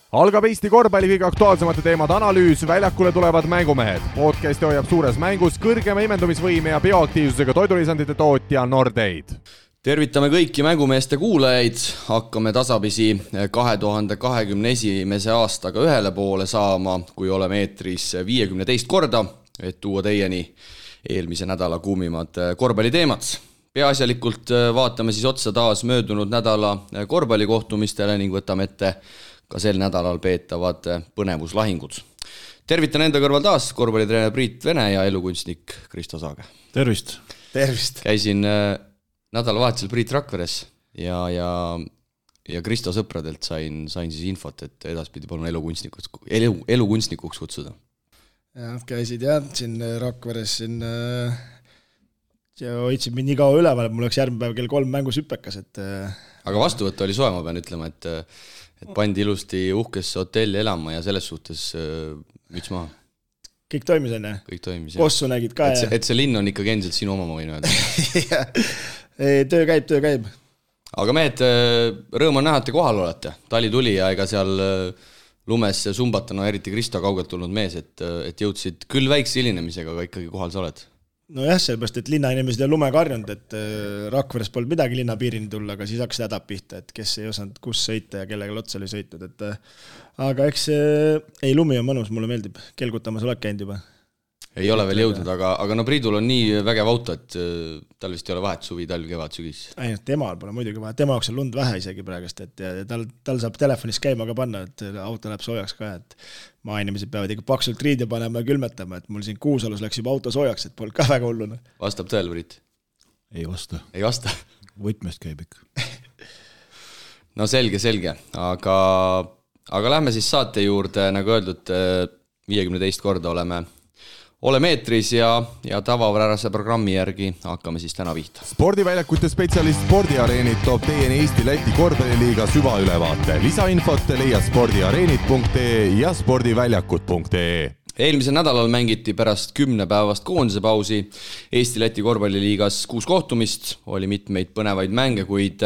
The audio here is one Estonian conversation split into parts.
Algab Eesti korvpalli kõige aktuaalsemate teemade analüüs, väljakule tulevad mängumehed. Podcasti hoiab suures mängus kõrgema imendumisvõime ja bioaktiivsusega toidulisandite tootja Nordeid. Tervitame kõiki mängumeeste kuulajaid, hakkame tasapisi 2021. aastaga ühele poole saama, kui oleme eetris 52 korda, et tuua teieni eelmise nädala kuumimad korvpalliteemad. Peaasjalikult vaatame siis otsa taas möödunud nädala korvpallikohtumistele ning võtame ette ka sel nädalal peetavad põnevuslahingud. Tervitan enda kõrval taas korvpallitreener Priit Vene ja elukunstnik Kristo Saage. Tervist! Tervist! Käisin nädalavahetusel Priit Rakveres ja Kristo sõpradelt sain siis infot, et edaspidi palun elukunstnikuks kutsuda. Ja, käisid siin Rakveres ja hoidsid mind nii kaua üleval, et mul oleks järgmine päev kell 3 mängus hüppekas. Aga vastuvõtt oli soe, ma pean ütlema, et pandi ilusti uhkesse hotelli elama ja selles suhtes müts maha. Kõik toimis enne? Kõik toimis, jah. Kossu nägid ka, jah? Et see linn on ikkagi endiselt sinu oma, ma võin öelda. Töö käib. Aga mehed, rõõm on näha, et te kohal olete. Tali tuli ja ega seal lumes sumbatana, eriti Kristo kaugelt tulnud mees, et jõudsid küll väikse hilinemisega, aga ikkagi kohal sa oled. No jah, sellepärast, et linnainimesed on lumega harjunud, et Rakveres polnud midagi linnapiirini tulla, aga siis hakkas hädab pihta, et kes ei osanud kus sõita ja kellega otsa oli sõitnud. Aga eks lumi on mõnus, mulle meeldib. Kelgutamas oled käinud juba? Ei ole veel jõudnud, aga no Priidul on nii vägev auto, et tal vist ei ole vahet suvi, talv, kevad, sügis. Temal pole muidugi vahet, tema jaoks on lund vähe isegi praegust, et tal saab telefonis käima ka panna, et auto läheb soojaks ka, et maainimesed peavad ikka paksult riide panema ja külmetama, et mul siin Kuusalus läks juba auto soojaks, et polnud ka väga hullune. Vastab tõel, Priit? Ei vasta. Ei vasta? Võtmest käib ikka. No selge, aga lähme siis saate juurde, nagu öeldud, 52 korda oleme eetris ja tavapärase programmi järgi hakkame siis täna pihta. Spordiväljakute spetsialist Spordiareenid toob teieni Eesti-Läti korvpalliliiga süvaülevaate. Lisainfot leia spordiareenid.ee ja spordiväljakud.ee. Eelmisel nädalal mängiti pärast 10 päevast koondise pausi Eesti-Läti korvpalliliigas 6 kohtumist, oli mitmeid põnevaid mänge, kuid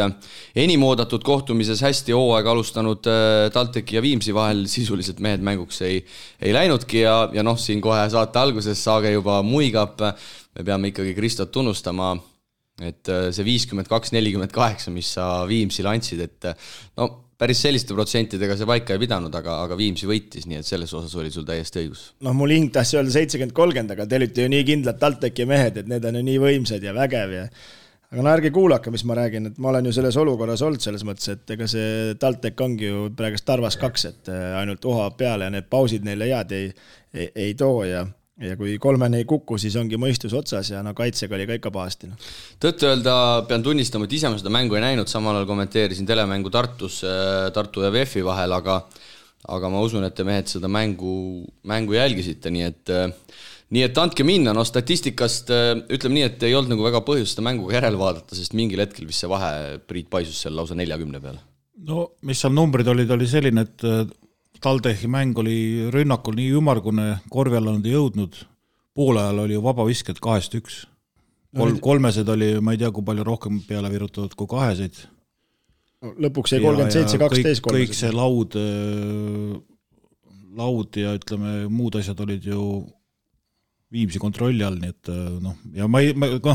enim oodatud kohtumises hästi hooaega alustanud TalTechi ja Viimsi vahel sisuliselt mehed mänguks ei läinudki ja siin kohe saate alguses Saage juba muigab, me peame ikkagi Kristot tunnustama, et see 52-48, mis sa Viimsile andsid, et päris selliste protsentidega see paika ei pidanud, aga Viimsi võitis, nii et selles osas oli sul täiesti õigus. Mul hing tahtis öelda 70-30, aga te olite ju nii kindlad TalTechi mehed, et need on ju nii võimsad ja vägev. Aga ärge kuulake, mis ma räägin, et ma olen ju selles olukorras olnud selles mõttes, et ega see TalTech ongi ju praegust Tarvas 2, et ainult uhab peale ja need pausid neile head ei too ja kui 3 ei kuku, siis ongi mõistus otsas ja kaitsega oli ka ikka pahasti. Tõtt öelda, pean tunnistama, et ise ma seda mängu ei näinud, samal ajal kommenteerisin telemängu Tartu ja VF-i vahel, aga ma usun, et te mehed seda mängu jälgisite, nii et andke minna, statistikast ütleme nii, et ei olnud nagu väga põhjust seda mänguga järele vaadata, sest mingil hetkel vist see vahe Priit paisus seal lausa 40 peale. No, mis seal numbrid oli selline, et TalTechi mäng oli rünnakul nii ümargune, korvi alla nad ei jõudnud, poole ajal oli ju vabavisked 2-1. Kolmesed oli, ma ei tea, kui palju rohkem peale virutatud kui 2. Lõpuks jäi 37-12 kolmesed. Kõik see laud ja ütleme, muud asjad olid ju Viimsi kontrolli all, nii et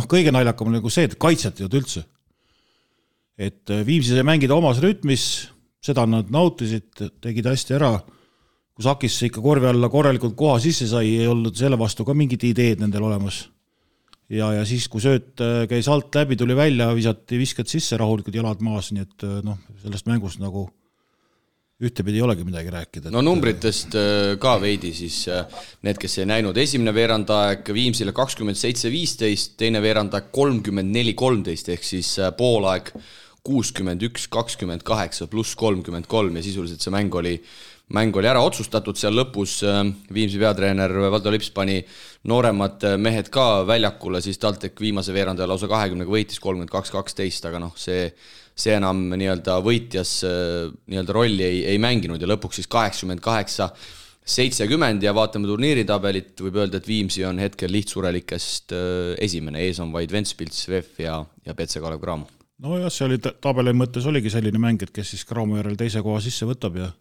kõige naljakam oli nagu see, et kaitset ei olnud üldse. Et Viimsi sai mängida omas rütmis, seda nad nautisid, tegid hästi ära. Kui Sakisse ikka korvi alla korralikult koha sisse sai, ei olnud selle vastu ka mingid ideed nendel olemas. Ja siis, kui sööt käis alt läbi, tuli välja, visati visked sisse, rahulikud jalad maas, nii et sellest mängust nagu ühtepidi ei olegi midagi rääkida. No numbritest ka veidi siis need, kes ei näinud. Esimene veerandaeg Viimsile 27-15, teine veerandaeg 34-13 ehk siis poolaeg 61-28 pluss 33 ja sisuliselt see mäng oli ära otsustatud seal lõpus. Viimsi peatreener Valdo Lips pani nooremad mehed ka väljakule, siis TalTech viimase veerandaja lausa 20-ga võitis 32-12, aga see enam nii-öelda võitjas nii-öelda rolli ei mänginud ja lõpuks siis 88-70 ja vaatame turniiritabelit, võib öelda, et Viimsi on hetkel lihtsurelikest esimene, ees on vaid Ventspils, VF ja PC Kalev Cramo. No jah, see oli tabeli mõttes oligi selline mäng, et kes siis Cramo järel teise koha sisse võtab ja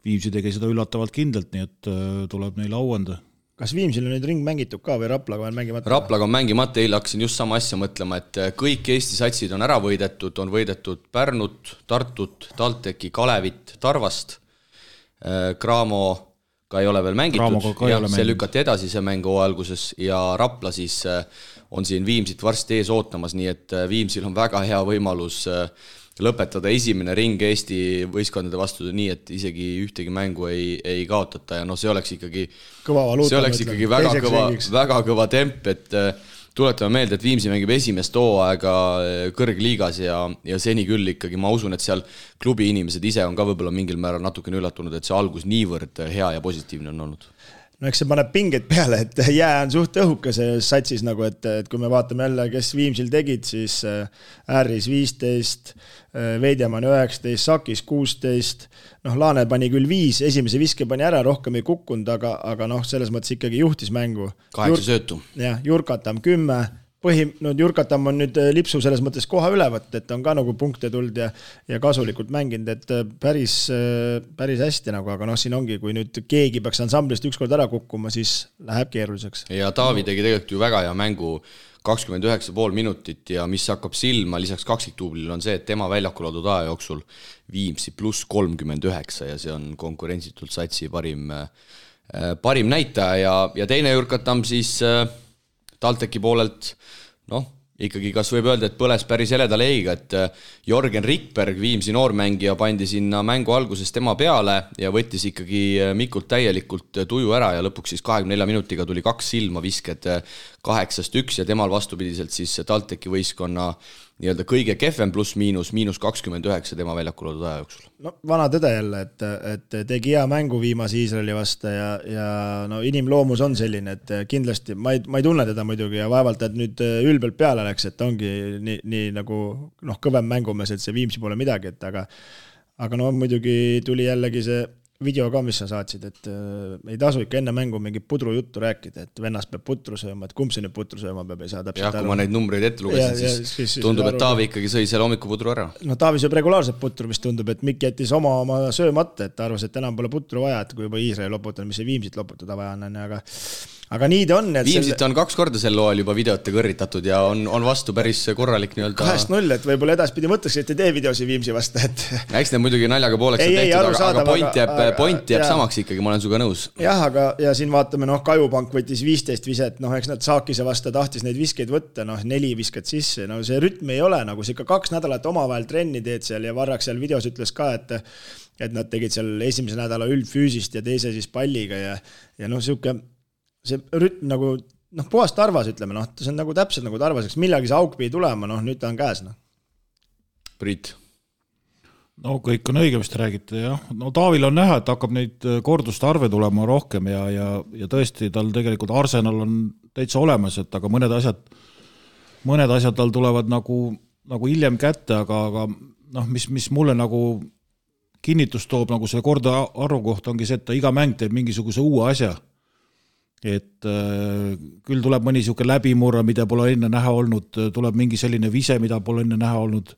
Viimsi tegi seda üllatavalt kindlalt, nii et tuleb neile auanda. Kas Viimsil on nüüd ring mängitud ka või Raplaga on mängimata? Raplaga on mängimata, eile hakkasin just sama asja mõtlema, et kõik Eesti satsid on ära võidetud, on võidetud Pärnut, Tartut, TalTechi, Kalevit, Tarvast. Cramo ka ei ole veel mängitud, see lükati edasi see mängu alguses ja Rapla siis on siin Viimsit varsti ees ootamas, nii et Viimsil on väga hea võimalus lõpetada esimene ring Eesti võistkondade vastu nii, et isegi ühtegi mängu ei kaotata ja see oleks ikkagi väga kõva temp, et tuletame meelde, et Viimsi mängib esimest hooaega kõrgliigas ja seni küll ikkagi ma usun, et seal klubi inimesed ise on ka võib-olla mingil määral natukene üllatunud, et see algus niivõrd hea ja positiivne on olnud. No eks see paneb pingeid peale, et jää on suht õhuke see satsis nagu, et kui me vaatame jälle, kes Viimsil tegid, siis Ääris 15, Veidjaman 19, Sakis 16, Laane pani küll 5, esimese viske pani ära, rohkem ei kukkunud, aga selles mõttes ikkagi juhtis mängu. 8 söötu. Jah, Jurkatam 10, Jurkatam on nüüd lipsu selles mõttes koha ülevõtt, et on ka nagu punkte tuld ja kasulikult mänginud, et päris hästi nagu, aga siin ongi, kui nüüd keegi peaks ansamblist ükskord ära kukkuma, siis läheb keeruliseks. Ja Taavi tegi tegelikult ju väga hea mängu 29,5 minutit ja mis hakkab silma lisaks kaksiktuublil on see, et tema väljakul oldud aja jooksul Viimsi pluss 39 ja see on konkurentsitult satsi parim näitaja ja teine Jurkatam siis TalTechi poolelt, ikkagi kas võib öelda, et põles päris heleda leiga, et Jorgen Rikberg, Viimsi noormängija, pandi sinna mängu alguses tema peale ja võttis ikkagi Mikult täielikult tuju ära ja lõpuks siis 24 minutiga tuli 2 silma visked 8-1 ja temal vastupidiselt siis TalTechi võistkonna nii-öelda kõige kehvem pluss-miinus 29 tema väljakul oldud aja jooksul. Vana tõde jälle, et tegi hea mängu viimase Iisraeli vasta ja inimloomus on selline, et kindlasti ma ei tunne teda muidugi ja vaevalt, et nüüd ülbelt peale läks, et ongi nii nagu kõvem mängumees, et see Viimsi pole midagi, et aga muidugi tuli jällegi see video ka, mis sa saatsid, et ei tasu ikka enne mängu mingi pudru juttu rääkida, et vennast peab putru sööma, et kumb see nüüd putru sööma peab, ei saa täpselt aru. Ja kui ma neid numbreid ette lugesin, siis tundub, et Taavi ikkagi sõi selle hommikupudru ära. Taavi sööb regulaarselt putru, mis tundub, et Mikk jättis oma söömata, et arvas, et enam pole putru vaja, et kui juba Iisraeli loputada, mis see Viimsit loputada vaja on, aga nii ta on. Viimsit on 2 korda sel loal juba videote kõrritatud ja on vastu päris korralik 2-0, et võib-olla edaspidi mõtleks, et ei tee videosi Viimsi vasta. Eks need muidugi naljaga pooleks on tehtud, aga point jääb samaks ikkagi, ma olen suga nõus. Jah, ja siin vaatame, Kajupank võttis 15 viset, eks nad Saakise vasta tahtis neid viskeid võtta, 4 viskad sisse, see rütm ei ole, nagu see ikka 2 nädalat omavahel trenni teed seal ja Varrak seal videos ütles ka, et nad tegid seal esimese nädala üldfüüsist ja teise siis palliga ja siuke see rütm nagu, puhast tarvas, ütleme, see on nagu täpselt nagu tarvaseks, millagi see auk pidi tulema, nüüd ta on käes. Priit. Kõik on õige, mis te räägite, jah. Taavil on näha, et hakkab neid korduste arve tulema rohkem ja tõesti tal tegelikult Arsenal on täitsa olemas, et aga mõned asjad tal tulevad nagu hiljem kätte, aga mis mulle nagu kinnitust toob nagu see korda arvu kohta ongi see, et ta iga mäng teeb mingisuguse uue asja. Et küll tuleb mõni siuke läbimurra, mida pole enne näha olnud, tuleb mingi selline vise, mida pole enne näha olnud,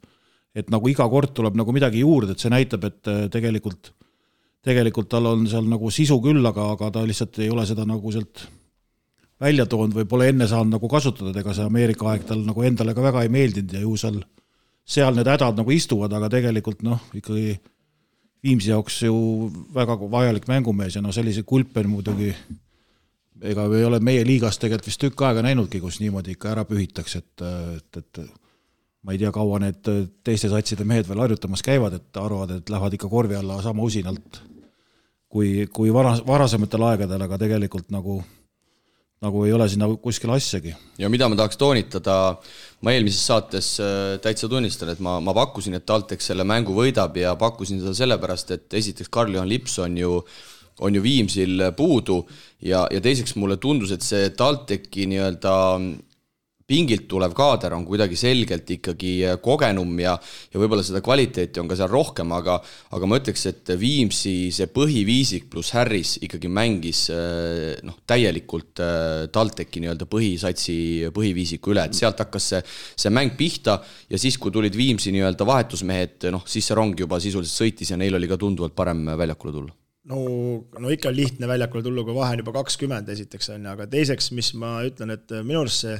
et nagu iga kord tuleb nagu midagi juurde, et see näitab, et tegelikult tal on seal nagu sisu küll, aga ta lihtsalt ei ole seda nagu sealt välja toonud või pole enne saanud nagu kasutada, ega see Ameerika aeg tal nagu endale ka väga ei meeldinud ja ju seal need hädad nagu istuvad, aga tegelikult ikkagi Viimsi jaoks ju väga vajalik mängumees ja sellise kulpen muidugi ega ei ole meie liigas tegelikult vist tükk aega näinudki, kus niimoodi ikka ära pühitakse, et ma ei tea, kaua need teiste satside mehed veel harjutamas käivad, et arvad, et lähevad ikka korvi alla sama usinalt kui varasematel aegadel, aga tegelikult nagu ei ole sinna kuskil asjagi. Ja mida ma tahaks toonitada, ma eelmises saates täitsa tunnistan, et ma pakkusin, et TalTech selle mängu võidab ja pakkusin seda sellepärast, et esiteks Karl-Johan Lips on ju Viimsil puudu ja teiseks mulle tundus, et see TalTechi nii-öelda pingilt tulev kaader on kuidagi selgelt ikkagi kogenum ja võib-olla seda kvaliteeti on ka seal rohkem, aga ma ütleks, et Viimsi see põhiviisik pluss Harris ikkagi mängis täielikult TalTechi nii-öelda põhisatsi põhiviisiku üle, et sealt hakkas see mäng pihta ja siis, kui tulid Viimsi nii-öelda vahetusmehed, siis see rong juba sisuliselt sõitis ja neil oli ka tunduvalt parem väljakule tulla. no ikka lihtne väljakule tullu, kui vahe on juba 20 esiteks on, aga teiseks, mis ma ütlen, et minu arust see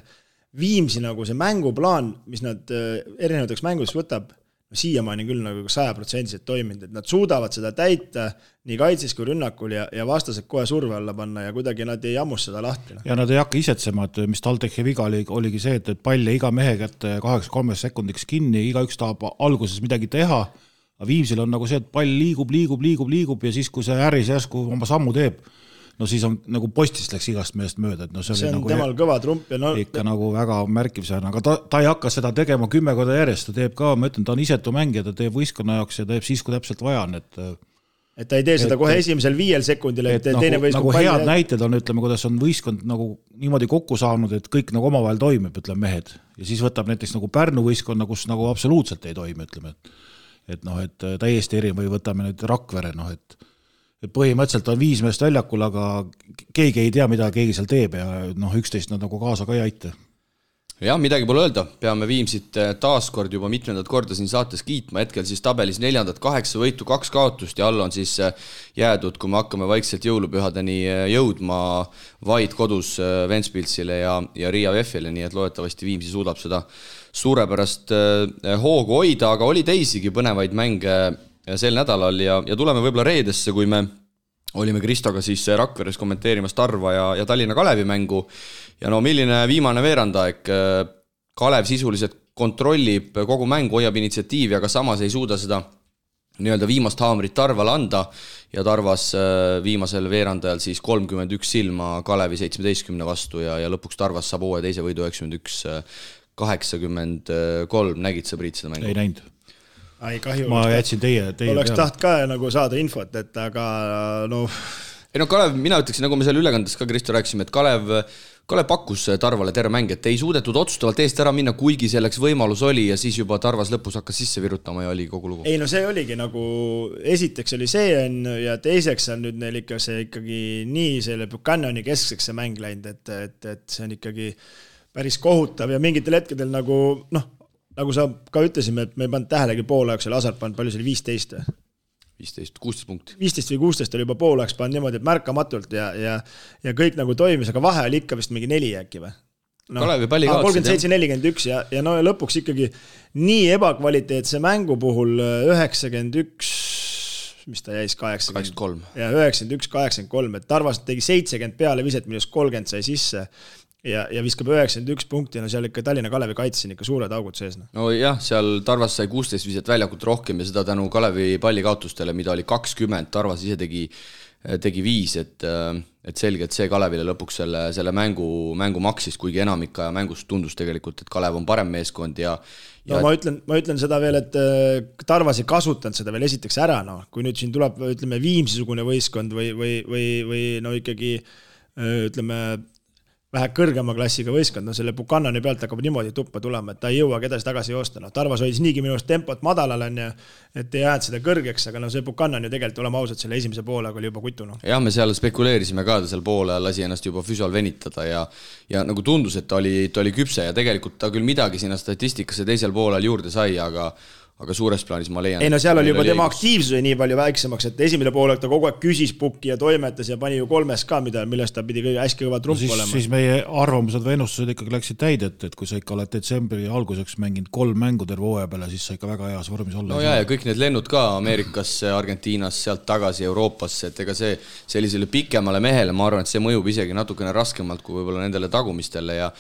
Viimsi nagu see mänguplaan, mis nad erinevateks mängudeks võtab, no siiamaani küll nagu 100% toiminud, et nad suudavad seda täita nii kaitses kui rünnakul ja vastased kohe surve alla panna ja kuidagi nad ei ammus seda lahti. Ja nad ei hakka isetsema, et mis TalTechi viga oligi see, et palle iga mehe kätte 2-3 sekundiks kinni, igaüks tahab alguses midagi teha, aga Viimsil on nagu see, et pall liigub ja siis, kui see äris järsku oma sammu teeb, no siis on nagu postist läks igast meest mööda, et no see on nagu temal kõva trump ja ikka nagu väga märkimisväärne, aga ta ei hakka seda tegema 10 korda järjest, ta teeb ka, ma ütlen, ta on isetu mängija, ta teeb võistkonna jaoks ja teeb siis, kui täpselt vaja on, et ta ei tee seda kohe esimesel 5 sekundil, et teine võistkond nagu head näited on, ütleme, kuidas on võistkond nagu niimoodi kokku saanud, et kõik nagu omavahel toimib, ütleme mehed, ja siis võtab näiteks nagu Pärnu võistkonna, kus nagu absoluutselt ei toimi, ütleme, et täiesti eri või võtame nüüd Rakvere, et põhimõtteliselt on 5 meest väljakul, aga keegi ei tea, mida keegi seal teeb ja 11 nad nagu kaasa ka ei aita. Jah, midagi pole öelda, peame Viimsit taaskord juba mitmendat korda siin saates kiitma, hetkel siis tabelis 4. 8 võitu, 2 kaotust ja all on siis jäädud, kui me hakkame vaikselt jõulupühadeni jõudma vaid kodus Ventspilsile ja Riia VEF-ile, nii et loodetavasti Viimsi suudab seda suurepärast hoogu hoida, aga oli teisigi põnevaid mänge sel nädalal ja tuleme võib-olla reedesse, kui me olime Kristoga siis Rakveres kommenteerimas Tarva ja Tallinna Kalevi mängu ja no milline viimane veerandaeg, Kalev sisuliselt kontrollib kogu mängu, hoiab initsiatiivi, aga samas ei suuda seda nii-öelda viimast haamrit Tarvale anda ja Tarvas viimasel veerandajal siis 31 silma Kalevi 17 vastu ja lõpuks Tarvas saab uue teise võidu 91-83, nägid sa Priit seda mängu? Ei näinud. Ai, kahju. Ma jätsin teie oleks taht ka nagu saada infot, et aga Ei Kalev, mina ütleksin, nagu me seal ülekandes ka Kristo rääkisime, et Kalev pakkus Tarvale terve mäng, et ei suudetud otsustavalt eest ära minna, kuigi selleks võimalus oli ja siis juba Tarvas lõpus hakkas sisse virutama ja oli kogu lugu. Ei no see oligi nagu, esiteks oli see ja teiseks on nüüd neil ikka see ikkagi nii selle Buchanani keskseks see mäng läinud, et see on ikkagi päris kohutav ja mingitel hetkedel nagu sa ka ütlesime, et me ei pannud tähelegi poolajaksel, Asart pannud, palju see oli 15? 16 punkti. 15 või 16 oli juba poolajaks pannud niimoodi, et märkamatult ja kõik nagu toimis, aga vahe oli ikka vist mingi 4 äkki või? Kalevi palli kaotsid. 37-41 ja lõpuks ikkagi nii ebakvaliteetse mängu puhul 91, mis ta jäis 83. Ja 91-83, et Tarvas tegi 70 peale viset, millest 30 sai sisse ja viskab 91 punkti, no seal ikka Tallinna Kalevi kaitsin ikka suured augud sees. No jah, seal Tarvas sai 16 viset väljakut rohkem ja seda tänu Kalevi pallikaotustele, mida oli 20, Tarvas ise tegi 5, et selge, et see Kalevile lõpuks selle mängu maksis, kuigi enamik aja mängust tundus tegelikult, et Kalev on parem meeskond ja no ma ütlen seda veel, et Tarvas ei kasutanud seda veel esiteks ära, kui nüüd siin tuleb, ütleme, Viimsisugune võistkond või no ikkagi, ütleme, vähe kõrgema klassiga võistkond, selle Buchanani pealt hakkab niimoodi tuppa tulema, et ta ei jõua kedasi tagasi joosta. Tarvas hoidis niigi minu tempot madalal on ja et ei jäänud seda kõrgeks, aga see Buchanan ju tegelikult olema ausalt selle esimese poolega oli juba kutu. Jah, me seal spekuleerisime ka, ta seal poole lasi ennast juba füsal venitada ja nagu tundus, et ta oli küpse ja tegelikult ta küll midagi sinna statistikasse teisel poolel juurde sai, aga suures plaanis ma leian. Ei no seal oli juba tema aktiivsuse nii palju väiksemaks, et esimene poolek ta kogu aeg küsis pukki ja toimetas ja pani ju 3 ka, millest ta pidi hästi kõva trump olema. Siis meie arvamused või ennustused ikkagi läksid täidet, et kui sa ikka oled detsembri alguseks mänginud 3 mängu terve hooaja peale, siis sa ikka väga heas vormis olla. No ja kõik need lennud ka Ameerikasse, Argentiinas, sealt tagasi Euroopasse, et ega see sellisele pikemale mehele, ma arvan, et see mõjub isegi natukene raskemalt kui võib-olla nendele tagumistele ja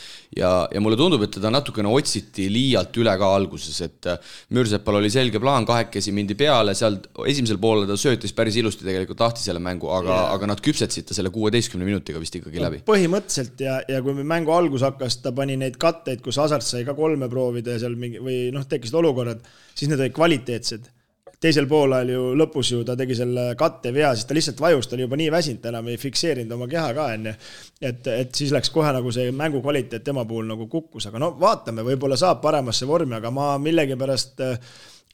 mulle tundub, et teda natukene otsiti liialt üle ka alguses, et Mürsepal oli selge plaan, 2 mindi peale, seal esimesel poole ta söötis päris ilusti tegelikult lahti selle mängu, aga nad küpsetsid ta selle 16 minutiga vist ikkagi läbi. Põhimõtteliselt ja kui mängu algus hakkas, ta pani neid katteid, kus Asart sai ka 3 proovida ja seal mingi, või tekkisid olukorrad, siis need olid kvaliteetsed. Teisel poolel ju lõpus ju ta tegi selle katte vea, siis ta lihtsalt vajus, ta oli juba nii väsinud, enam ei fikseerinud oma keha ka enne. Et siis läks kohe nagu see mängu kvaliteet tema puhul nagu kukkus, aga vaatame, võib-olla saab paremasse vormi, aga ma millegi pärast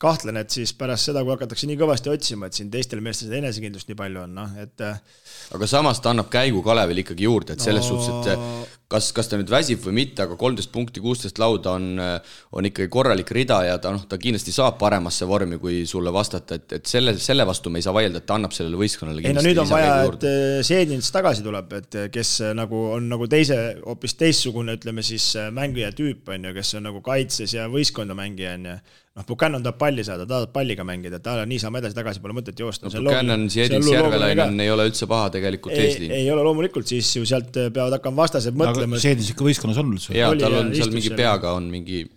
kahtlen, et siis pärast seda, kui hakatakse nii kõvasti otsima, et siin teistel meestel seda enesekindlust nii palju on. Aga samas ta annab käigu Kalevil ikkagi juurde, et selles suhtes, et kas ta nüüd väsib või mitte, aga 13 punkti, 16 lauda on ikkagi korralik rida ja ta kindlasti saab paremasse vormi, kui sulle vastata, et selle vastu me ei saa vaielda, et ta annab sellele võistkonnale kindlasti. Nüüd on vaja, et Seedins tagasi tuleb, et kes on nagu hoopis teissugune, ütleme siis mängija tüüp on ju, kes on nagu kaitses ja võistkonda mängija on ju. Buchanan tahab palli saada, tahab palliga mängida, ta nii saame edasi-tagasi, pole mõtet joosta. Buchanan, Seedins, Järvelainen ei ole üldse paha tegelikult eesliin. Ei ole loomulikult, siis ju sealt peavad hakkama vastased mõtlema. Seedins ikka võistkonnas on üldse. Jaa, tal on seal mingi peaga on mingi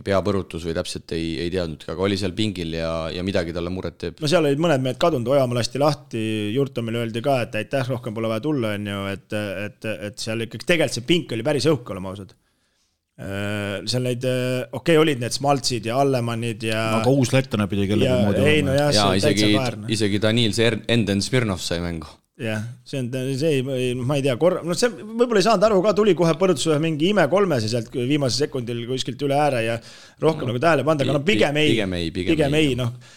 peapõrutus või täpselt ei teadnud, aga oli seal pingil ja midagi talle muret teeb. No seal olid mõned mehed kadunud, Ojamaa lasti lahti, Jurtomile öeldi ka, et aitäh, rohkem pole vaja tulla, on ju, et seal ikkagi tegelikult see pink oli päris õhk, olema ausad. Seal neid, olid need Smaltsid ja Allemannid ja... Aga uus lettane pidi kellegi moodi olema. Ja isegi Daniil Enden Smirnov sai mängu. Jah, ma ei tea, see võib-olla ei saanud aru ka, tuli kohe põrutus mingi ime kolmes ja sealt viimasel sekundil kuskilt üle ääre ja rohkem nagu tähele panda, aga pigem ei.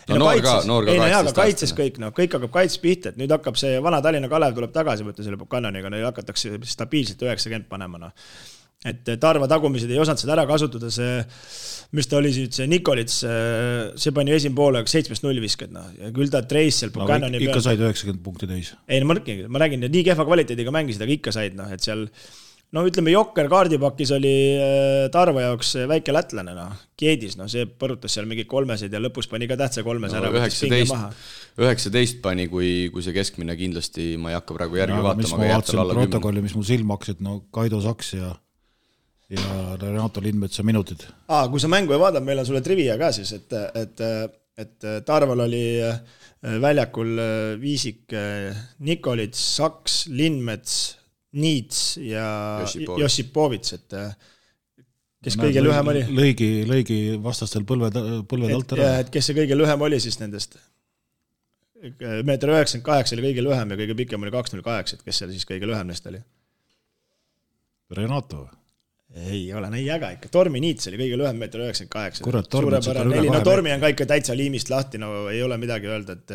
Noor ka kaitses kõik hakkab kaitses pihta, et nüüd hakkab see vana Tallinna Kalev tuleb tagasi võtta selle Buchananiga, nüüd hakatakse stabiilselt 90 panema. Et Tarva tagumised ei osanud seda ära kasutada, mis ta oli see Nikolits, see pani esim poole 7-0 viskad, ja küll ta treis seal Buchanani ikka said 90 punkti täis. Ei, ma räägin, et nii kehva kvaliteediga mängisid, aga ikka said, et seal ütleme, Jokker kaardipakis oli Tarva jaoks väike lätlane, Kiedis, see põrutas seal mingi kolmeseid ja lõpus pani ka tähtsa kolmes ära. 19 pani, kui see keskmine kindlasti, ma ei hakka praegu järgi vaatama. Mis ma vaatasin protokolli, mis mul silm hakkasid, Kaido Saks ja Renato Lindmetsa minutid. Kui sa mängu ei vaadab, meil on sulle trivia ka siis, et Tarval oli väljakul Viisik, Nikolits, Saks, Lindmets, Niits ja Jossipovits, et kes kõige lühem oli. Lõigi vastastel põlved alt ära. Et kes see kõige lühem oli siis nendest? 1,98 m oli kõige lühem ja kõige pikem oli 2,08, et kes seal siis kõige lühem neist oli? Renato või? Ei ole, nii äga ikka. Tormi Niits oli kõige lühem 1,98 m. Kurat, Tormi on ka ikka täitsa liimist lahti, ei ole midagi öelda, et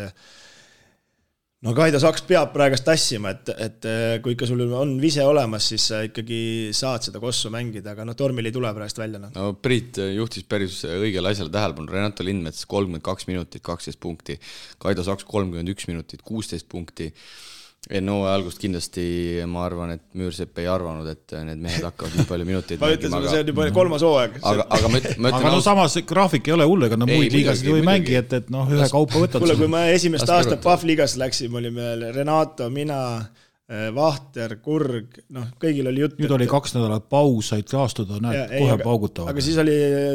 Kaido Saks peab praegast tassima, et kui ikka sul on vise olemas, siis sa ikkagi saad seda kossu mängida, aga Tormil ei tule praegast välja. Priit juhtis päris õigele asjale tähelepanu. Renato Lindmets 32 minutit, 12 punkti. Kaido Saks 31 minutit, 16 punkti. Algust kindlasti ma arvan, et Müürsepp ei arvanud, et need mehed hakkavad nii palju minuteid ma ütlen sulle, see on juba 3. hooaeg. Aga samas graafik ei ole hull, ega muid liigasid ju ei mängi, et ühe kaupa võtad. Kuule, kui ma esimest aastat PAF liigas läksin, olime Renato, mina, Vahter, Kurg, kõigil oli jutt. Nüüd oli 2 nädalat paus, said taastuda, kohe paugutavad. Aga siis oli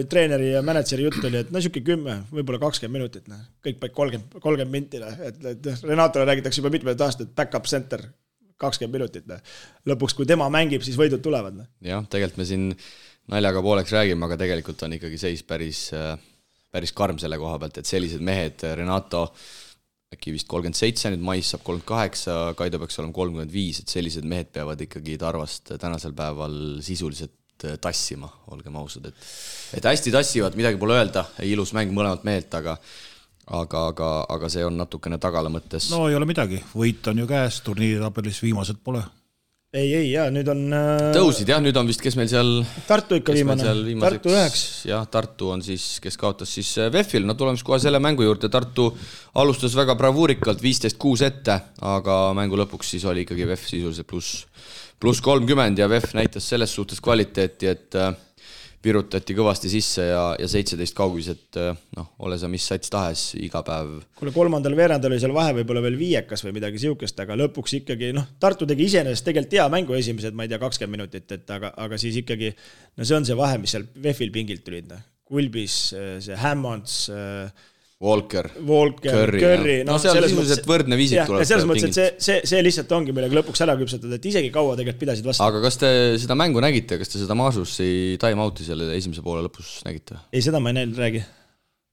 treeneri ja mänedžeri jutt oli, et siuke 10, võib-olla 20 minutit, kõik paik 30 minti, et Renatole räägitakse juba mitmed aastad, back-up center 20 minutit. Lõpuks, kui tema mängib, siis võidud tulevad. Jah, tegelikult me siin naljaga pooleks räägime, aga tegelikult on ikkagi seis päris karm selle koha pealt, et sellised mehed, Renato äkki vist 37, nüüd mais saab 38, Kaido peaks olema 35, et sellised mehed peavad ikkagi Tarvast tänasel päeval sisuliselt tassima, olgem ausad, et hästi tassivad, midagi pole öelda, ilus mäng mõlemalt mehelt, aga see on natukene tagala mõttes. Ei ole midagi, võit on ju käes, turniiri tabelis viimased pole. Ei, nüüd on... Tõusid, jah, nüüd on vist, kes meil seal... Tartu ikka viimane, Tartu 9. Jah, Tartu on siis, kes kaotas siis VEF-il, tulemes kohe selle mängu juurde. Tartu alustas väga bravuurikalt 15-6 ette, aga mängu lõpuks siis oli ikkagi VEF sisuliselt pluss 30 ja VEF näitas selles suhtes kvaliteeti, et virutati kõvasti sisse ja 17 kaugised, ole sa mis sats tahes iga päev. Kuule, 3. veerandal oli seal vahe võib-olla veel 5 või midagi siukest, aga lõpuks ikkagi, Tartu tegi iseenesest tegelikult hea mängu esimesed, ma ei tea, 20 minutit, aga siis ikkagi, see on see vahe, mis seal VEF-il pingilt tulid. Kulbis, see Hammonds, Walker, Curry. Seal sisuliselt võrdne viisik tuleb. Selles mõttes, et see lihtsalt ongi millega lõpuks ära küpsetada, et isegi kaua tegelikult pidasid vastu. Aga kas te seda mängu nägite, kas te seda Maasussi time-out'i selle esimese poole lõpus nägite? Ei, seda ma ei näinud, räägi.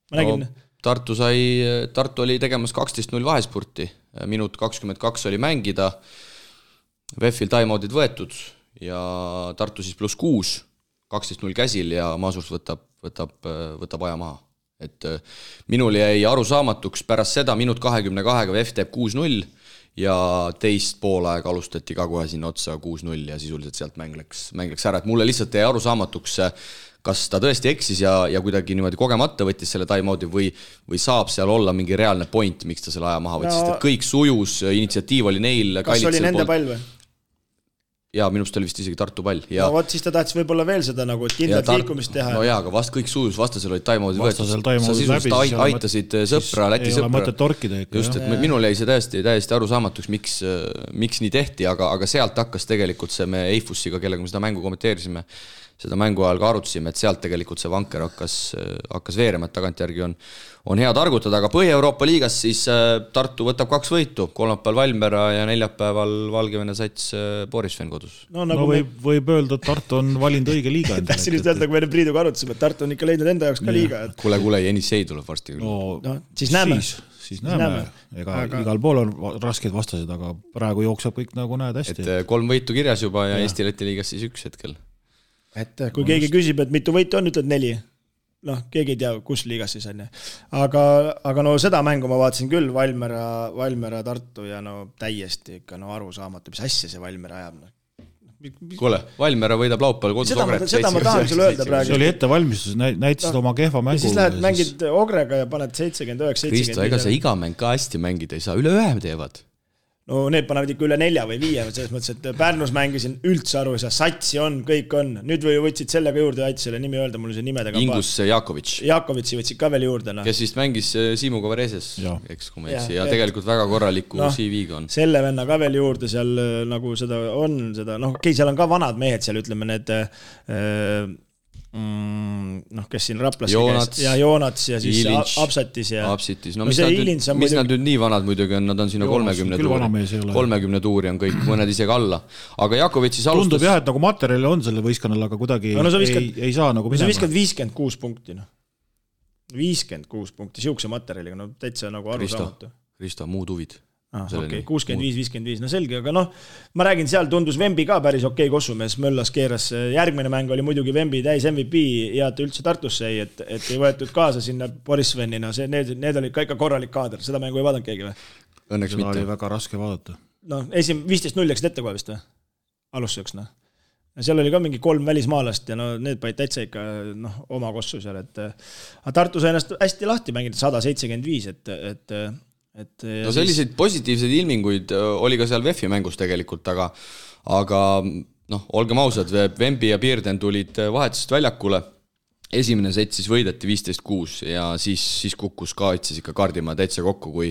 Ma nägin. Tartu oli tegemas 12-0 vahespurti, minut 22 oli mängida, VEF-il time-out'id võetud ja Tartu siis pluss 6, 12-0 käsil ja Maasus võtab aja maha. Et minul jäi arusaamatuks pärast seda minut 22-ga VEF teeb 6-0 ja teist poolaega alustati ka kohe sinna otsa 6-0 ja sisuliselt sealt mäng läks ära, et mulle lihtsalt jäi arusaamatuks, kas ta tõesti eksis ja kuidagi niimoodi kogemata võttis selle time-out'i või saab seal olla mingi reaalne point, miks ta selle aja maha võttis, sest et kõik sujus, initsiatiiv oli neil. Kas oli nende pall või? Jaa, minust oli vist isegi Tartu pall. Ja... No vot, siis ta tahtis võib-olla veel seda nagu, et kindlalt liikumist teha. No jaa, aga vast kõik sujus, vastasel olid time-out'i võetud. Sa sisuliselt aitasid sõpra, Läti sõpra. Just, et minul jäi see täiesti arusaamatuks, miks nii tehti, aga sealt hakkas tegelikult see me Eifussiga, kellega me seda mängu kommenteerisime, seda mängu ajal ka arutasime, et sealt tegelikult see vanker hakkas veerema, et tagantjärgi on hea targutada, aga Põhja-Euroopa liigas siis Tartu võtab 2 võitu, kolmapäeval Valmiera ja neljapäeval Valgevene sats Borisven kodus. No võib öelda, et Tartu on valinud õige liiga. Tahtsin just öelda, kui me Priiduga arutasime, et Tartu on ikka leidnud enda jaoks ka liiga. Kuule, Jenissei tuleb varsti. Siis näeme. Siis näeme. Igal pool on raskeid vastased, aga praegu jookseb kõik nagu näed hästi. Et 3 võitu kirjas juba ja Eesti-Läti liigas siis 1 hetkel. Et kui keegi küsib, et mitu võitu on, ütled 4. Keegi ei tea, kus liigas siis on. Aga no seda mängu ma vaatasin küll, Valmiera Tartu ja täiesti ikka arusaamatu, mis asja see Valmiera ajab. Kuule, Valmiera võidab laupäeval kodus Ogret. Seda ma tahan sulle öelda praegu. See oli ettevalmistus, näitasid oma kehva mängu. Ja siis lähed mängid Ogrega ja paned 79-75. Kristo, ega sa iga mäng ka hästi mängida ei saa, üle 1 teevad. No need panevad ikka üle 4 või 5, selles mõttes, et Pärnus mängisin üldse aru, satsi on, kõik on. Nüüd või võtsid sellega juurde, aiti selle nimi öelda, mul see nimedega Ingus Jakovitš. Jakovitši võtsid ka veel juurde. Kes vist mängis Siimu Kovareses, eks kui ma eksi, ja tegelikult väga korraliku CV-ga on. Selle venna ka veel juurde seal nagu seda on, seal on ka vanad mehed seal, ütleme need kes siin Raplas ja Joonats ja siis Ilins, Apsatis ja Apsitis. No mis nad nüüd nii vanad muidugi on, nad on sinna 30 tuuri on kõik, mõned isegi alla. Aga Jakovitšis alustas... Tundub jah, et nagu materjali on selle võistkonnal, aga kuidagi ei saa nagu minema. Sa viskad 56 punkti. 56 punkti, siukse materjaliga, täitsa nagu arusaamatu. Kristo, muud huvid. 65-55, selge, aga ma räägin, seal tundus Vembi ka päris okei kossumees, Möllas keeras, järgmine mäng oli muidugi Vembi täis MVP ja ta üldse Tartusse ei, et ei võetud kaasa sinna Borisvenina, need olid ka ikka korralik kaader, seda mängu ei vaadanud keegi või? Õnneks seda mitte. Oli väga raske vaadata. 15-0 läksid ette kohe vist või? Alustuseks, seal oli ka mingi 3 välismaalast ja need panid täitsa ikka oma kossu seal, et Tartu sai ennast hästi lahti mängida 175, no selliseid positiivseid ilminguid oli ka seal VEF-i mängus tegelikult, aga olgem ausad, Vembi ja Pierden tulid vahetusest väljakule, esimene set siis võideti 15-6 ja siis kukkus ka ikka Kardimaa täitsa kokku, kui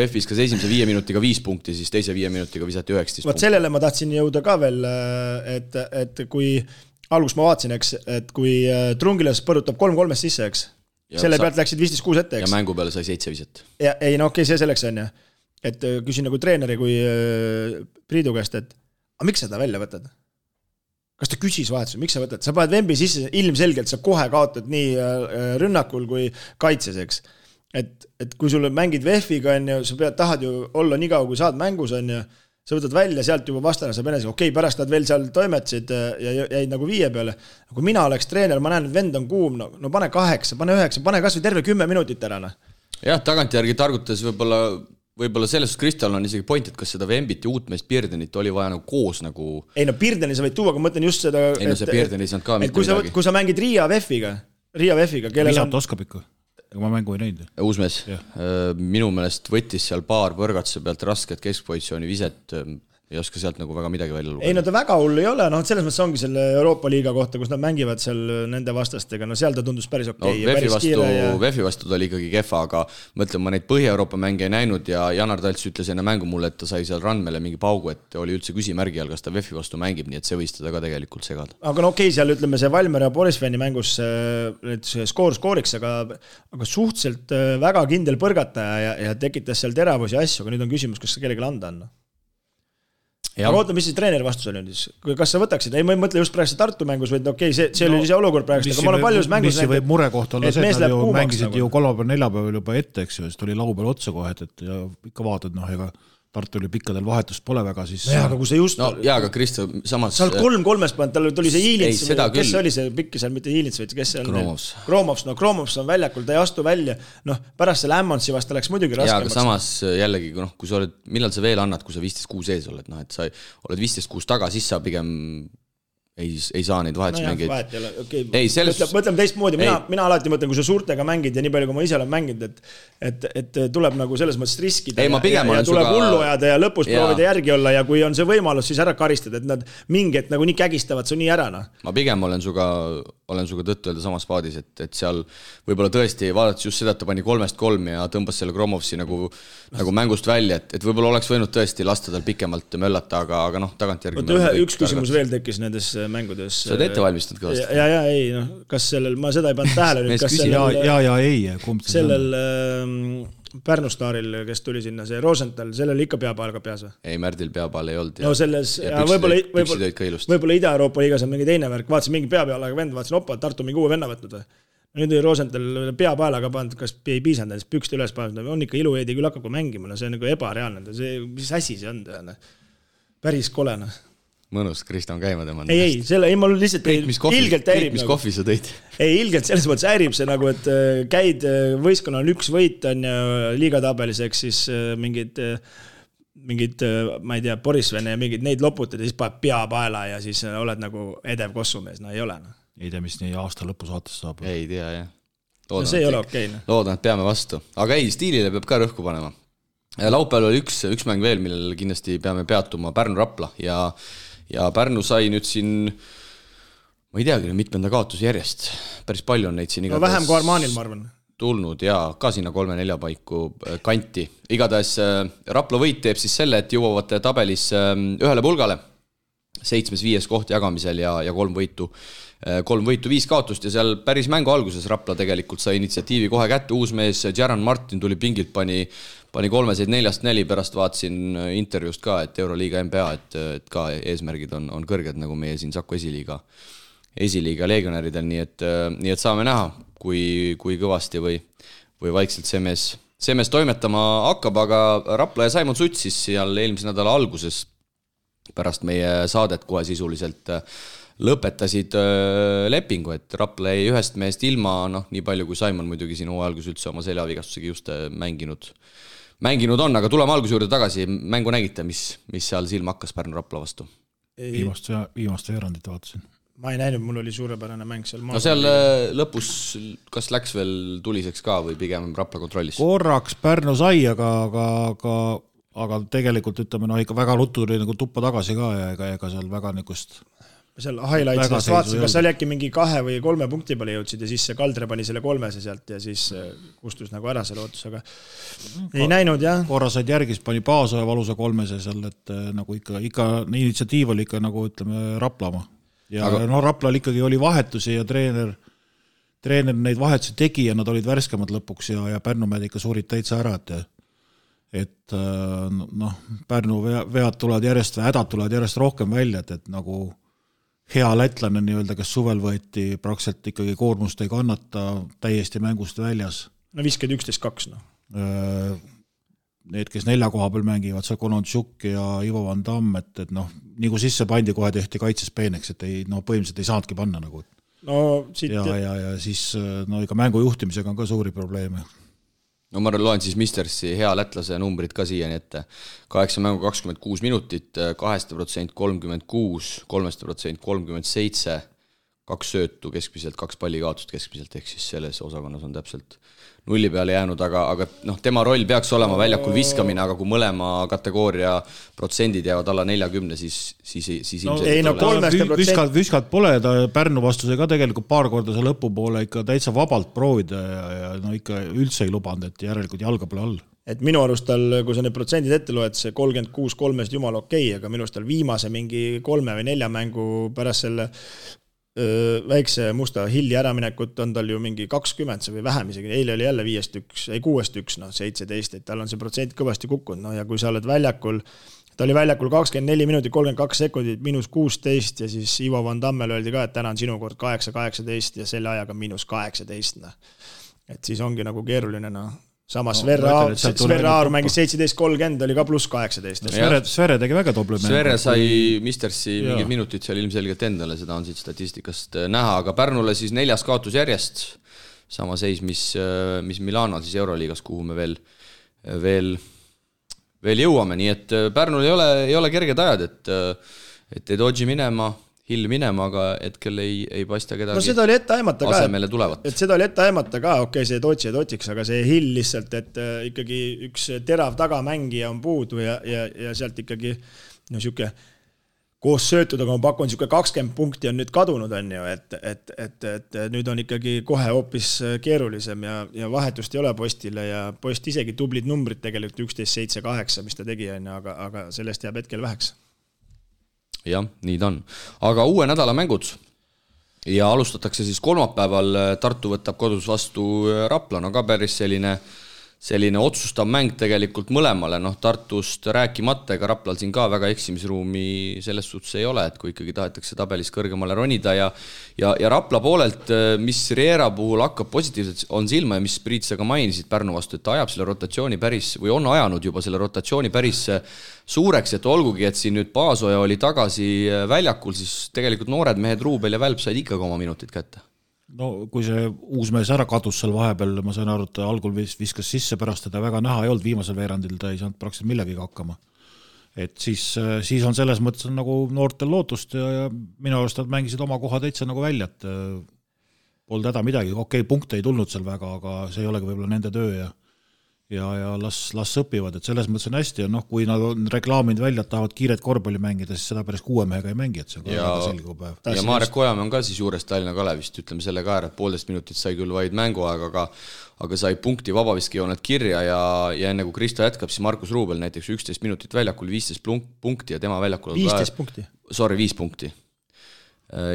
VEF-is kas esimese 5 minutiga 5 punkti, siis teise 5 minutiga visati 19 punkti. Sellele ma tahtsin jõuda ka veel, et kui algus ma vaatasin, et kui Trungilas põrutab 3-3 sisse, eks, selle pealt läksid 15-6 ette, eks. Ja mängu peale sai 7 viset. Ei, see selleks on ja. Et küsin nagu treeneri kui Priidu käest, et miks seda välja võtad? Kas ta küsis vahetusel, miks sa võtad? Sa paned Vembi sisse, ilmselgelt sa kohe kaotad nii rünnakul kui kaitses, eks. Et kui sulle mängid VEF-iga, sa tahad ju olla nii kaua, kui saad mängus, sa võtad välja, sealt juba vastane saab enese, pärast nad veel seal toimetasid ja jäid nagu 5 peale. Kui mina oleks treener, ma näen, et vend on kuum, pane 8, pane 9, pane kas või terve 10 minutit ära. Jah, tagantjärgi targutades võib-olla sellest Kristal on isegi point, et kas seda Vembit ja uutmeest Pierdenit oli vaja koos nagu... Ei, Pierdeni sa võid tuua, aga mõtlen just seda... Ei, see Pierden ei saanud ka mitte midagi. Kui sa mängid Riia VEF-iga, Visat oskab ikka. Ma mängu ei näinud. Uusmees, minu meelest võttis seal paar põrgatuse pealt rasket keskpositsiooni viset, ei oska sealt nagu väga midagi välja lugeda. Ei, ta väga hull ei ole, selles mõttes ongi selle Euroopa liiga kohta, kus nad mängivad seal nende vastastega, seal ta tundus päris okei. VEF-i vastu ta oli ikkagi kehva, aga mõtlen, ma neid Põhja-Euroopa mänge ei näinud ja Janar Talts ütles enne mängu mulle, et ta sai seal Randmele mingi paugu, et oli üldse küsimärgi all, kas ta VEF-i vastu mängib, nii et see võis teda ka tegelikult segada. Aga seal ütleme see Valmiera ja Borisveni mängus skooriks, aga suhteliselt väga kindel põrgataja ja tekitas seal teravusi asju, aga nüüd on küsimus, kas kellelegi anda on. Aga oota, mis siis treeneri vastus oli nüüd? Kas sa võtaksid? Ei, ma ei mõtle just praegu Tartu mängus, vaid see oli see olukord praegu, aga ma olen paljus mängus näinud. Mis võib murekoht olla see, et nad ju mängisid ju 3. 4. juba ette, eks ju, siis tuli lau peal otsa kohe, et ja ikka vaatad, ega Tartul pikkadel vahetust pole väga, siis no jaa, aga kui see just... No jaa, aga Kristo, samas... Sa oled 3-3 pannud, tal tuli see Iilits, kes küll. oli see pikk seal, mitte Iilits, vaid kes see on? Kromovs on väljakul, ta ei astu välja, pärast selle Ämmonsi vasta läks muidugi raskemaks. Jaa, aga samas jällegi, kui sa oled, millal sa veel annad, kui sa 15-6 ees oled, et sa oled 15-6 taga, siis sa pigem ei saa neid vahetusmängeid. Mõtleme teistmoodi, mina alati mõtlen, kui sa suurtega mängid ja nii palju, kui ma ise olen mänginud, et tuleb nagu selles mõttes riskida ja tuleb hullu ajada ja lõpus proovida järgi olla ja kui on see võimalus, siis ära karistada, et nad mingid nagu nii kägistavad su nii ära. Ma pigem olen suga tõttu öelda samas paadis, et seal võib-olla tõesti vaadates just seda, et ta pani 3-3 ja tõmbas selle Kromovsi nagu mängust välja, et võib-olla oleks võinud tõesti lasta tal pikemalt möllata, aga tagantjärgi üks küsimus veel tekkis nendes mängudes. Sa oled ette valmistanud kõvasti? Ja, kas sellel, ma seda ei pannud tähele nüüd, kas sellel Pärnu staaril, kes tuli sinna, see Rosenthal, sellel ikka peapaal ka peas või? Ei, Märdil peapaal ei olnud. No selles, võib-olla Ida-Euroopa liigas on mingi teine värk, vaatasin mingi peapaalaga vend, vaatasin opa, Tartu mingi uue venna võtnud või? Nüüd Rosenthal peapaelaga pannud, kas ei piisanud, pükste üles pannud, on ikka ilueedi küll hakkab mängima, see on nagu ebareaalne, mis asi see on, päris kolena. Mõnus, Kristo on käima tema. Ei, ma lihtsalt ilgelt häirib. Mis kohvi sa tõid? Ei, ilgelt selles mõttes häirib see nagu, et käid võistkonna on üks võit on ja liigatabelis, eks siis mingid, ma ei tea, Borisvene ja mingid neid loputad ja siis paned pea paela ja siis oled nagu edev kossumees, no ei ole. Ei tea, mis nii aasta lõpus saates saab. Ei tea, jah. See ei ole okei. Loodan, et peame vastu. Aga ei, stiilile peab ka rõhku panema. Laupäeval oli üks mäng veel, millel kindlasti peame peatuma Pärnu-Rapla ja Pärnu sai nüüd siin, ma ei teagi, mitmenda kaotuse järjest. Päris palju on neid siin igatahes. Vähem kui Armanil, ma arvan. Tulnud ja ka sinna 3-4 paiku kanti. Igatahes Rapla võit teeb siis selle, et jõuavad tabelis ühele pulgale 7-5 koht jagamisel ja 3 võitu, 5 kaotust ja seal päris mängu alguses Rapla tegelikult sai initsiatiivi kohe kätte. Uus mees Jaran Martin tuli pingilt, pani 3-4 pärast vaatasin intervjuust ka, et Euroliiga NBA, et ka eesmärgid on kõrged nagu meie siin Saku esiliiga legionäridel, nii et saame näha, kui kõvasti või vaikselt see mees toimetama hakkab, aga Rapla ja Saimon Suts siis seal eelmise nädala alguses pärast meie saadet kohe sisuliselt lõpetasid lepingu, et Rapla ei ühest meest ilma, nii palju kui Saimon muidugi siin hooajalgus üldse oma seljavigastusega just mänginud on, aga tuleme alguse juurde tagasi, mängu nägite, mis seal silma hakkas Pärnu-Rapla vastu? Viimast veerandit vaatasin. Ma ei näinud, mul oli suurepärane mäng seal. No seal lõpus, kas läks veel tuliseks ka või pigem Rapla kontrollis? Korraks Pärnu sai, aga tegelikult ütleme, ikka väga ruttu tuli nagu tuppa tagasi ka ja ega seal väga nikust seal highlights'ist vaatasin, kas seal äkki mingi 2 või 3 punkti peale jõudsid ja siis see Kaldre pani selle 3 sealt ja siis kustus nagu ära selle ootus, aga ei näinud, jah. Korra said järgis, pani Paasoja valusa 3 seal, et nagu ikka initsiatiiv oli ikka nagu ütleme Raplama. Ja Raplal ikkagi oli vahetusi ja treener neid vahetusi tegi ja nad olid värskemad lõpuks ja Pärnumäed ikka suurid täitsa ära, et Pärnu vead tulevad järjest või hädad tulevad järjest rohkem välja, et nagu hea lätlane nii-öelda, kes suvel võeti praktiliselt ikkagi koormust ei kannata täiesti mängust väljas. No viskad 11-2, Need, kes 4 koha peal mängivad, see Kononchuk ja Ivo Van Damme, et nii kui sisse pandi, kohe tehti kaitses peeneks, et põhimõtteliselt ei saanudki panna nagu. Ja siis ikka mängu juhtimisega on ka suuri probleeme. No ma loen siis Mistersi hea lätlase numbrid ka siiani ette. 8 mängu 26 minutit, 2% 36, 3% 37, 2 söötu keskmiselt, 2 pallikaotust keskmiselt, ehk siis selles osakonnas on täpselt nulli peale jäänud, aga tema roll peaks olema väljakul viskamine, aga kui mõlema kategooria protsendid jäävad alla 40, siis ilmselt viskad pole, ta Pärnu vastuse ka tegelikult paar korda see lõpupoole ikka täitsa vabalt proovida ja ikka üldse ei lubanud, et järelikult jalga pole all. Et minu arust tal, kui sa need protsendid ette loed, see 36-3 jumal okei, aga minu arust tal viimase mingi 3 või 4 mängu pärast selle väikse musta hilli äraminekut on tal ju mingi 20 või vähem isegi, eile oli jälle 6-1, 17, et tal on see protsent kõvasti kukkunud, ja kui sa oled väljakul, ta oli väljakul 24 minutit, 32 sekundit, -16 ja siis Ivo Van Dammel öeldi ka, et täna on sinu kord 8-18 ja selle ajaga -18, et siis ongi nagu keeruline, samas Sverre Aar mängis 17-30, oli ka pluss 18. Sverre tegi väga tobli mäng. Sverre sai Mistersi mingid minutid seal ilmselgelt endale, seda on siit statistikast näha, aga Pärnule siis 4. kaotus järjest, sama seis, mis Milanol siis Euroliigas, kuhu me veel jõuame, nii et Pärnul ei ole kerged ajad, et ei dodži minema, Hill minema, aga hetkel ei paista kedagi seda oli ette aimata asemele tulevat. Et seda oli ette aimata ka, okei, see Dodži ja Dodžiks, aga see Hill lihtsalt, et ikkagi üks terav tagamängija on puudu ja sealt ikkagi siuke koos söötud, aga ma pakun siuke 20 punkti on nüüd kadunud, on ju, et nüüd on ikkagi kohe hoopis keerulisem ja vahetust ei ole Postile ja Post isegi tublid numbrid tegelikult 11-7-8, mis ta tegi, aga sellest jääb hetkel väheks. Jah, nii ta on. Aga uue nädala mängud ja alustatakse siis kolmapäeval, Tartu võtab kodus vastu Rapla, no ka päris selline otsustav mäng tegelikult mõlemale, Tartust rääkimata, ega Raplal siin ka väga eksimisruumi selles suhtes ei ole, et kui ikkagi tahetakse tabelis kõrgemale ronida ja Rapla poolelt, mis Riera puhul hakkab positiivselt on silma ja mis Priit sa ka mainisid Pärnu vastu, et ta ajab selle rotatsiooni päris, või on ajanud juba selle rotatsiooni päris suureks, et olgugi, et siin nüüd Paasoja oli tagasi väljakul, siis tegelikult noored mehed Ruubel ja Välp said ikkagi oma minutid kätte. No kui see uus mees ära kadus seal vahepeal, ma sain aru, et algul viskas sisse, pärast teda väga näha ei olnud, viimasel veerandil ta ei saanud praktiliselt millegagi hakkama. Et siis on selles mõttes nagu noortel lootust ja minu arust nad mängisid oma koha täitsa nagu välja, et polnud häda midagi, okei, punkte ei tulnud seal väga, aga see ei olegi võib-olla nende töö ja las õpivad, et selles mõttes on hästi ja kui nad on reklaaminud välja, et tahavad kiiret korvpalli mängida, siis seda päris 6 mehega ei mängi, et see on ka väga selge päev. Ja Marek Ojamäe on ka siis juures Tallinna Kalevist, ütleme selle ka ära, et 1,5 minutit sai küll vaid mänguaeg, aga sai punkti vabaviskejoonet kirja ja enne kui Kristo jätkab, siis Markus Ruubel näiteks 11 minutit väljakul, 15 punkti ja tema väljakul 15 punkti? Sorry, 5 punkti.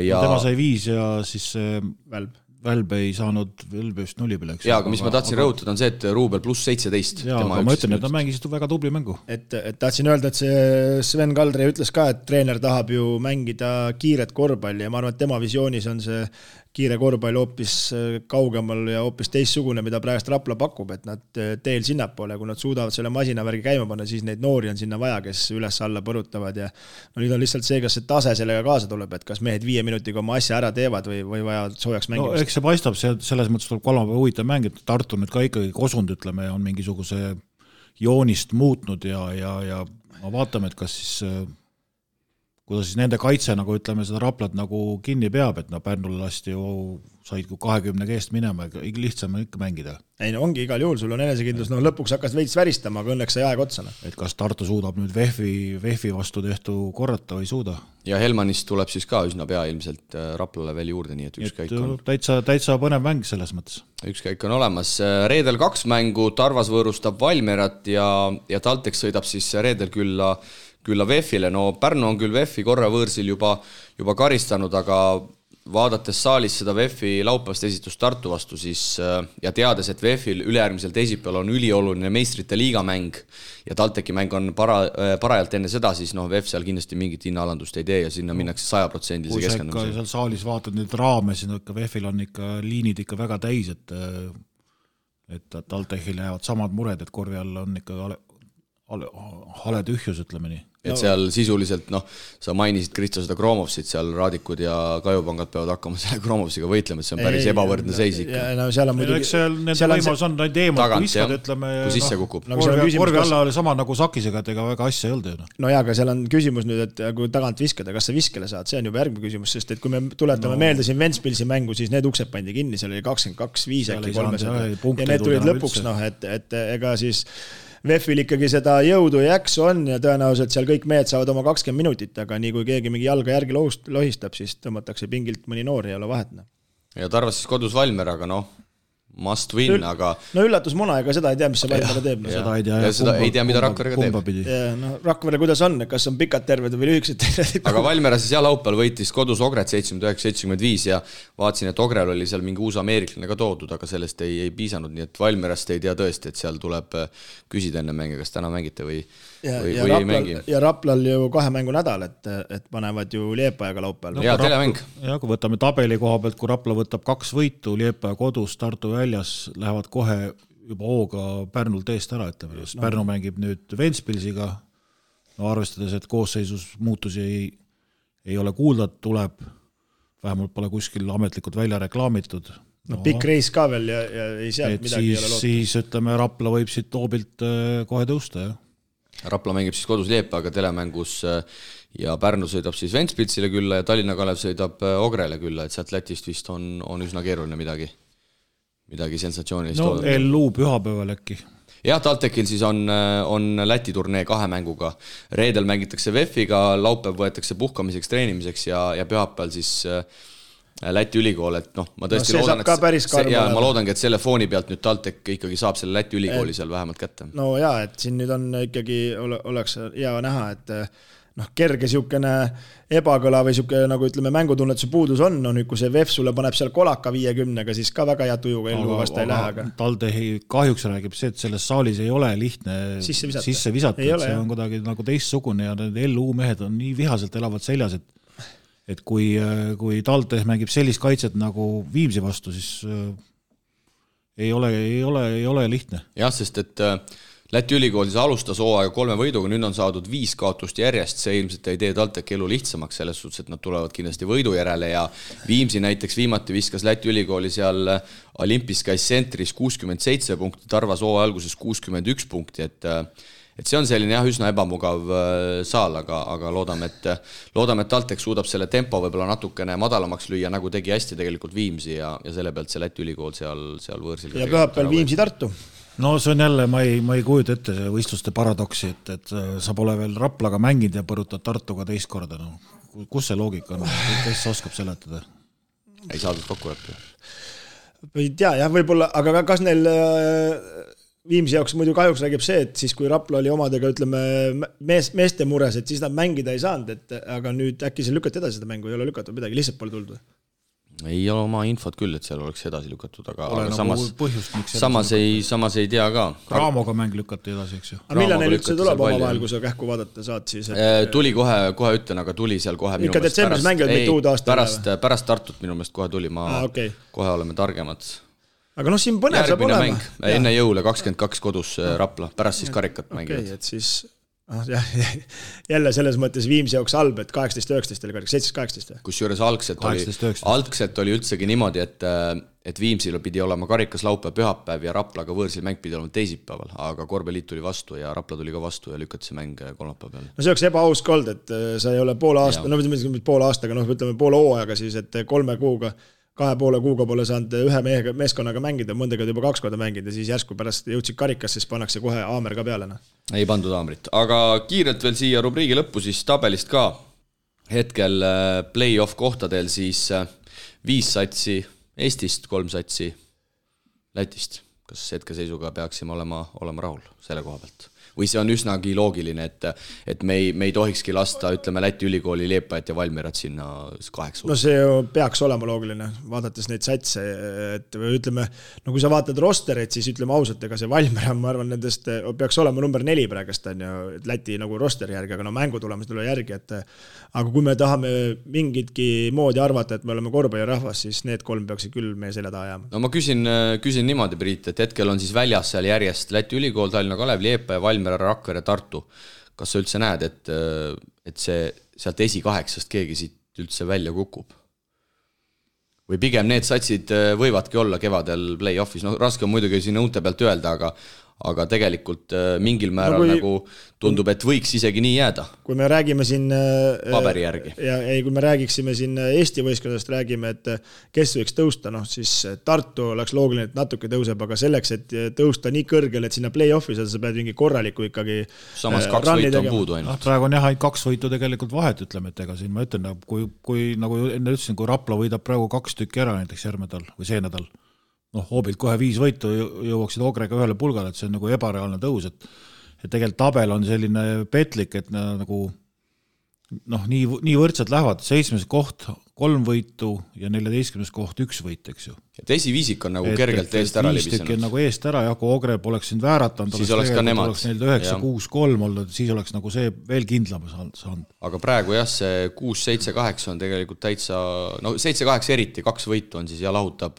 Ja tema sai 5 ja siis Välb ei saanud vist 0 peale. Jaa, aga mis ma tahtsin rõhutada on see, et Ruubel pluss 17. Jaa, aga ma ütlen, et ta mängisid väga tubli mängu. Et tahtsin öelda, et see Sven Kaldre ütles ka, et treener tahab ju mängida kiiret korvpalli ja ma arvan, et tema visioonis on see kiire korvpall hoopis kaugemal ja hoopis teistsugune, mida praegust Rapla pakub, et nad teel sinnapoole, kui nad suudavad selle masinavärgi käima panna, siis neid noori on sinna vaja, kes üles alla põrutavad ja nüüd on lihtsalt see, kas see tase sellega kaasa tuleb, et kas mehed 5 minutiga oma asja ära teevad või vaja soojaks mängimist. No eks see paistab, selles mõttes tuleb kolmapäeva huvitav mäng, et Tartu nüüd ka ikkagi kosund, ütleme, on mingisuguse joonist muutnud ja vaatame, et kas siis kuidas siis nende kaitse, nagu ütleme, seda Raplat nagu kinni peab, et Pärnul lasti ju said 20 keest minema, lihtsam ikka mängida. Ei, no ongi igal juhul, sul on enesekindlus, lõpuks hakkas veits väristama, aga õnneks sai aeg otsana. Et kas Tartu suudab nüüd Vehvi vastu tehtu korrata või ei suuda? Ja Helmanist tuleb siis ka üsna pea ilmselt Raplale veel juurde, nii et ükskõik on. Täitsa põnev mäng selles mõttes. Ükskõik on olemas. Reedel 2 mängu, Tarvas võõrustab Valmerat ja Taltek sõidab siis reedel külla VEF-ile, no Pärnu on küll VEF-i korra võõrsil juba karistanud, aga vaadates saalis seda VEF-i laupäevast esitust Tartu vastu siis, ja teades, et VEF-il ülejärgmisel teisipäeval on ülioluline meistrite liigamäng ja Talteki mäng on parajalt enne seda, siis VEF seal kindlasti mingit hinnaalandust ei tee ja sinna minnakse 100% keskendumisega. Kui seal saalis vaatad nüüd raame, siis VEF-il on ikka liinid ikka väga täis, et Taltekil jäävad samad mured, et korvi all on ikka hale tühjus, ütleme nii. Et seal sisuliselt, sa mainisid Kristo seda Kromovsit, seal Raadikud ja Kajupangad peavad hakkama selle Kromovsiga võitlema, et see on päris ebavõrdne seis ikka. Seal on muidugi... Nende võimalus on neid eemalt, kui viskad, ütleme... Kui sisse kukub. Korvi alla oli sama nagu Sakisega, et ega väga asja ei olnud. No jaa, aga seal on küsimus nüüd, et kui tagant viskada, kas sa viskele saad, see on juba järgmine küsimus, sest et kui me tuletame meelde siin Ventspilsi mängu, siis need uksed pandi kinni, seal oli 22-5 äkki 300 ja need tulid lõpuks, et ega siis VEF-il ikkagi seda jõudu ja jaksu on ja tõenäoliselt seal kõik mehed saavad oma 20 minutit, aga nii kui keegi mingi jalga järgi lohistab, siis tõmmatakse pingilt mõni noor ja ei ole vahet. Ja Tarvas siis kodus Valmer, aga must win, aga... No üllatusmuna, ega seda ei tea, mis see Valmere teeb. Seda ei tea, mida Rakverega teeb. Rakvere, kuidas on, kas on pikad terved või lühikesed terved? Aga Valmere siis laupäeval võitis kodus Ogret 79-75 ja vaatasin, et Ogrel oli seal mingi uus ameeriklane ka toodud, aga sellest ei piisanud, nii et Valmerast ei tea tõesti, et seal tuleb küsida enne mänge, kas täna mängite või ei mängi. Ja Raplal ju 2 mängu nädal, et panevad ju Liepajaga laupäeval. Ja telemäng. Ja kui võtame tabeli koha pealt, kui Rapla võtab 2 võitu, Liepaja kodus, Tartu väljas, lähevad kohe juba hooga Pärnult eest ära, ütleme. Pärnu mängib nüüd Ventspilsiga, no arvestades, et koosseisus muutusi ei ole kuulda, tuleb, vähemalt pole kuskil ametlikult välja reklaamitud. No pikk reis ka veel ja ei sealt midagi ei ole loota. Siis ütleme, Rapla võib siit hoobilt kohe tõusta, jah. Rapla mängib siis kodus Liepaga telemängus ja Pärnu sõidab siis Ventspilsile külla ja Tallinna Kalev sõidab Ogrele külla, et sealt Lätist vist on üsna keeruline midagi sensatsioonilist. No LU pühapäeval äkki. Jah, TalTechil siis on Läti turnee 2 mänguga. Reedel mängitakse VEF-iga, laupäev võetakse puhkamiseks, treenimiseks ja pühapäeval siis Läti ülikool, et ma tõesti loodan, ma loodangi, et selle fooni pealt nüüd TalTech ikkagi saab selle Läti ülikooli seal vähemalt kätte. No jaa, et siin nüüd on ikkagi, oleks hea näha, et kerge siukene ebakõla või siuke, nagu ütleme, mängutunnetuse puudus on, kui see VEF sulle paneb seal kolaka 50-ga, siis ka väga hea tujuga ellu vasta ei lähe. TalTechi kahjuks räägib see, et selles saalis ei ole lihtne sisse visata, et see on kuidagi nagu teistsugune ja need LU mehed on nii vihaselt elavad seljas, et kui TalTech mängib sellist kaitset nagu Viimsi vastu, siis ei ole lihtne. Jah, sest et Läti ülikool siis alustas hooaega 3 võiduga, nüüd on saadud 5 kaotust järjest, see ilmselt ei tee TalTechi elu lihtsamaks selles suhtes, et nad tulevad kindlasti võidu järele ja Viimsi näiteks viimati viskas Läti ülikooli seal Olympiskais sentris 67 punkti, Tarvas hooaja alguses 61 punkti, et see on selline üsna ebamugav saal, aga loodame, et TalTech suudab selle tempo võib-olla natukene madalamaks lüüa, nagu tegi hästi tegelikult Viimsi ja selle pealt see Läti ülikool seal võõrsil. Ja pühapäeval Viimsi Tartu. No see on jälle, ma ei kujuta ette see võistluste paradoksi, et sa pole veel Raplaga mänginud ja põrutad Tartuga teist korda. No. Kus see loogika on? Kes oskab seletada? Ei saadud kokku õppida. Ei tea, jah, võib-olla, aga kas neil Viimsi jaoks muidu kahjuks räägib see, et siis kui Rapla oli omadega, ütleme, meeste mures, et siis nad mängida ei saanud, aga nüüd äkki see lükati edasi seda mängu, ei ole lükatud midagi, lihtsalt pole tulnud. Ei ole oma infot küll, et seal oleks edasi lükatud, aga samas ei tea ka. Raamoga mäng lükati edasi, eks ju. Aga millal neil üldse tuleb oma vahel, kui sa kähku vaadata saad siis? Tuli kohe ütlen, aga tuli seal kohe ikka detsembris mängivad mitte uud aasta pärast Tartut minu meelest kohe tuli, kohe oleme targemad. Aga siin põnev saab olema. Enne jõule 22 kodus Rapla, pärast siis karikat mängivad. Et siis jälle selles mõttes Viimsi jaoks halb, et 18-19 oli karikas, 17-18. Kusjuures algselt oli üldsegi niimoodi, et Viimsil pidi olema karikas laupäev, pühapäev ja Raplaga võõrsil mäng pidi olema teisipäeval, aga Korvpalliliit tuli vastu ja Rapla tuli ka vastu ja lükati see mäng kolmapäeva peale. No see oleks ebaus kold, et sa ei ole poole aastaga, ütleme poole hooajaga siis, et 3 kuuga 2,5 kuuga pole saanud ühe meeskonnaga mängida, mõndega juba 2 korda mängida, siis järsku pärast jõudsid karikas, siis pannakse kohe aamer ka peale. Ei pandud aamrit, aga kiirelt veel siia rubriigi lõppu siis tabelist ka. Hetkel play-off kohtadel siis 5 satsi Eestist, 3 satsi Lätist. Kas hetkeseisuga peaksime olema rahul selle koha pealt? Või see on üsnagi loogiline, et me ei tohikski lasta, ütleme, Läti ülikooli Liepajat ja Valmierat sinna 8. No see peaks olema loogiline, vaadates neid satse, et ütleme, no kui sa vaatad rostereid, siis ütleme ausalt, ega see Valmier, ma arvan, nendest peaks olema number 4 praegust, on ju, Läti nagu rosteri järgi, aga no mängutulemus tuleb järgi, aga kui me tahame mingitki moodi arvata, et me oleme korvpallirahvas, siis need 3 peaksid küll meie selja taha jääma. No ma küsin niimoodi, Priit, et hetkel on siis väljas seal järjest Läti ülikool, Tallinna Kalev, Liepa ja Valmier, Rakvere, Tartu. Kas sa üldse näed, et see sealt esi-8 keegi siit üldse välja kukub? Või pigem need satsid võivadki olla kevadel play-offis? No raske on muidugi siin õunte pealt öelda, aga tegelikult mingil määral nagu tundub, et võiks isegi nii jääda. Kui me räägime siin paberi järgi. Kui me räägiksime siin Eesti võistkondadest, räägime, et kes võiks tõusta, siis Tartu oleks loogiline, et natuke tõuseb, aga selleks, et tõusta nii kõrgel, et sinna play-offi saada, sa pead mingi korraliku ikkagi samas 2 võitu on puudu ainult. Praegu on jah, 2 võitu tegelikult vahet, ütleme, et ega siin ma ütlen, kui nagu enne ütlesin, kui Rapla võidab praegu 2 tükki ära näiteks järgmine nädal või see nädal, hoobilt kohe 5 võitu jõuaksid Ogrega ühele pulgale, et see on nagu ebareaalne tõus, et tegelikult tabel on selline petlik, et nagu nii võrdsed lähevad, 7. koht 3 võitu ja 14. koht 1 võit, eks ju. Et esiviisik on nagu kergelt eest ära libisenud. Nagu eest ära, ja kui Ogreb oleks siin vääratanud, siis oleks ka nemad. 9-6-3 olnud, siis oleks nagu see veel kindlam saanud. Aga praegu jah, see 6-7-8 on tegelikult täitsa, 7-8 eriti, 2 võitu on siis ja lahutab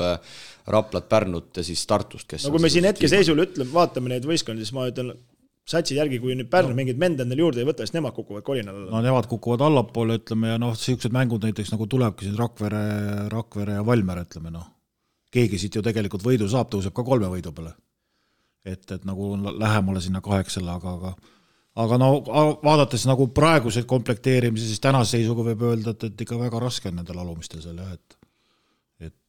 Raplat, Pärnut ja siis Tartust, kes kui me siin hetkeseisul ütleme, vaatame neid võistkondi, siis ma ütlen satsi järgi, kui nüüd Pärnu mingid mende endale juurde ei võta, siis nemad kukuvad kolinal alla. No nemad kukuvad allapoole, ütleme, ja sellised mängud näiteks nagu tulebki siin Rakvere ja Valmer, ütleme, keegi siit ju tegelikult võidu saab, tõuseb ka 3 võidu peale. Et nagu lähemale sinna 8, aga vaadates nagu praegused komplekteerimise, siis tänase seisuga võib öelda, et ikka väga raske on nendel alumistel seal, et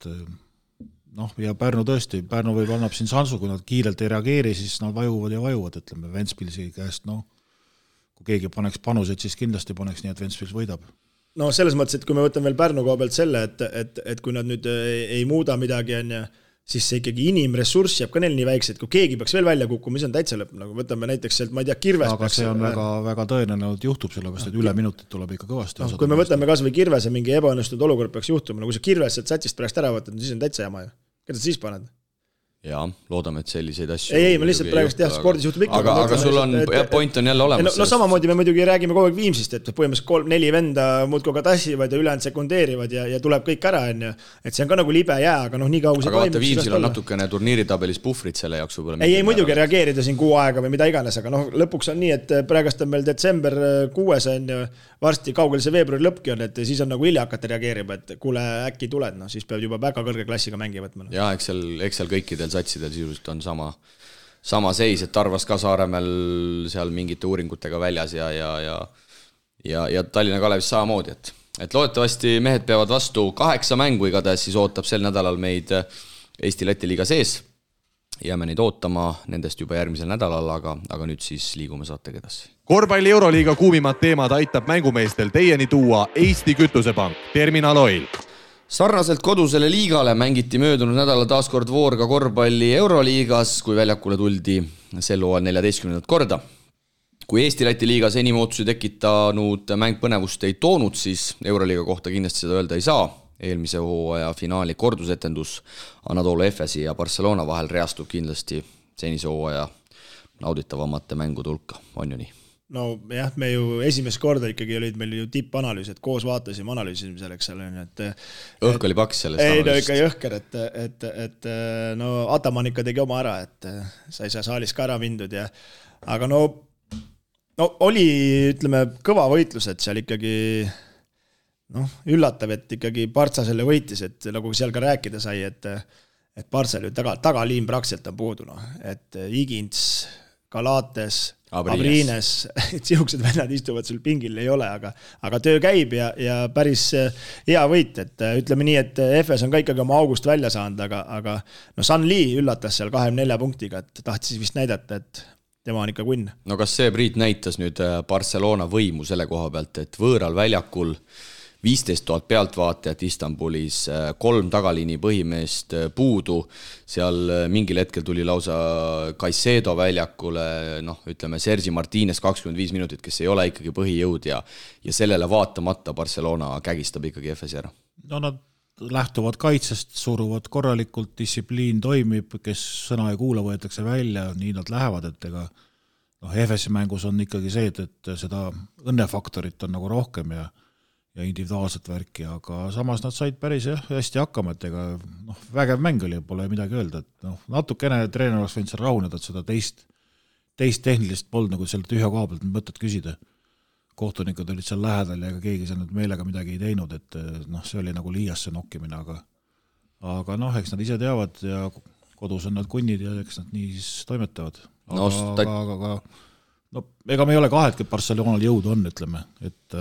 ja Pärnu tõesti, Pärnu võib annab siin sansu, kui nad kiirelt ei reageeri, siis nad vajuvad, ütleme, Ventspilsi käest, kui keegi paneks panuseid, siis kindlasti paneks nii, et Ventspils võidab. Selles mõttes, et kui me võtame veel Pärnu koha pealt selle, et kui nad nüüd ei muuda midagi, siis see ikkagi inimressurss jääb ka neil nii väikse, et kui keegi peaks veel välja kukkuma, mis on täitsa lõpp, nagu võtame näiteks sealt, ma ei tea, Kirves. Aga see on väga tõenäoline, et juhtub sellepärast, et üle minutit tuleb ikka kõvasti. Kui me võtame kas või Kirvese mingi ebaõnnestunud olukord peaks juhtuma, kui see Kirves sealt satsist pärast ära võtad, siis on täitsa jama ju. Keda sa siis paned? Jaa, loodame, et selliseid asju... Ei, ma lihtsalt praegust jah, spordis juhtub ikka. Aga sul on, point on jälle olemas. Samamoodi me muidugi räägime kogu aeg Viimsist, et põhimõtteliselt 3-4 venda muudkui ka tassivad ja ülejäänud sekundeerivad ja tuleb kõik ära, et see on ka nagu libe jää, aga nii kaugu see toimub. Aga vaata, Viimsil on natukene turniiritabelis puhvrit selle jaoks võib-olla. Ei, muidugi reageerida siin 6 aega või mida iganes, aga lõpuks on nii, et praegust on meil detsember 6 on varsti kaugel see veebruari lõppki on, et siis on nagu hilja hakata reageerima, et kuule äkki tuled, siis peab juba väga kõrge klassiga mängi võtma. Ja, eks seal kõikidel satsidel sisuliselt on sama seis, et Tarvas ka Saaremäel seal mingite uuringutega väljas ja Tallinna Kalevis samamoodi, et loodetavasti mehed peavad vastu 8 mängu igatahes, siis ootab sel nädalal meid Eesti-Läti liiga sees. Jääme neid ootama nendest juba järgmisel nädalal, aga nüüd siis liigume saatega edasi. Korvpalli Euroliiga kuumimad teemad aitab mängumeestel teieni tuua Eesti Kütusepank, Terminal Oil. Sarnaselt kodusele liigale mängiti möödunud nädala taaskord voor ka korvpalli Euroliigas, kui väljakule tuldi sel hooajal 14. korda. Kui Eesti-Läti liigas enim ootusi tekitanud mäng põnevust ei toonud, siis Euroliiga kohta kindlasti seda öelda ei saa. Eelmise hooaja finaali kordusetendus Anadolu Efesi ja Barcelona vahel reastub kindlasti senise hooaja nauditavamate mängude hulka, on ju nii? No jah, me ju esimest korda ikkagi olid meil ju tippanalüüs, et koos vaatasime, analüüsime selleks seal. Õhk oli paks sellest analüüsist. Ei, ikka jõhker, et Ataman ikka tegi oma ära, et sai saalis ka ära mindud. Aga oli, ütleme, kõva võitlus, et seal ikkagi üllatav, et ikkagi Partsa selle võitis, et nagu seal ka rääkida sai, et Partsal ju tagaliin praktiliselt on puudu, et Igins, Galates, Abrines, et sihukesed vennad istuvad sul pingil ei ole, aga töö käib ja päris hea võit, et ütleme nii, et FS on ka ikkagi oma august välja saanud, aga San Lee üllatas seal 24 punktiga, et tahtis vist näidata, et tema on ikka kunn. No kas see Priit näitas nüüd Barcelona võimu selle koha pealt, et võõral väljakul 15 000 pealtvaatajat Istanbulis, 3 tagaliini põhimeest puudu, seal mingil hetkel tuli lausa Caicedo väljakule, ütleme Sergi Martínez 25 minutit, kes ei ole ikkagi põhijõud ja sellele vaatamata Barcelona kägistab ikkagi FS ära. Nad lähtuvad kaitsest, suruvad korralikult, distsipliin toimib, kes sõna ei kuula, võetakse välja, nii nad lähevad, et ega FS mängus on ikkagi see, et seda õnnefaktorit on nagu rohkem ja individuaalset värki, aga samas nad said päris hästi hakkama, et ega vägev mäng oli, pole midagi öelda, et natukene treener oleks võinud seal rahuneda, et seda teist tehnilist polnud nagu seal tühja koha pealt mõtet küsida. Kohtunikud olid seal lähedal ja keegi seal meelega midagi ei teinud, et see oli nagu liiasse nokkimine, aga eks nad ise teavad ja kodus on nad kunnid ja eks nad nii siis toimetavad. Aga ega me ei ole kahet, et Barcelonal jõudu on, ütleme, et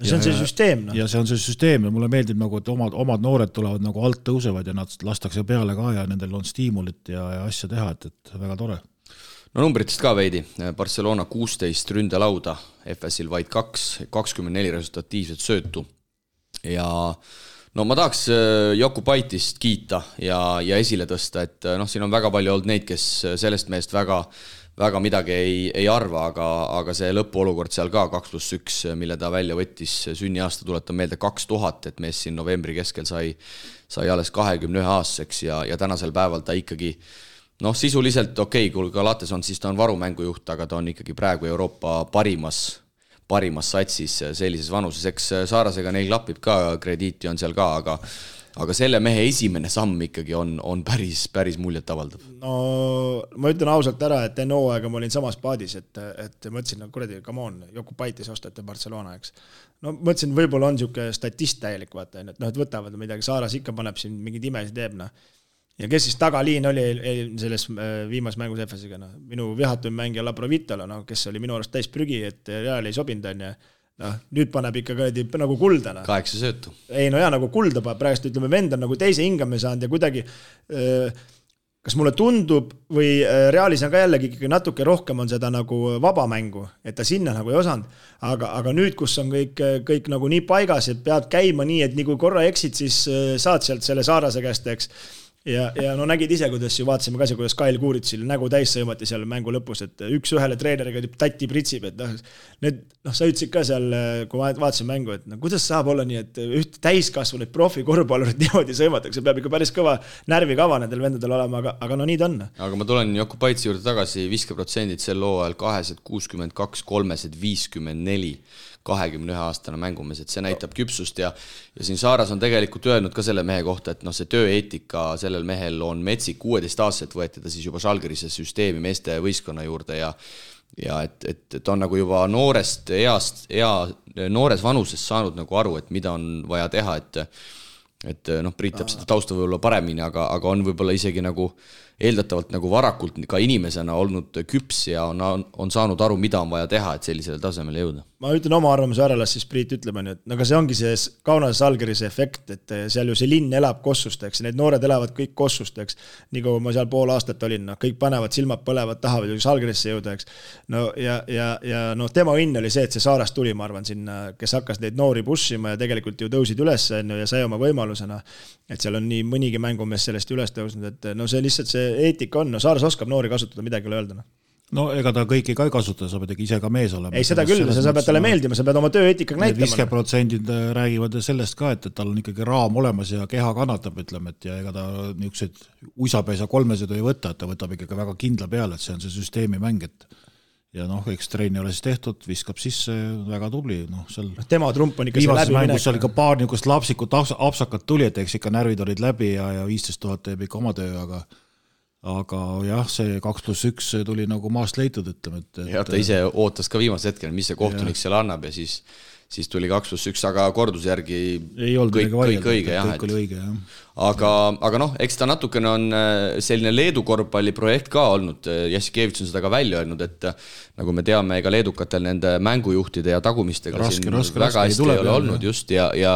see on see süsteem. Ja see on see süsteem ja mulle meeldib, nagu, et omad noored tulevad nagu alt tõusevad ja nad lastakse peale ka ja nendel on stiimulit ja asja teha, et väga tore. No numbritest ka veidi. Barcelona 16 ründelauda, FS-il vaid 24 resultatiivset söötu. Ja ma tahaks Jokupaitist kiita ja esile tõsta, et siin on väga palju olnud neid, kes sellest meest väga väga midagi ei arva, aga see lõpuolukord seal ka 2+1, mille ta välja võttis, sünniaasta tuletan meelde 2000, et mees siin novembri keskel sai alles 21-aastaseks ja tänasel päeval ta ikkagi sisuliselt kui Galates on, siis ta on varumängujuht, aga ta on ikkagi praegu Euroopa parimas satsis sellises vanuses, eks Saarasega neil klapib ka, krediiti on seal ka, aga selle mehe esimene samm ikkagi on päris muljet avaldav. No ma ütlen ausalt ära, et enne hooaega ma olin samas paadis, et mõtlesin, kuradi, come on, Jokubaitis ostate Barcelona, eks. No mõtlesin, võib-olla on siuke statist täielik, vaata, et võtavad midagi, Saaras ikka paneb siin mingid imesid teeb, Ja kes siis tagaliin oli selles viimas mängus EFS-iga, minu vihatuim mängija Labrovitalo, kes oli minu arust täis prügi, et Real ei sobinud, on nüüd paneb ikka nagu kuldana. 8 söötu. Ei, nagu kulda paneb, praegust ütleme, vend on nagu teise hingame saanud ja kuidagi, kas mulle tundub või Realis on ka jällegi natuke rohkem on seda nagu vabamängu, et ta sinna nagu ei osanud, aga nüüd, kus on kõik nagu nii paigas, et pead käima nii, et nii kui korra eksid, siis saad sealt selle Saarase käest, eks. Ja nägid ise, kuidas ju vaatasime ka see, kuidas Kail Kuuritsil nägu täis sõimati seal mängu lõpus, et üks ühele treeneriga tatti pritsib, et sa ütlesid ka seal, kui vaatasin mängu, et kuidas saab olla nii, et üht täiskasvunud profi korvpallurit niimoodi sõimatakse, peab ikka päris kõva närvikava nendel vendadel olema, aga nii ta on. Aga ma tulen Jokubaitsi juurde tagasi, viskaprotsendid sel hooajal 262, 354 21-aastane mängumees, et see näitab küpsust ja siin Saaras on tegelikult öelnud ka selle mehe kohta, et see tööeetika sellel mehel on metsik, 16-aastaselt võeti ta siis juba Žalgirise süsteemi meeste võistkonna juurde ja et on nagu juba noores vanuses saanud nagu aru, et mida on vaja teha, et Priit teab seda tausta võib-olla paremini, aga on võib-olla isegi nagu eeldatavalt nagu varakult ka inimesena olnud küps ja on saanud aru, mida on vaja teha, et sellisele tasemele jõuda. Ma ütlen oma arvamuse ära, las siis Priit ütleb, et aga see ongi see Kaunase Žalgirise efekt, et seal ju see linn elab Kossusteks, need noored elavad kõik Kossusteks, nii kui ma seal pool aastat olin, kõik panevad silmad põlevad, tahavad ju Žalgirisse jõuda, eks. Ja tema õnn oli see, et see Saarast tuli, ma arvan, sinna, kes hakkas neid noori pushima ja tegelikult ju tõusid üles ja sai oma võimalusena, et seal on nii mõnigi mängumees sellest üles tõusnud, et see lihtsalt see eetika on, Saaras oskab noori kasutada, midagi ei ole öelda. No ega ta kõiki ka ei kasuta, sa pead ise ka mees olema. Ei, seda küll, sa pead talle meeldima, sa pead oma tööeetikaga näitama. 50% räägivad sellest ka, et tal on ikkagi raam olemas ja keha kannatab, ütleme, et ja ega ta niisugused uisapäisa kolmesed ei võta, et ta võtab ikkagi väga kindla peale, et see on see süsteemi mäng, et ja eks treeni ole siis tehtud, viskab sisse, väga tubli. Tema trump on ikka see läbi minek. Viimases mängus oli ka paar niisugust lapsikut apsakat tuli, et eks ikka närvid olid läbi ja 15 000 teeb ikka oma töö, aga jah, see 2+1 tuli nagu maast leitud, ütleme. Ja ta ise ootas ka viimase hetkel, mis see kohtunik seal annab ja siis tuli 2+1, aga korduse järgi kõik õige. Aga eks ta natukene on selline Leedu korvpalliprojekt ka olnud, Jassikevits on seda ka välja öelnud, et nagu me teame, ega leedukatel nende mängujuhtide ja tagumistega raske, väga hästi ei ole olnud just ja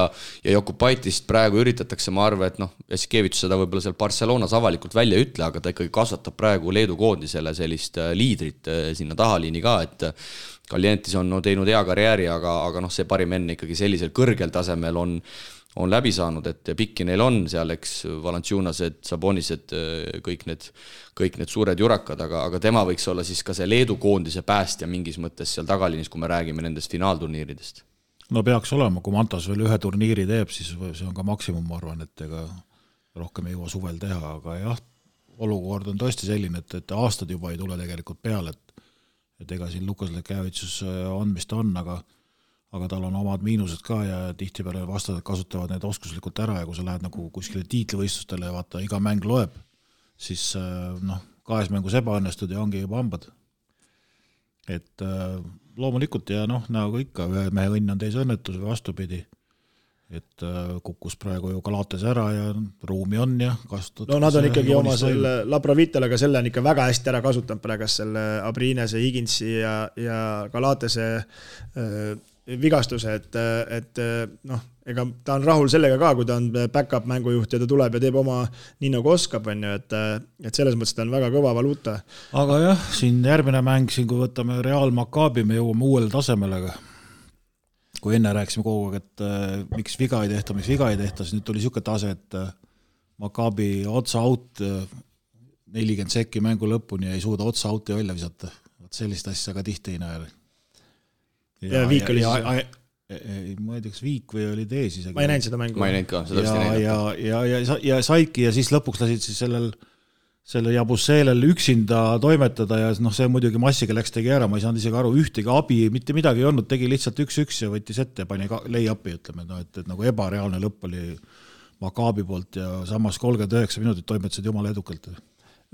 Jokubaitist praegu üritatakse, ma arvan, et Jassikevits seda võib-olla seal Barcelonas avalikult välja ütle, aga ta ikkagi kasvatab praegu Leedu koondisele sellist liidrit sinna tahaliini ka, et Kaljentis on teinud hea karjääri, aga see parim enne ikkagi sellisel kõrgel tasemel on läbi saanud, et pikki neil on seal, eks Valanciunased, Sabonised, kõik need suured jurakad, aga tema võiks olla siis ka see Leedu koondise päästja mingis mõttes seal tagalinis, kui me räägime nendest finaalturniiridest. No peaks olema, kui Mantas veel ühe turniiri teeb, siis see on ka maksimum, ma arvan, et ega rohkem ei jõua suvel teha, aga jah, olukord on tõesti selline, et aastad juba ei tule tegelikult peale, et ega siin Lukas Lekevitsus on, mis ta on, aga tal on omad miinused ka ja tihtipeale vastased kasutavad need oskuslikult ära ja kui sa lähed nagu kuskile tiitlivõistlustele ja vaata, iga mäng loeb, siis 2 mängus ebaõnnestud ja ongi juba hambad. Et loomulikult ja nagu ikka, ühe mehe õnn on teise õnnetus või vastupidi. Et kukkus praegu ju Galates ära ja ruumi on ja kasutatud. No nad on ikkagi oma selle Labrovitalaga selle on ikka väga hästi ära kasutanud praegu selle Abrinese, Higinsi ja Galatese vigastuse, et ega ta on rahul sellega ka, kui ta on back-up mängujuht ja ta tuleb ja teeb oma nii nagu oskab, et selles mõttes ta on väga kõva valuuta. Aga jah, siin järgmine mäng, kui võtame Real Maccabi, me jõuame uuele tasemele. Kui enne rääksime kogu aeg, et miks viga ei tehta, siis nüüd tuli siuke tase, et Maccabi otsa out 40 sekki mängu lõpuni ja ei suuda otsa auti välja visata. Sellist asja ka tihti ei näe. Ja Viik oli ma ei tea, kas Viik või oli Tees isegi. Ma ei näinud seda mängu. Ma ei näinud ka, seda vist ei näinud. Ja saidki ja siis lõpuks lasid siis selle Jabusselel üksinda toimetada ja see muidugi massiga läks tegi ära, ma ei saanud isegi aru, ühtegi abi, mitte midagi ei olnud, tegi lihtsalt 1-1 ja võttis ette ja pani lay-upi, ütleme, et nagu ebareaalne lõpp oli Maccabi poolt ja samas 39 minutit toimetasid jumala edukalt.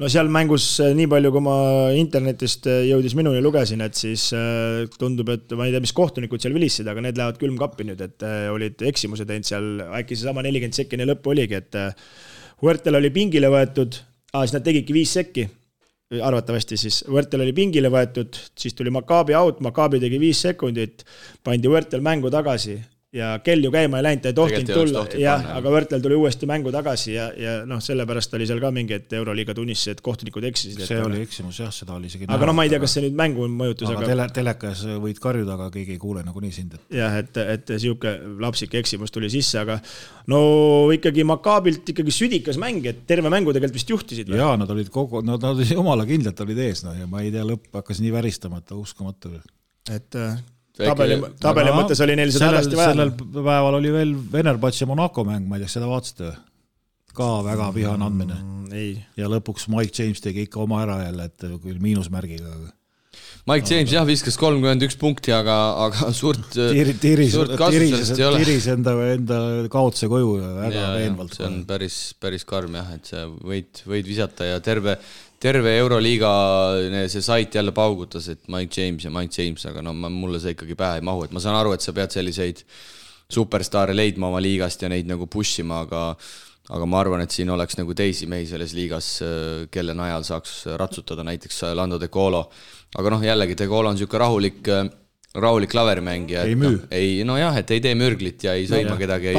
No seal mängus nii palju, kui ma internetist jõudis minuni lugesin, et siis tundub, et ma ei tea, mis kohtunikud seal vilissid, aga need lähevad külmkappi nüüd, et olid eksimuse teinud seal, äkki see sama 40 sekkine lõpp oligi, et Huertel oli pingile võetud, siis nad tegidki 5 sekki, arvatavasti siis Huertel oli pingile võetud, siis tuli Maccabi out, Maccabi tegi 5 sekundit, pandi Huertel mängu tagasi ja kell ju käima ei läinud, ta ei tohtinud tulla, aga Huertel tuli uuesti mängu tagasi ja sellepärast oli seal ka mingi, et Euroliiga tunnistas, et kohtunikud eksisid. See oli eksimus, jah, seda oli isegi aga ma ei tea, kas see nüüd mängu mõjutus. Aga telekas võid karjuda, aga keegi ei kuule nagu nii sind. Jah, et siuke lapsik eksimus tuli sisse, aga no ikkagi Maccabilt ikkagi südikas mäng, et terve mängu tegelikult vist juhtisid. Jaa, nad olid jumala kindlalt olid ees, ja ma ei tea, lõpp hakkas nii väristama, et uskumatu. Et tabeli mõttes oli neil seda hädasti vaja. Sellel päeval oli veel Venerbats ja Monaco mäng, ma ei tea, seda vaatasite ka väga vihane andmine. Ja lõpuks Mike James tegi ikka oma ära jälle, et küll miinusmärgiga. Mike James jah viskas 31 punkti, aga suurt kasutusest ei ole. Tiris enda kaotuse koju väga veenvalt. See on päris karm jah, et see võid visata ja terve Euroliiga see sait jälle paugutas, et Mike James, aga no mulle see ikkagi pähe ei mahu, et ma saan aru, et sa pead selliseid superstaare leidma oma liigast ja neid nagu pushima, aga ma arvan, et siin oleks nagu teisi mehi selles liigas, kelle najal saaks ratsutada, näiteks Lando De Colo, aga jällegi De Colo on siuke rahulik klaverimängija, ei müü. Et ei tee mürglit ja ei sõima kedagi,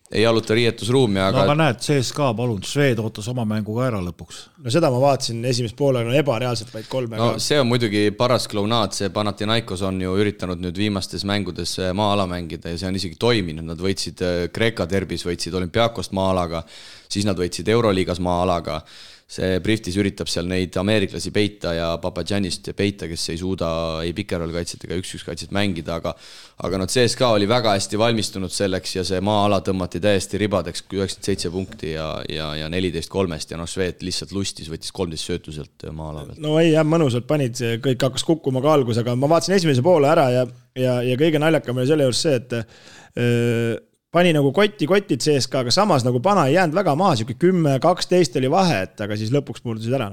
ei jaluta riietusruumi, aga näed, CSKA palun, Šved ootas oma mängu ka ära lõpuks. No seda ma vaatasin esimest poole, ebareaalselt vaid 3. No see on muidugi paras klounaad, see Panathinaikos on ju üritanud nüüd viimastes mängudes maa-ala mängida ja see on isegi toiminud, nad võitsid Kreeka derbis, võitsid Olümpiakost maa-alaga, siis nad võitsid Euroliigas maa-alaga. See Briftis üritab seal neid ameeriklasi peita ja Papadjanist peita, kes ei suuda ei pikerol kaitset ega 1-1 kaitset mängida, aga CSKA oli väga hästi valmistunud selleks ja see maa-ala tõmmati täiesti ribadeks 97 punkti ja 14-3 ja Šved lihtsalt lustis, võttis 13 söötuselt maa-ala pealt. No ei, jah, mõnusalt panid, kõik hakkas kukkuma ka algus, aga ma vaatasin esimese poole ära ja kõige naljakam oli selle juures see, et pani nagu kotid CSKA, aga samas nagu Pana ei jäänud väga maha, 10-12 oli vahe, aga siis lõpuks murdusid ära.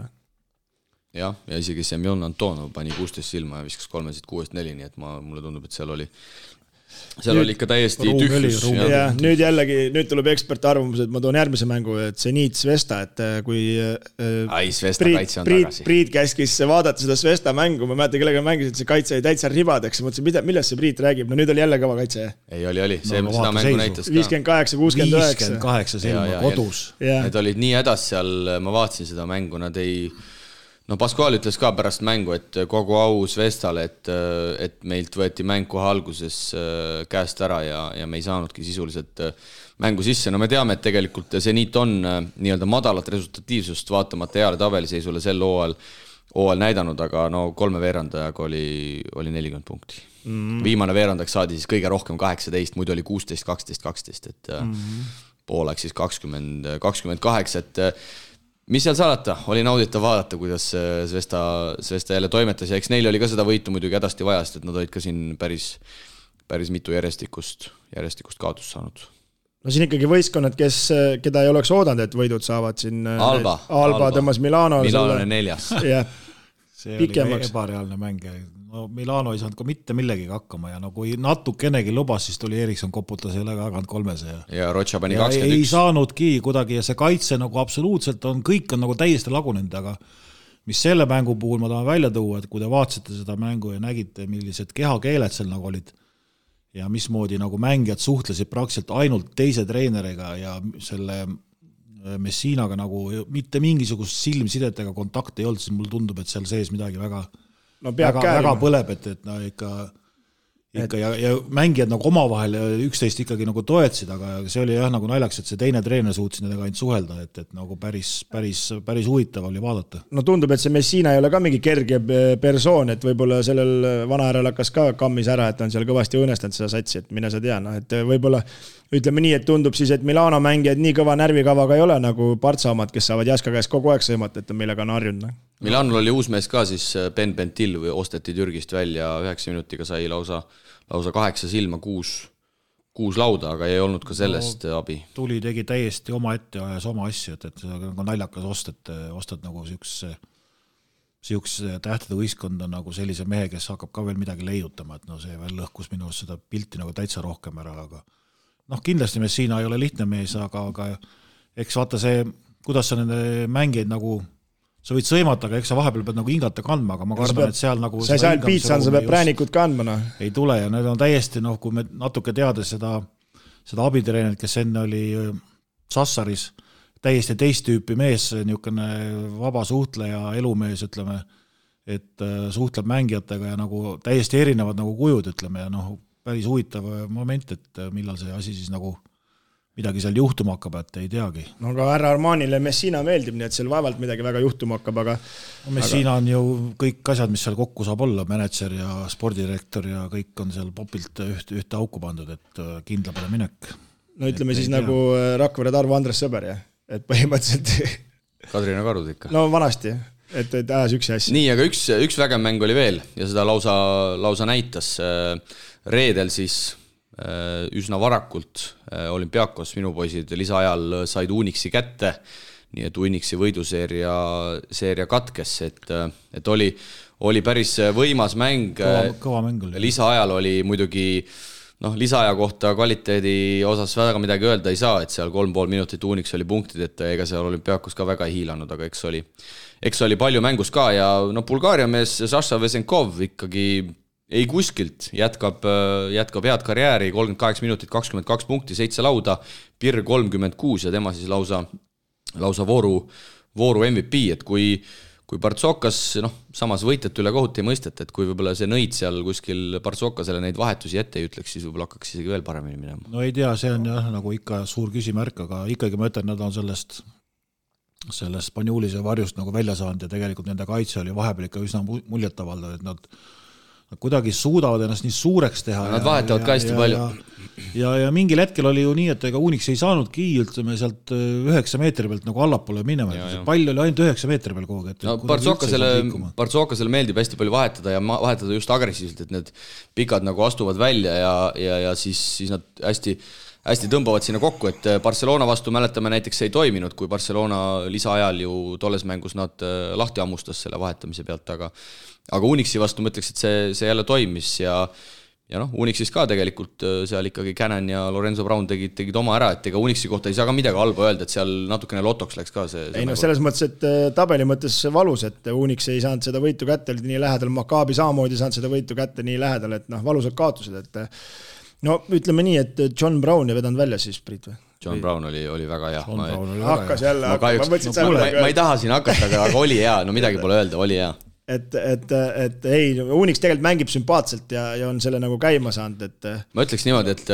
Ja isegi Semjon Antonov pani 16 silma ja viskas 3-6-4, nii et mulle tundub, et seal oli ikka täiesti tühjus. Ja nüüd tuleb eksperti arvamus, et ma toon järgmise mängu, et Zenit Svesta, et kui Svesta kaitse on tagasi. Priit käskis vaadata seda Svesta mängu, ma mäletan, kellega mängisid, see kaitse oli täitsa ribadeks, mõtlesin, millest see Priit räägib, no nüüd oli jälle kõva kaitse. Ei, oli, seda mängu näitas ka. 58-69. 58 silma kodus. Need olid nii hädas seal, ma vaatasin seda mängu, nad ei... No Pascual ütles ka pärast mängu, et kogu au Svestale, et meilt võeti mäng kohe alguses käest ära ja me ei saanudki sisuliselt mängu sisse. No me teame, et tegelikult Zenit on nii-öelda madalat resultatiivsust vaatamata heale tabeliseisule sel hooajal näidanud, aga no 3 veerandajaga oli 40 punkti. Viimane veerandaks saadi siis kõige rohkem 18, muidu oli 16, 12, 12, et pooleks siis 20-28, et mis seal salata? Oli nauditav vaadata, kuidas Svesta jälle toimetas ja eks neil oli ka seda võitu muidugi hädasti vajast, et nad olid ka siin päris mitu järjestikust kaotust saanud. No siin ikkagi võistkonnad, keda ei oleks oodanud, et võidud saavad siin Alba tõmmas Milano on 4. See oli ebareaalne mäng. No Milano ei saanud ka mitte millegi hakkama ja no kui natukenegi lubas, siis tuli Erikson koputas jälle kaganud 3 ja Rocha pani 21. Ei saanudki kuidagi ja see kaitse nagu absoluutselt kõik on nagu täiesti lagunenud, aga mis selle mängu puhul ma tahan välja tuua, et kui te vaatasite seda mängu ja nägite, millised kehakeeled seal nagu olid ja mismoodi nagu mängijad suhtlesid praktiliselt ainult teise treeneriga ja selle Messinaga nagu mitte mingisugust silmsidet ega kontakti ei olnud, siis mulle tundub, et seal sees midagi väga põleb, et no ikka ikka ja mängijad nagu omavahel üksteist ikkagi nagu toetasid, aga see oli jah nagu naljaks, et see teine treener suutsid nendega ainult suhelda, et nagu päris huvitav oli vaadata. No tundub, et see Messina ei ole ka mingi kerge persoon, et võib-olla sellel vanahärel hakkas ka kammis ära, et on seal kõvasti õõnestanud seda satsi, et mine sa tea, et võib-olla ütleme nii, et tundub siis, et Milano mängijad nii kõva närvikavaga ei ole nagu Partsa omad, kes saavad Jaska käest kogu aeg sõimata, et millega on harjunud. Milanol oli uus mees ka siis Ben Bentil või osteti Türgist välja 9 minutiga sai lausa 8 silma, 6 lauda, aga ei olnud ka sellest abi. Tuli tegi täiesti oma ette ja ajas oma asju, et see on naljakas ostad nagu siukse tähtede võistkonda nagu sellise mehe, kes hakkab ka veel midagi leiutama, et no see veel lõhkus minu seda pilti nagu täitsa rohkem ära, aga kindlasti Messina ei ole lihtne mees, aga eks vaata see, kuidas sa nende mängijaid nagu sa võid sõimata, aga eks sa vahepeal pead nagu hingata kandma, aga ma kardan, et seal nagu... Sa ei saa piitsan, sa pead präänikud kandma. Ei tule ja need on täiesti, kui me natuke teades seda abitreenerit, kes enne oli Sassaris, täiesti teist tüüpi mees, niisugune vaba suhtleja, elumees, ütleme, et suhtleb mängijatega ja nagu täiesti erinevad nagu kujud, ütleme, ja päris huvitav moment, et millal see asi siis nagu midagi seal juhtuma hakkab, et ei teagi. No aga härra Armanile Messina meeldib, nii et seal vaevalt midagi väga juhtuma hakkab, aga... Messina on ju kõik asjad, mis seal kokku saab olla, manager ja spordidirektor ja kõik on seal popilt ühte auku pandud, et kindla peale minek. No ütleme siis nagu Rakvere Tarvo Andres Sõber, jah? Et põhimõtteliselt... Kadrina Karud ikka. No vanasti, et ajas üksi asja. Nii, aga üks vägev mäng oli veel ja seda lausa näitas reedel siis üsna varakult Olümpiakos minu poisid lisaajal said Unixi kätte, nii et Unixi võiduseeria katkes, et oli päris võimas mäng. Kõva mäng oli. Lisaajal oli muidugi, lisaaja kohta kvaliteedi osas väga midagi öelda ei saa, et seal 3,5 minutit Unix oli punktid, et ega seal Olümpiakos ka väga ei hiilanud, aga eks oli palju mängus ka ja Bulgaaria mees Saša Vesenkov ikkagi ei kuskilt, jätkab head karjääri, 38 minutit, 22 punkti, 7 lauda, Pirr 36 ja tema siis lausa vooru MVP, et kui Partsokas, samas võitjat üle kohut ei mõistet, et kui võib-olla see nõid seal kuskil Partsokasele neid vahetusi ette ei ütleks, siis võib-olla hakkaks isegi veel paremini minema. No ei tea, see on jah nagu ikka suur küsimärk, aga ikkagi ma ütlen, nad on sellest Spanjulise varjust nagu välja saanud ja tegelikult nende kaitse oli vahepeal ikka üsna muljetavaldav, et nad kuidagi suudavad ennast nii suureks teha. Nad vahetavad ka hästi palju. Ja mingil hetkel oli ju nii, et ega Unix ei saanudki ütleme sealt 9 meetri pealt nagu allapoole minema. Pall oli ainult 9 meetri peal kogu. Partsokasele meeldib hästi palju vahetada ja vahetada just agressiivselt, et need pikad nagu astuvad välja ja siis nad hästi tõmbavad sinna kokku, et Barcelona vastu mäletame näiteks ei toiminud, kui Barcelona lisaajal ju tolles mängus nad lahti ammustas selle vahetamise pealt, aga Unixi vastu ma ütleks, et see jälle toimis ja Unixis ka tegelikult seal ikkagi Cannon ja Lorenzo Brown tegid oma ära, et ega Unixi kohta ei saa ka midagi halba öelda, et seal natukene lotoks läks ka see. Ei selles mõttes, et tabeli mõttes valus, et Unix ei saanud seda võitu kätte, oli nii lähedal, Maccabi samamoodi saanud seda võitu kätte nii lähedal, et valusad kaotused, et ütleme nii, et John Brown ei vedanud välja siis, Priit või? John Brown oli väga hea. Hakkas jälle, ma ei taha siin hakata, aga oli hea, midagi pole öelda, oli hea. Et ei, Unix tegelikult mängib sümpaatselt ja on selle nagu käima saanud, et... Ma ütleks niimoodi, et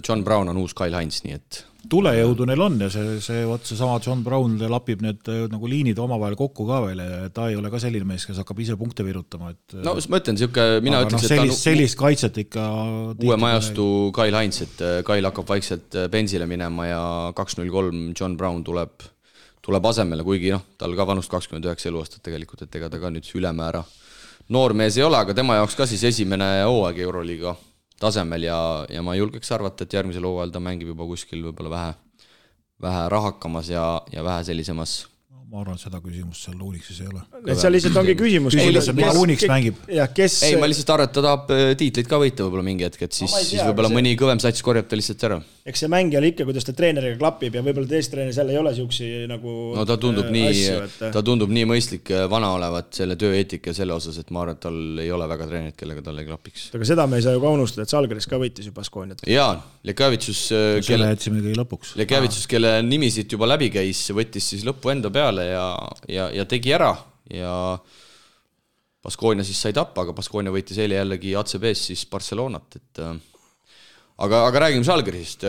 John Brown on uus Kyle Hines, nii et... Tulejõudu neil on ja see sama John Brown lapib need nagu liinid omavahel kokku ka veel ja ta ei ole ka selline mees, kes hakkab ise punkte virutama. No ma ütlen, mina ütleks, et sellist kaitset ikka... Uue majastu Kyle Hines, et Kyle hakkab vaikselt bensile minema ja 2-0-3 John Brown tuleb asemele, kuigi tal ka vanust 29 eluaastat tegelikult, et ega ta ka nüüd ülemäära noormees ei ole, aga tema jaoks ka siis esimene hooaeg Euroliiga tasemel ja ma julgeks arvata, et järgmisel hooajal ta mängib juba kuskil võib-olla vähe rahakamas ja vähe sellisemas. Ma arvan, et seda küsimust seal Unixis ei ole. Et seal lihtsalt ongi küsimus. Unix mängib. Ei, ma lihtsalt arvan, et ta tahab tiitlit ka võita võib-olla mingi hetk, et siis võib-olla mõni kõvem sats korjab ta lihtsalt ära. Eks see mängijal ikka, kuidas ta treeneriga klapib ja võib-olla teist treener seal ei ole siuksi nagu no ta tundub nii mõistlik vana olevat selle tööeetika ja selle osas, et ma arvan, et tal ei ole väga treenerit, kellega tal ei klapiks. Aga seda me ei saa ju ka unustada, et Salgeris ka võitis ju Baskooniat. Jaa, Lekavitsus, kelle nimi siit juba läbi käis, võttis siis lõppu enda peale ja tegi ära ja Baskonia siis sai tappa, aga Baskonia võitis eile jällegi ACB-s siis Barcelonat, et aga räägime Žalgirisist,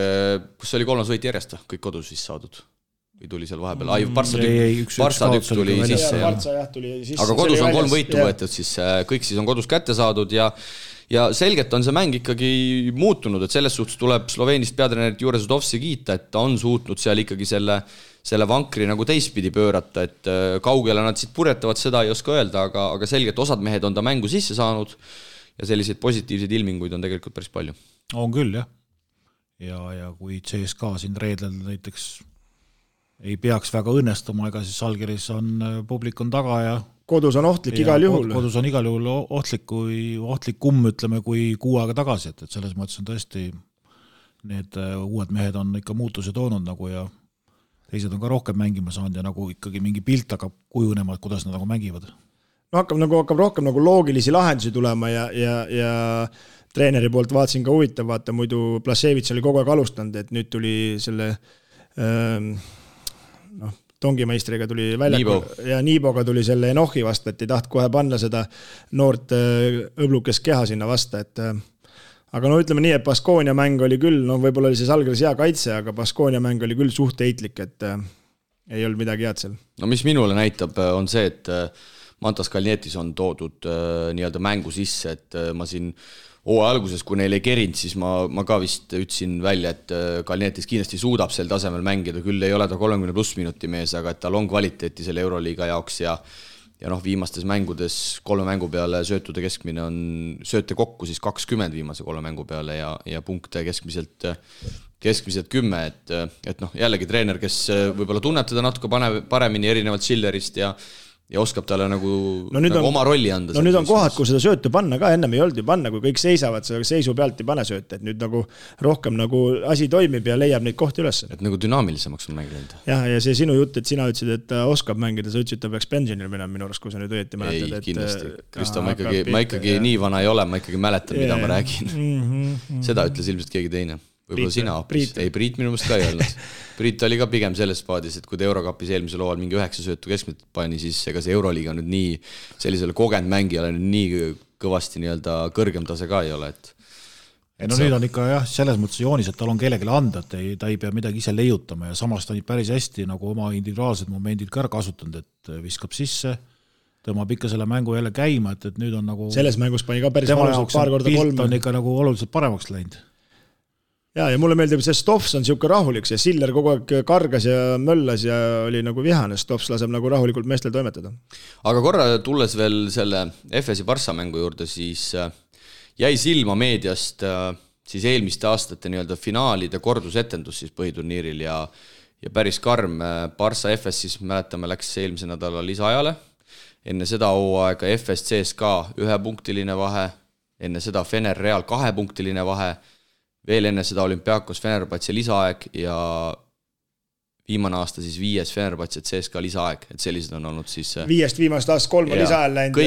kus oli 3. võit järjest, kõik kodus siis saadud? Või tuli seal vahepeal? Barça tükk tuli sisse. Aga kodus on 3 võitu võetud, siis kõik siis on kodus kätte saadud ja selgelt on see mäng ikkagi muutunud, et selles suhtes tuleb Sloveenist peatreenerit Jure Zudovski kiita, et ta on suutnud seal ikkagi selle vankri nagu teistpidi pöörata, et kaugele nad siit purjetavad, seda ei oska öelda, aga selgelt osad mehed on ta mängu sisse saanud ja selliseid positiivseid ilminguid on tegelikult päris palju. On küll, jah. Ja kui CSKA siin reedel näiteks ei peaks väga õnnestuma, ega siis Žalgiris on publik on taga ja kodus on ohtlik igal juhul. Kodus on igal juhul ohtlikum, ütleme, kui 6 aega tagasi, et selles mõttes on tõesti need uued mehed on ikka muutuse toonud nagu ja teised on ka rohkem mängima saanud ja nagu ikkagi mingi pilt hakkab kujunema, et kuidas nad nagu mängivad. No hakkab rohkem nagu loogilisi lahendusi tulema ja treeneri poolt vaatasin ka huvitav, vaata muidu Plasevits oli kogu aeg alustanud, et nüüd tuli selle tongimeistriga tuli välja ja Niiboga tuli selle Enohi vasta, et ei taht kohe panna seda noort õblukest keha sinna vasta, et aga no ütleme nii, et Baskonia mäng oli küll, võib-olla oli see Žalgiris hea kaitse, aga Baskonia mäng oli küll suht heitlik, et ei olnud midagi head seal. No mis minule näitab, on see, et Mantas Kalnietis on toodud nii-öelda mängu sisse, et ma siin alguses, kui neil ei kerinud, siis ma ka vist ütlesin välja, et Kalnietis kindlasti suudab sel tasemel mängida, küll ei ole ta 30+ minuti mees, aga et tal on kvaliteeti selle Euroliiga jaoks ja viimastes mängudes 3 mängu peale söötude keskmine on sööte kokku siis 20 viimase 3 mängu peale ja punkte keskmiselt 10, et jällegi treener, kes võib-olla tunneb teda natuke paremini erinevalt Schillerist ja oskab talle nagu oma rolli anda. No nüüd on kohad, kui seda söötu panna ka, ennem ei olnud ju panna, kui kõik seisavad, seisu pealt ei pane sööte, et nüüd nagu rohkem nagu asi toimib ja leiab neid kohti üles. Et nagu dünaamilisemaks on mängida. Ja see sinu jutt, et sina ütlesid, et ta oskab mängida, sa ütlesid, et ta peaks pensionil minema minu arust, kui sa nüüd õieti mäletad. Ei, kindlasti. Kristo, ma ikkagi nii vana ei ole, ma ikkagi mäletan, mida ma räägin. Seda ütles ilmselt keegi teine. Võib-olla sina hoopis. Ei, Priit minu mõist ka ei olnud. Priit oli ka pigem selles paadis, et kui ta Eurokapis eelmisel hooajal mingi 9 söötu keskmiselt pani, siis ega see Euroliiga nüüd nii sellisele kogenud mängijale nii kõvasti nii-öelda kõrgem tase ka ei ole. Nüüd on ikka jah, selles mõttes joonis, et tal on kellelegi anda, et ta ei pea midagi ise leiutama ja samas ta on päris hästi nagu oma individuaalsed momendid ka kasutanud, et viskab sisse, tõmbab ikka selle mängu jälle käima, et nüüd on nagu selles mängus pani ka päris valusalt paar korda 3. on ikka nagu oluliselt paremaks läinud. Ja mulle meeldib, see Stofs on siuke rahulik, see Siller kogu aeg kargas ja möllas ja oli nagu vihane, Stofs laseb nagu rahulikult meestel toimetada. Aga korra tulles veel selle FS-i Barça mängu juurde, siis jäi silma meediast siis eelmiste aastate nii-öelda finaalide kordusetendus siis põhiturniiril ja päris karm Barça FS siis mäletame läks eelmise nädala lisaajale. Enne seda hooaega FS CSKA 1-punktiline vahe, enne seda Fener Real 2-punktiline vahe, veel enne seda Olümpiakos Fenerbahce lisaaeg ja viimane aasta siis 5. Fenerbahce CSKA lisaaeg, et sellised on olnud siis 5 viimast aastast 3 lisaajal läinud.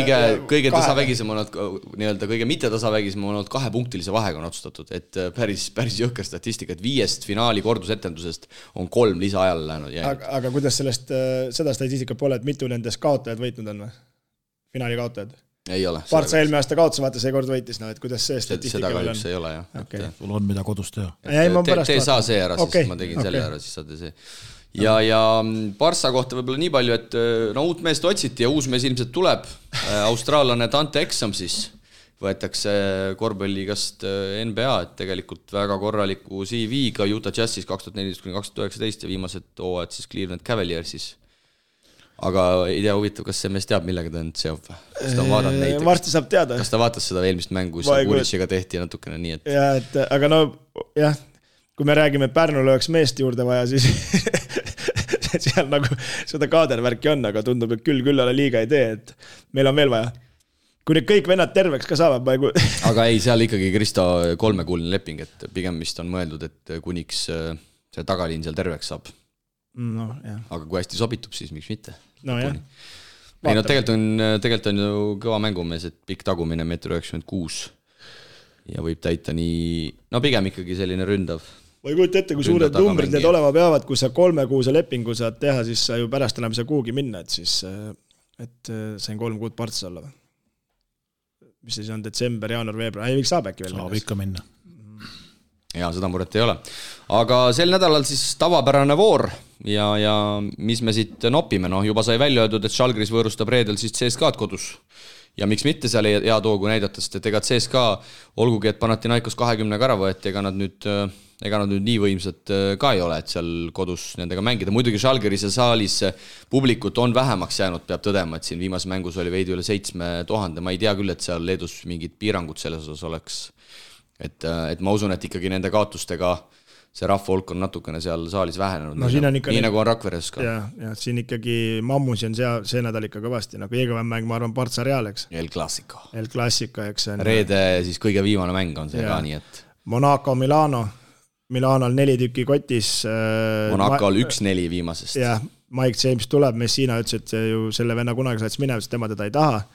Kõige tasavägisem on olnud, nii-öelda kõige mitte tasavägisem on olnud 2-punktilise vahega on otsustatud, et päris jõhker statistika, et 5 finaali kordusetendusest on 3 lisaajal läinud. Aga kuidas seda statistika pole, et mitu nendest kaotajad võitnud on või? Finaali kaotajad? Ei ole. Barça eelmine aasta kaotas, vaata see kord võitis, et kuidas see statistika seda kahjuks ei ole, jah. Okay. Sul on mida kodus teha. Tee saa see ära, siis ma tegin selle ära, siis saate see. Ja Barça kohta võib-olla nii palju, et uut meest otsiti ja uus mees ilmselt tuleb. Austraallane Dante Exum siis võetakse korvpalliigast NBA, et tegelikult väga korraliku CV-ga Utah Jazzis 2014-2019 ja viimased hooajad siis Cleveland Cavaliersis. Aga ei tea huvitav, kas see mees teab, millega ta nüüd seob? Kas ta vaadab neid? Varsti saab teada. Kas ta vaatas seda eelmist mängu, kus Kuritsiga tehti natukene nii, et... Ja, aga kui me räägime, et Pärnul oleks meest juurde vaja, siis seal nagu seda kaadervärki on, aga tundub, et küll ala liiga ei tee, et meil on veel vaja. Kui need kõik vennad terveks ka saavad, Aga ei, seal ikkagi Kristo 3-kuuline leping, et pigem vist on mõeldud, et kuniks see tagaliin seal terveks saab. No, jah. Aga kui hästi sobitub, siis miks mitte? No jah. Ei, tegelikult on ju kõva mängumees, et pikk tagumine 1,96 m ja võib täita nii, pigem ikkagi selline ründav. Ma ei kujuta ette, kui suured numbrid need olema peavad, kui sa 3 kuuse lepingu saad teha, siis sa ju pärast enam ei saa kuhugi minna, et siis sain 3 kuud Bartsas olla. mis siis on detsember, jaanuar, veebruar, ei saab äkki veel saab ikka minna. Ja seda muret ei ole. Aga sel nädalal siis tavapärane voor ja mis me siit nopime, juba sai välja öeldud, et Žalgiris võõrustab reedel siis CSKA-d kodus. Ja miks mitte seal hea toogu näidata, sest et ega CSKA, olgugi et Panathinaikos 20 ära võeti, ega nad nüüd nii võimsad ka ei ole, et seal kodus nendega mängida. Muidugi Žalgiris ja saalis publikut on vähemaks jäänud, peab tõdema, et siin viimases mängus oli veidi üle 7000. Ma ei tea küll, et seal Leedus mingid piirangud selles osas oleks. Et ma usun, et ikkagi nende kaotustega see rahva hulk on natukene seal saalis vähenenud. No, nii nagu on Rakveres ka. Ja siin ikkagi mammusi on see nädal ikka kõvasti, nagu Eegavän mäng, ma arvan, Partsa Real, eks? El Clasico, eks see on. Reede siis kõige viimane mäng on see ka, nii et Monaco, Milanol 4 tükki kotis. Monacol 1-4 viimasest. Jah, Mike James tuleb, Messina ütles, et ju selle venna kunagi saats minema, sest tema teda ei taha.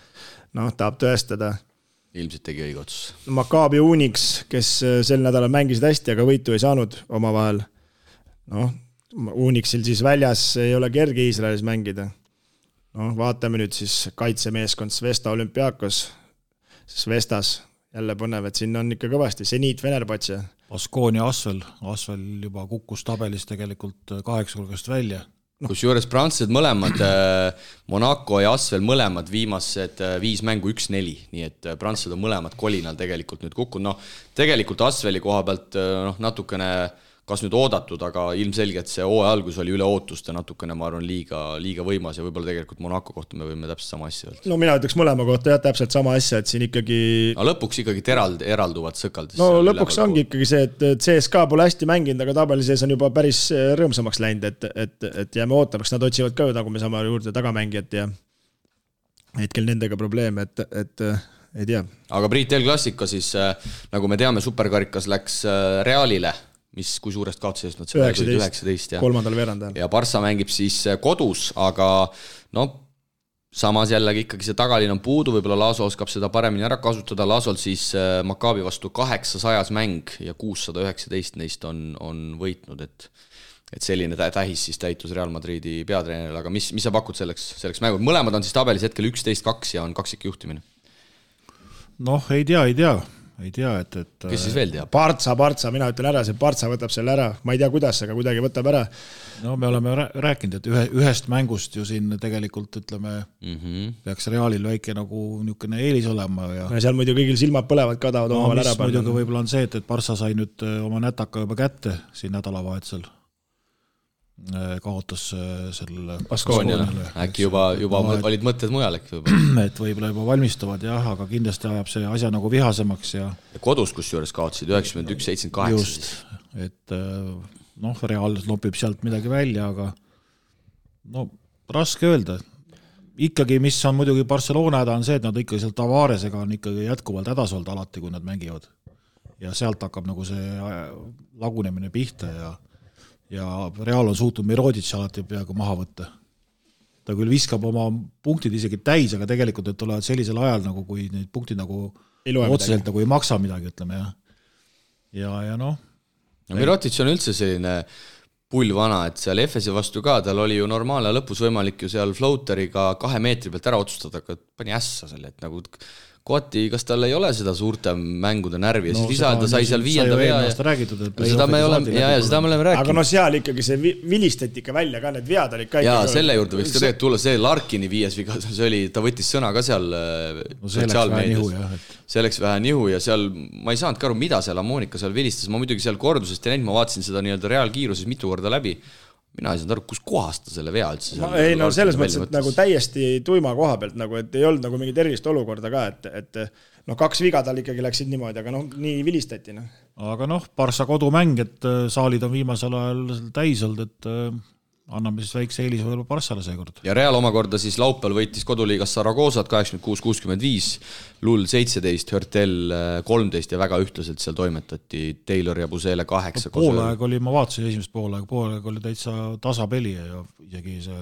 Tahab tõestada. Ilmselt tegi õige otsus. Maccabi Unix, kes sel nädalal mängisid hästi, aga võitu ei saanud omavahel. Unixil siis väljas ei ole kerge Iisraelis mängida. Vaatame nüüd siis kaitsemeeskond Svesta Olümpiakos. Svestas jälle põnev, et siin on ikka kõvasti. Zenit Venerbatse. Baskonia Asvel juba kukkus tabelis tegelikult 8 hulgast välja. Kusjuures prantslased mõlemad, Monaco ja Asvel mõlemad viimased 5 mängu 1-4, nii et prantslased on mõlemad kolinal tegelikult nüüd kukkunud. Tegelikult Asveli koha pealt natukene kas nüüd oodatud, aga ilmselgelt see hooaja algus oli üle ootuste natukene, ma arvan, liiga võimas ja võib-olla tegelikult Monaco kohta me võime täpselt sama asja öelda. Mina ütleks mõlema kohta täpselt sama asja, et siin ikkagi lõpuks ikkagi eralduvad sõkaldis. Lõpuks ongi ikkagi see, et CSKA pole hästi mänginud, aga tabeli sees on juba päris rõõmsamaks läinud, et jääme ootamaks, nad otsivad ka, nagu me saame juurde tagamängijat ja hetkel nendega probleem, et ei tea. Aga Priit El Clasico siis, nagu me teame, superkarikas läks Realile, mis kui suurest kaotusest nad 19 kolmandal veerandajal. Ja Barça mängib siis kodus, aga samas jällegi ikkagi see tagalinn on puudu, võib-olla Laso oskab seda paremini ära kasutada. Lasol siis Maccabi vastu 800 mäng ja 619 neist on võitnud, et selline tähis siis täitus Real Madridi peatreeneril, aga mis sa pakud selleks mängud? Mõlemad on siis tabelis hetkel 11-2 ja on kaksik juhtimine. Ei tea, et kes siis veel teab? Partsa, mina ütlen ära, see Partsa võtab selle ära, ma ei tea kuidas, aga kuidagi võtab ära. Me oleme rääkinud, et ühest mängust ju siin tegelikult ütleme, peaks Realil väike nagu niisugune eelis olema. Ja seal muidu kõigil silmad põlevad ka tahavad omavahel ära panna. Muidugi võib-olla on see, et Partsa sai nüüd oma nätaka juba kätte siin nädalavahetusel. Kaotas selle Baskoniale. Äkki juba olid mõtted mujal äkki võib-olla. Et võib-olla juba valmistuvad, aga kindlasti ajab see asja nagu vihasemaks. Ja kodus kusjuures kaotsid 91-78. Just, et Real lopib sealt midagi välja, aga raske öelda. Ikkagi, mis on muidugi Barcelona häda, on see, et nad ikkagi seal Tavaresega on ikkagi jätkuvalt hädas olnud alati, kui nad mängivad. Ja sealt hakkab nagu see lagunemine pihta ja Real on suutnud Miroditš alati peaaegu maha võtta. Ta küll viskab oma punktid isegi täis, aga tegelikult need tulevad sellisel ajal, nagu kui neid punktid nagu otseselt nagu ei maksa midagi, ütleme. Miroditš on üldse selline pullvana, et seal Efesi vastu ka, tal oli ju normaalne lõpus võimalik ju seal floateriga 2 meetri pealt ära otsustada, aga pani ässa selle, et nagu kohati, kas tal ei ole seda suurte mängude närvi ja siis lisada sai seal 5. vea ja seda me oleme rääkinud. Aga seal ikkagi see vilistati ikka välja ka, need vead olid ka ja selle juurde võiks ka tegelikult tulla see Larkini 5 viga, ta võttis sõna ka seal sotsiaalmeedias. See läks vähe nihu ja seal ma ei saanud ka aru, mida seal Amonika seal vilistas, ma muidugi seal kordusest ja ma vaatasin seda nii-öelda reaalkiiruses mitu korda läbi. Mina ei saanud aru, kus kohast ta selle vea üldse selles mõttes, et nagu täiesti tuima koha pealt, nagu, et ei olnud nagu mingit erilist olukorda ka, et 2 viga tal ikkagi läksid niimoodi, aga nii vilistati. Aga Barça kodumäng, et saalid on viimasel ajal täis olnud, et anname siis väikse eelis võib-olla Barçale seekord. Ja Real omakorda siis laupäeval võitis koduliigas Saragosat 86-65, Lull 17, Hörtel 13 ja väga ühtlaselt seal toimetati Taylor ja Busele 8. Poolaeg oli, ma vaatasin esimest poolaeg oli täitsa tasapeli ja isegi see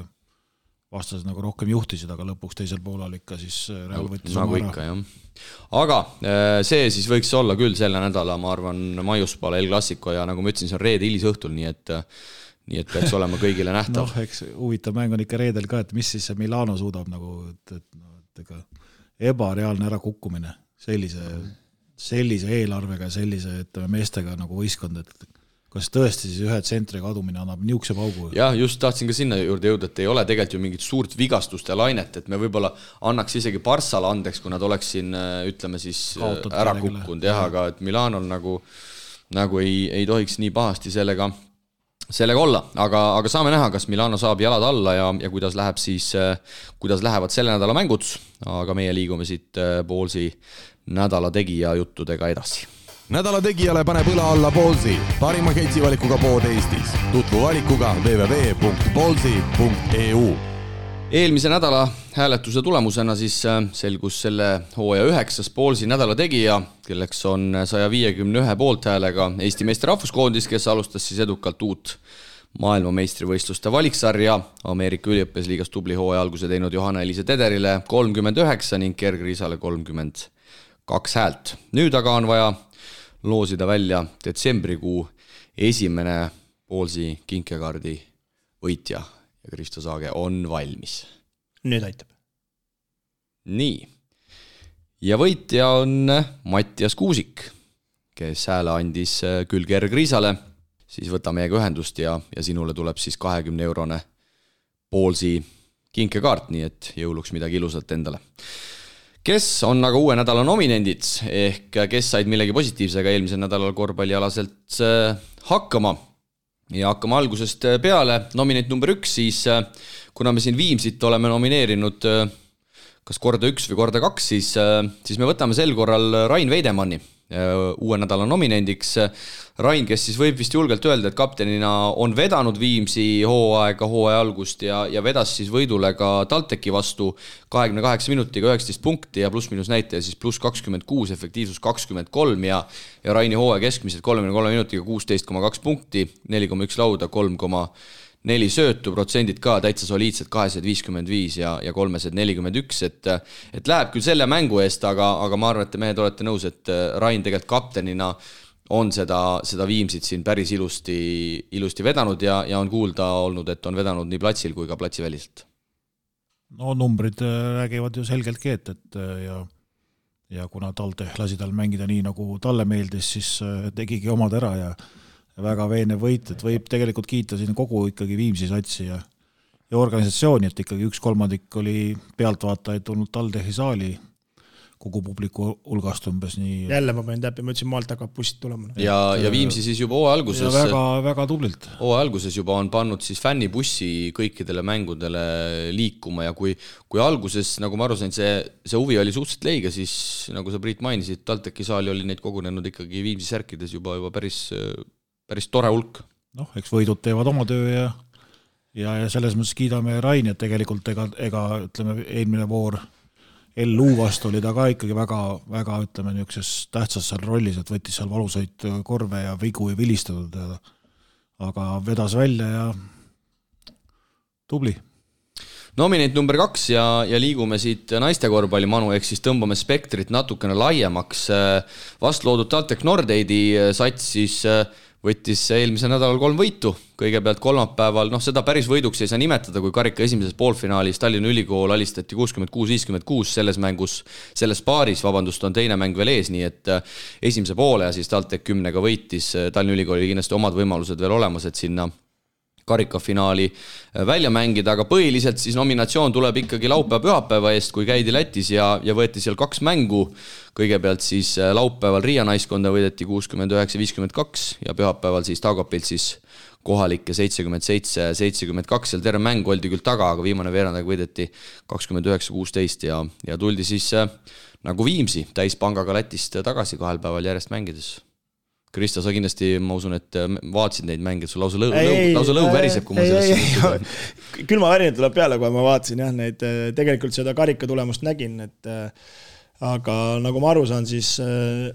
vastased nagu rohkem juhtisid, aga lõpuks teisel poolal ikka siis Real võttis nagu ikka, jah. Aga see siis võiks olla küll selle nädala, ma arvan, maiuspaal El Clasico ja nagu ma ütlesin, see on reede hilisõhtul, nii et peaks olema kõigile nähtav. Eks huvitav mäng on ikka reedel ka, et mis siis see Milano suudab nagu, et ebareaalne ära kukkumine. sellise eelarvega, sellise meestega nagu võistkond, et kas tõesti siis ühe tsentri kadumine annab niukse paugu? Jah, just tahtsin ka sinna juurde jõuda, et ei ole tegelikult ju mingit suurt vigastuste lainet, et me võib-olla annaks isegi Barssale andeks, kui nad oleks siin, ütleme siis ära kukkunud, aga et Milanol nagu ei tohiks nii pahasti sellega olla, aga saame näha, kas Milano saab jalad alla ja kuidas lähevad selle nädala mängud, aga meie liigume siit Ballsi nädala tegija juttudega edasi. Nädala tegijale paneb õla alla Ballsi, parima ketsivalikuga pood Eestis. Tutvu valikuga www.ballsi.eu. Eelmise nädala hääletuse tulemusena siis selgus selle hooaja 9. Ballsi nädala tegija, kelleks on 151 poolthäälega Eesti meeste rahvuskoondis, kes alustas siis edukalt uut maailmameistrivõistluste valiksarja. Ameerika üliõpilasliigas tubli hooaja alguse teinud Johanna-Eliise Tederile 39 ning Gerg Riisale 32 häält. Nüüd aga on vaja loosida välja detsembrikuu esimene Ballsi kinkekaardi võitja ja Kristo Saage on valmis. Nüüd aitab. Nii. Ja võitja on Mattias Kuusik, kes hääle andis küll Gerg Riisale, siis võta meiega ühendust ja sinule tuleb siis 20-eurone Ballsi kinkekaart, nii et jõuluks midagi ilusat endale. Kes on aga uue nädala nominendid ehk kes said millegi positiivsega eelmisel nädalal korvpallialaselt hakkama ja hakkama algusest peale. Nominent number 1 siis, kuna me siin Viimsit oleme nomineerinud kas korda 1 või korda 2, siis me võtame sel korral Rain Veidemanni uue nädala nominendiks. Rain, kes siis võib vist julgelt öelda, et kaptenina on vedanud Viimsi hooaja algust ja vedas siis võidule ka TalTechi vastu 28 minutiga 19 punkti ja pluss-minus näitaja siis pluss 26, efektiivsus 23 ja Raini hooaja keskmiselt 33 minutiga 16,2 punkti, 4,1 lauda, 3,4 söötu, protsendid ka täitsa soliidsed 255 ja 341, et läheb küll selle mängu eest, aga ma arvan, et te mehed olete nõus, et Rain tegelikult kaptenina on seda Viimsit siin päris ilusti vedanud ja on kuulda olnud, et on vedanud nii platsil kui ka platsiväliselt. No numbrid räägivad ju selgeltki, et ja kuna TalTech lasi tal mängida nii, nagu talle meeldis, siis tegigi omad ära ja väga veenev võit, et võib tegelikult kiita siin kogu ikkagi Viimsi satsi ja organisatsiooni, et ikkagi 1/3 oli pealtvaatajaid tulnud TalTechi saali kogu publiku hulgast umbes nii. Jälle ma panin täppi, ma ütlesin maalt hakkab bussid tulema. Ja Viimsi siis juba hooaja alguses. Väga tublilt. Hooaja alguses juba on pannud siis fännibussi kõikidele mängudele liikuma ja kui alguses, nagu ma aru sain, see huvi oli suhteliselt leige, siis nagu sa Priit mainisid, TalTechi saali oli neid kogunenud ikkagi Viimsi särkides juba päris tore hulk. Noh, eks võidud teevad oma töö ja selles mõttes kiidame Raini, et tegelikult ega ütleme, eelmine voor LU vastu oli ta ka ikkagi väga ütleme niukses tähtsas seal rollis, et võttis seal valusaid korve ja vigu ei vilistatud, aga vedas välja ja tubli. Nominent number 2 ja liigume siit naiste korvpalli manu, ehk siis tõmbame spektrit natukene laiemaks. Vastloodud TalTech Nordeidi sats siis võttis eelmisel nädalal 3 võitu. Kõigepealt kolmapäeval, seda päris võiduks ei saa nimetada, kui karika esimeses poolfinaalis Tallinna Ülikool alistati 66-56 selles paaris, on teine mäng veel ees, nii et esimese poole ja siis TalTech 10-ga võitis. Tallinna Ülikool oli kindlasti omad võimalused veel olemas, et sinna karikafinaali välja mängida, aga põhiliselt siis nominatsioon tuleb ikkagi laupäeva-pühapäeva eest, kui käidi Lätis ja võeti seal 2 mängu. Kõigepealt siis laupäeval Riia naiskonda võideti 69-52 ja pühapäeval siis Taugapilt siis kohalikke 77-72, seal terve mäng oldi küll taga, aga viimane veerandaga võideti 29-16 ja tuldi siis nagu Viimsi täispangaga Lätist tagasi 2 päeval järjest mängides. Kristo, sa kindlasti, ma usun, et vaatasid neid mänge, sul lausa lõu väriseb, kui ma sellest külma värinad tuleb peale, kui ma vaatasin neid, tegelikult seda karika tulemust nägin, aga nagu ma aru saan, siis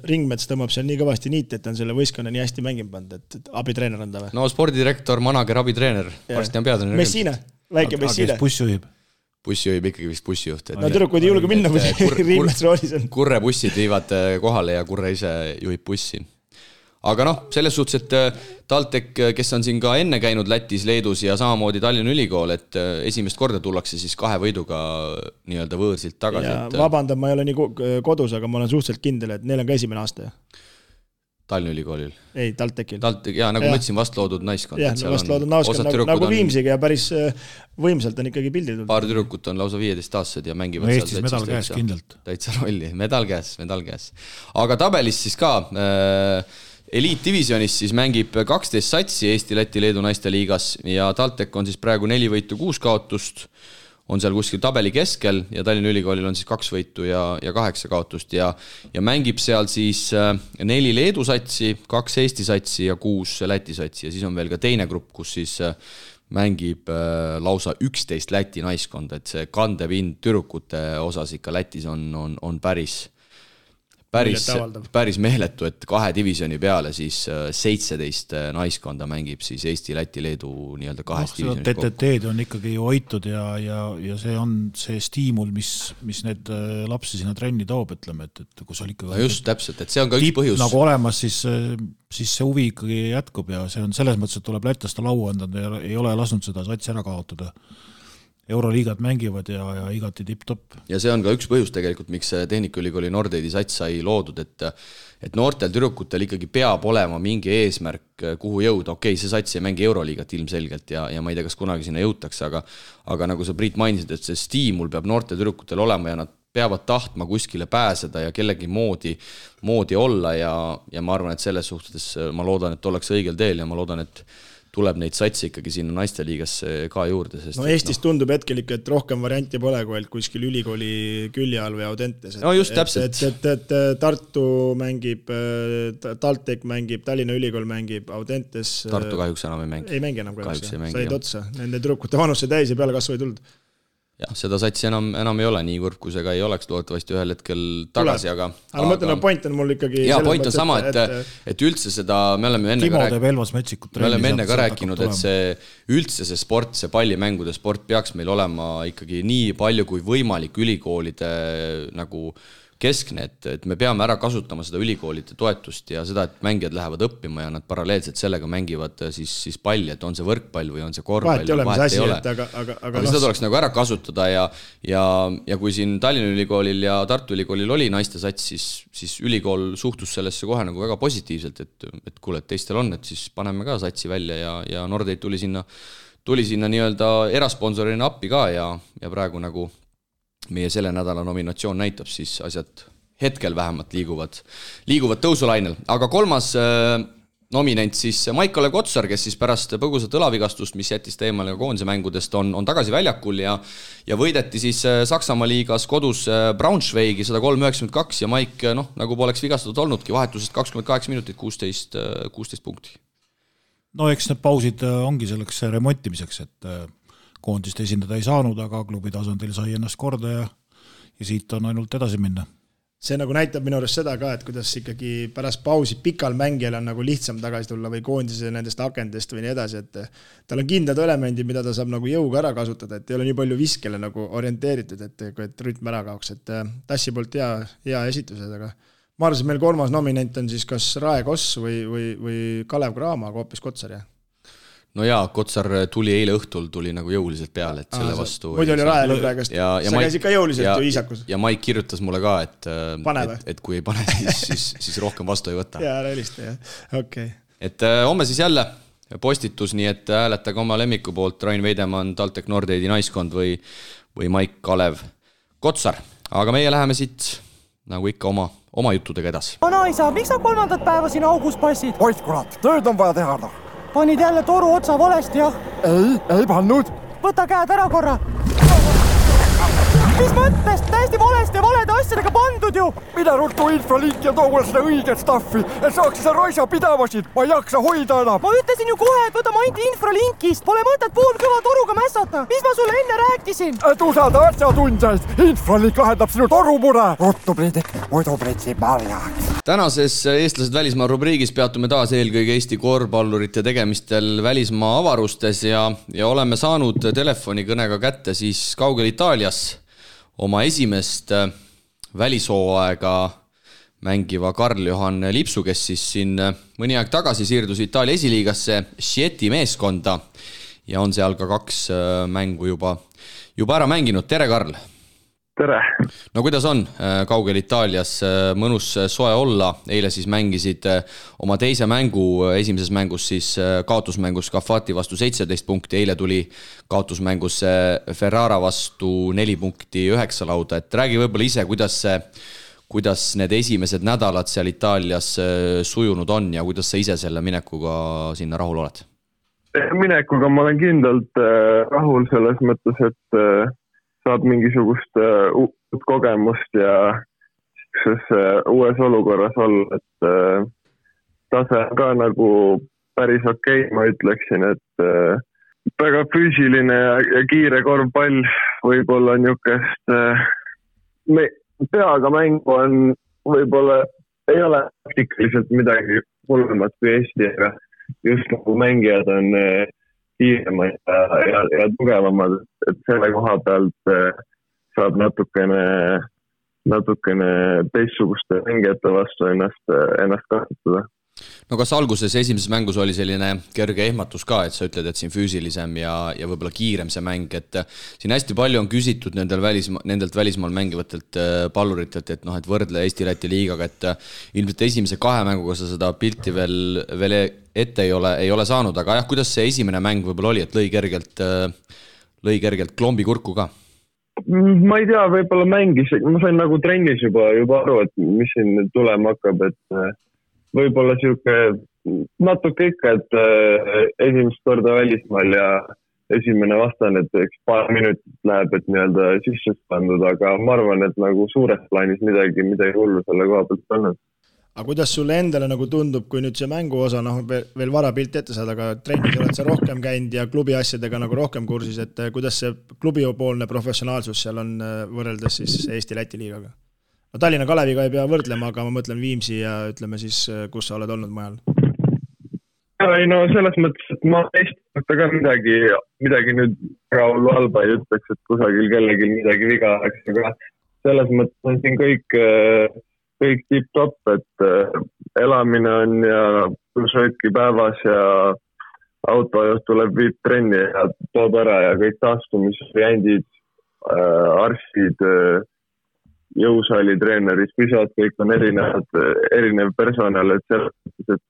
Ringmets tõmbab seal nii kõvasti niiti, et on selle võistkonna nii hästi mängima pandud, et abitreener on ta või? No spordidirektor, manager, abitreener, varsti on peatreener. Messina, väike Messina. Buss juhib ikkagi vist bussijuht. No tüdrukud ei julge minna, kui Ringmets roolis on. Kurre bussid viivad kohale ja Kurre ise juhib bussi. aga noh, selles suhtes, et TalTech, kes on siin ka enne käinud Lätis, Leedus ja samamoodi Tallinna Ülikool, et esimest korda tullakse siis 2 võiduga nii-öelda võõrsilt tagasi. Ja vabandan, ma ei ole nii kodus, aga ma olen suhteliselt kindel, et neil on ka esimene aasta. Tallinna Ülikoolil? Ei, TalTechil. Jaa, nagu ma ütlesin, vastloodud naiskond. Jah, vastloodud naiskond, nagu Viimsiga ja päris võimsalt on ikkagi pildi tulnud. Paar tüdrukut on lausa 15-aastased ja mängivad no, Eestis medal käes kindlalt. Täitsa rolli, medal käes. Aga tabelis siis ka eliitdivisionis siis mängib 12 satsi Eesti, Läti, Leedu naiste liigas ja TalTech on siis praegu 4 võitu 6 kaotust, on seal kuskil tabeli keskel ja Tallinna Ülikoolil on siis 2 võitu ja 8 kaotust ja mängib seal siis 4 Leedu satsi, 2 Eesti satsi ja 6 Läti satsi ja siis on veel ka teine grupp, kus siis mängib lausa 11 Läti naiskonda, et see kandepind tüdrukute osas ikka Lätis on päris meeletu, et 2 divisjoni peale siis 17 naiskonda mängib siis Eesti, Läti, Leedu nii-öelda 2 divisjoni kokku. TTT-d on ikkagi hoitud ja see on see stiimul, mis need lapsi sinna trenni toob, ütleme, et kus oli ikkagi... No just, täpselt, et see on ka üks põhjus. Nagu olemas, siis see huvi ikkagi jätkub ja see on selles mõttes, et tuleb lätlaste lau anda ja ei ole lasknud seda satsi ära kaotada. Euroliigad mängivad ja igati tipp-topp. Ja see on ka üks põhjus tegelikult, miks Tehnikaülikooli Nordeidi sats sai loodud, et noortel tüdrukutel ikkagi peab olema mingi eesmärk, kuhu jõuda. Okei, see sats ei mängi Euroliigat ilmselgelt ja ma ei tea, kas kunagi sinna jõutakse, aga nagu sa Priit mainisid, et see stiimul peab noortel tüdrukutel olema ja nad peavad tahtma kuskile pääseda ja kellegi moodi olla ja ma arvan, et selles suhtes ma loodan, et ollakse õigel teel ja ma loodan, et tuleb neid satsi ikkagi sinna naisteliigasse ka juurde. Sest no Eestis tundub hetkel ikka, et rohkem varianti pole, kui kuskil ülikooli külje all või Audentes. No just täpselt. Et Tartu mängib, TalTech mängib, Tallinna Ülikool mängib, Audentes... Tartu kahjuks enam ei mängi. Ei mängi enam kahjuks. Said otsa. Nende tüdrukute vanuse täis ja peale kasvu ei tulnud. Jah, seda satsi enam ei ole nii kurb, kui see ka ei oleks loodetavasti ühel hetkel tagasi, aga ma mõtlen, point on mul ikkagi... Jaa, point on sama, et üldse seda, me oleme enne ka rääkinud, et see üldse see sport, see pallimängude sport peaks meil olema ikkagi nii palju kui võimalik ülikoolide nagu keskne, et me peame ära kasutama seda ülikoolide toetust ja seda, et mängijad lähevad õppima ja nad paralleelselt sellega mängivad siis palli, et on see võrkpall või on see korvpall. Vahet ei ole, aga seda tuleks nagu ära kasutada ja kui siin Tallinna Ülikoolil ja Tartu Ülikoolil oli naiste sats, siis ülikool suhtus sellesse kohe nagu väga positiivselt, et kuule, et teistel on, et siis paneme ka satsi välja ja Nordeid tuli sinna nii-öelda erasponsorina appi ka ja praegu nagu meie selle nädala nominatsioon näitab, siis asjad hetkel vähemalt liiguvad tõusulainel. Aga 3. nominent siis Maik-Kalev Kotsar, kes siis pärast põgusat õlavigastust, mis jättis teemale koondise mängudest, on tagasi väljakul ja võideti siis Saksamaa liigas kodus Braunschweigi 103-92 ja Maik, nagu poleks vigastatud olnudki, vahetusest 28 minutit, 16 punkti. No eks need pausid ongi selleks remontimiseks, et koondist esindada ei saanud, aga klubi tasandil sai ennast korda ja siit on ainult edasi minna. See nagu näitab minu arust seda ka, et kuidas ikkagi pärast pausi pikal mängijal on nagu lihtsam tagasi tulla või koondise nendest akendest või nii edasi, et tal on kindlad elemendid, mida ta saab nagu jõuga ära kasutada, et ei ole nii palju viskele nagu orienteeritud, et rütm ära kaoks, et Tassi poolt hea esitused, aga ma arvan, et meil 3. nominent on siis kas Rae Koss või Kalev Cramo, aga hoopis Kotsar, jah. No jaa, Kotsar tuli eile õhtul nagu jõuliselt peale, et selle vastu... Muidu oli Rae praegast, sa käisid ka jõuliselt ju Iisakus. Ja Maik kirjutas mulle ka, et kui ei pane, siis rohkem vastu ei võta. Jaa, realista, jah. Okay. Et homme siis jälle postitus, nii et hääletage oma lemmiku poolt Rain Veidemann, TalTech Nordeidi naiskond või Maik-Kalev Kotsar. Aga meie läheme siit nagu ikka oma juttudega edasi. Naisa, miks sa 3. päeva siin augus passid? Ois kurat, tööd on vaja teha. Panid jälle toru otsa valesti, jah? Ei pannud. Võta käed ära korra. Mis mõttes? Täiesti valesti ja valede asjadega pandud ju. Mida ruttu infralink ja toole seda õiget staffi, et saaks seda raisa pidavasid. Ma ei jaksa hoida enam. Ma ütlesin ju kohe, et võta mainti infralinkist. Pole mõtet poolkõva toruga mässata. Mis ma sulle enne rääkisin? Et usada asjatundjaid. Infralink lahendab sinu torumure. Ruttu Priidik, muidu pritsi marjaks. Tänases Eestlased välismaa rubriigis peatume taas eelkõige Eesti korvpallurite tegemistel välismaa avarustes ja oleme saanud telefonikõnega kätte siis kaugel Itaalias oma esimest välishooaega mängiva Karl-Johan Lipsu, kes siis siin mõni aeg tagasi siirdus Itaalia esiliigasse Schieti meeskonda ja on seal ka 2 mängu juba ära mänginud. Tere, Karl! Tere! No kuidas on kaugel Itaalias? Mõnus soe olla. Eile siis mängisid oma teise mängu, esimeses mängus siis kaotusmängus Cafati vastu 17 punkti. Eile tuli kaotusmängus Ferrara vastu 4 punkti 9 lauda. Et räägi võib-olla ise, kuidas need esimesed nädalad seal Itaalias sujunud on ja kuidas sa ise selle minekuga sinna rahul oled? Minekuga ma olen kindlalt rahul selles mõttes, et saab mingisugust uut kogemust ja uues olukorras olla, et tase on ka nagu päris okei, ma ütleksin, et väga füüsiline ja kiire korvpall võib-olla niisugust peaga mängu on võib-olla ei ole praktikaliselt midagi hullemat kui Eesti, aga just nagu mängijad on kiiremad ja tugevamad, et selle koha pealt saab natukene teistsuguste mängijate vastu ennast kasutada. No kas alguses esimeses mängus oli selline kerge ehmatus ka, et sa ütled, et siin füüsilisem ja võib-olla kiirem see mäng, et siin hästi palju on küsitud nendelt välismaal mängivatelt palluritelt, et et võrdle Eesti-Läti liigaga, et ilmselt esimese 2 mänguga sa seda pilti veel ette ei ole saanud, aga jah, kuidas see esimene mäng võib-olla oli, et lõi kergelt klombi kurku ka? Ma ei tea, võib-olla mängis, ma sain nagu trennis juba aru, et mis siin tulema hakkab, et võib-olla natuke ikka, et esimest korda välismaal ja esimene vastane, et paar minutit läheb, et nii-öelda sisse pandud, aga ma arvan, et nagu suures plaanis midagi hullu selle koha pealt olnud. Aga kuidas sulle endale nagu tundub, kui nüüd see mängu osa, veel vara pilt ette saada, aga trennis oled sa rohkem käinud ja klubi asjadega nagu rohkem kursis, et kuidas see klubipoolne professionaalsus seal on võrreldes siis Eesti-Läti liigaga? No Tallinna Kaleviga ei pea võrdlema, aga ma mõtlen Viimsi ja ütleme siis, kus sa oled olnud majal. Ei no selles mõttes, et ma Eesti ka midagi nüüd rahullu halba ei ütleks, et kusagil kellelgi midagi viga oleks, aga selles mõttes on siin kõik tipp-top, et elamine on ja sööki päevas ja autojuht tuleb viib trenni ja toob ära ja kõik taastumisvariandid, arstid, jõusaali treenerid, pisad, kõik on erinev personal, et selles, et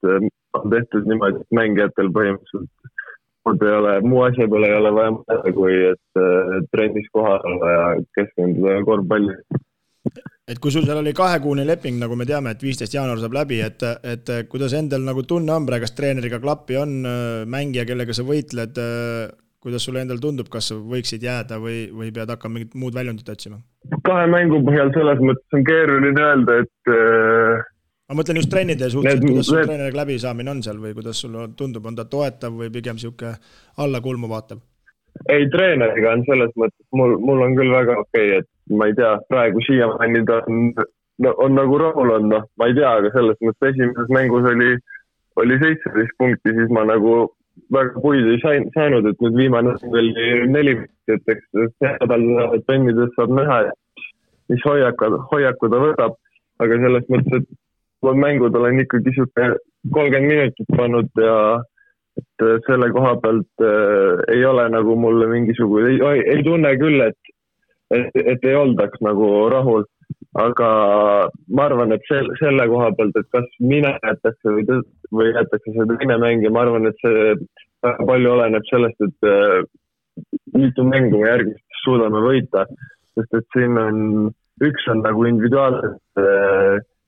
on tehtud niimoodi, et mängijatel põhimõtteliselt muu asja peale ei ole vaja mõelda, kui et trennis kohal olla ja keskenduda korvpalli. Et kui sul seal oli 2-kuune leping, nagu me teame, et 15. jaanuar saab läbi, et kuidas endal nagu tunne on, kas treeneriga klappi on mängija, kellega sa võitled, kuidas sulle endal tundub, kas võiksid jääda või pead hakkama mingit muud väljundit otsima? 2 mängu põhjal selles mõttes on keeruline öelda, et ma mõtlen just treenide suhtes, kuidas sul treeneriga läbi saamine on seal või kuidas sulle tundub, on ta toetav või pigem siuke alla kulmu vaatav? Ei, treeneriga on selles mõttes, mul on küll väga okei, et ma ei tea, praegu siiamaani ta on nagu rahul on, ma ei tea, aga selles mõttes esimeses mängus oli 17 punkti, siis ma nagu väga puid ei saanud, et nüüd viimane oli 4 punkti, et eks see nädal pennides saab näha, mis hoiaku ta võtab, aga selles mõttes, et mängud olen ikkagi 30 minutit pannud ja et selle koha pealt ei ole nagu mulle mingisugune, ei tunne küll, et ei oldaks nagu rahul, aga ma arvan, et selle koha pealt, et kas mina jätakse või jätakse see teine mäng ja ma arvan, et see väga palju oleneb sellest, et mitu mängu me järgmist suudame võita, sest et siin üks on nagu individuaalselt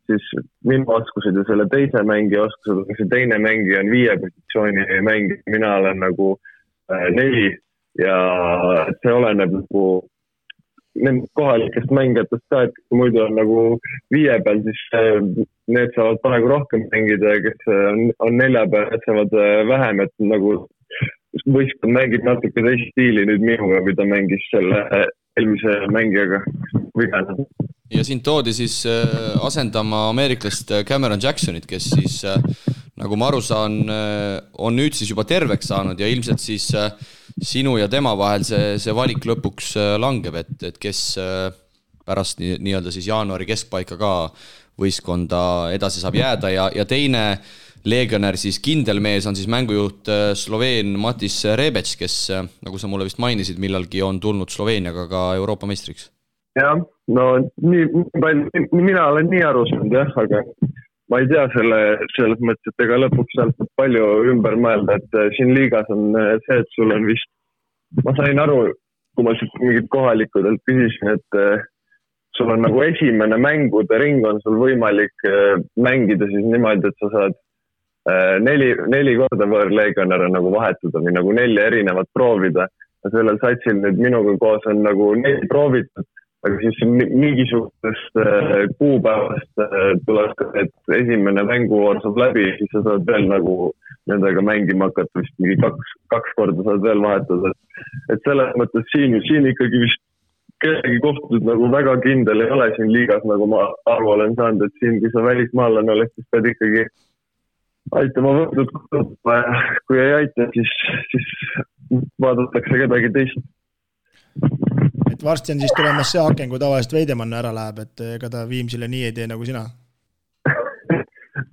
siis minu oskused ja selle teise mängija oskused, aga see teine mängija on 5 positsiooni mängija, mina olen nagu 4 ja see oleneb nagu nendest kohalikest mängijatest ka, et muidu on nagu 5 peal, siis need saavad praegu rohkem mängida ja kes on 4 peal, need saavad vähem, et nagu võistkond mängib natuke teist stiili nüüd minuga, kui ta mängis selle eelmise mängijaga vigana. Ja siin toodi siis asendama ameeriklast Cameron Jacksonit, kes siis, nagu ma aru saan, on nüüd siis juba terveks saanud ja ilmselt siis sinu ja tema vahel see valik lõpuks langeb, et kes pärast nii-öelda siis jaanuari keskpaika ka võistkonda edasi saab jääda ja teine legionär, siis kindel mees on siis mängujuht Sloveen Matis Rebec, kes, nagu sa mulle vist mainisid, millalgi on tulnud Sloveeniaga ka Euroopa meistriks. Jah, no mina olen nii aru saanud, jah, aga ma ei tea selles mõttes, et ega lõpuks sealt palju ümber mõelda, et siin liigas on see, et sul on vist, ma sain aru, kui ma mingid kohalikudelt küsisin, et sul on nagu esimene mängude ring on sul võimalik mängida siis niimoodi, et sa saad neli korda võõrlegionäre nagu vahetada või nagu 4 erinevat proovida. Ja sellel satsil nüüd minuga koos on nagu 4 proovitud, aga siis mingisugustest kuupäevast tuleb, et esimene mänguvoor saab läbi, siis sa saad veel nagu nendega mängima hakata, vist mingi 2 korda saad veel vahetada. Et selles mõttes siin ikkagi vist kellegi kohtud nagu väga kindel ei ole siin liigas, nagu ma aru olen saanud, et siin, kui sa välismaalane oled, siis pead ikkagi aitama võrdud, kui ei aita, siis vaadatakse kedagi teist. Et varsti on siis tulemas see aken, kui tavaliselt Veidemann ära läheb, et ega ta Viimsile nii ei tee nagu sina.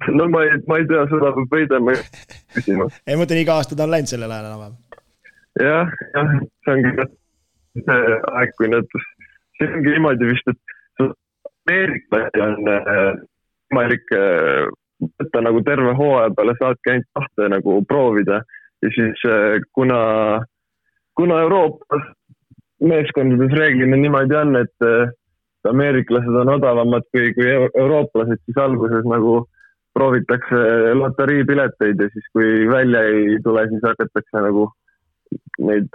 No ma ei tea, seda peab Veidemann küsima. Ei mõtlen, iga aasta ta on läinud sellel ajal enam. Jah, see ongi see aeg, kui see ongi niimoodi vist, et Ameeriklasi on võimalik võtta nagu terve hooaja peale saadki ainult 2 nagu proovida ja siis kuna Euroopas meeskondades reeglina niimoodi on, et ameeriklased on odavamad kui eurooplased, siis alguses nagu proovitakse loteriipileteid ja siis kui välja ei tule, siis hakatakse nagu neid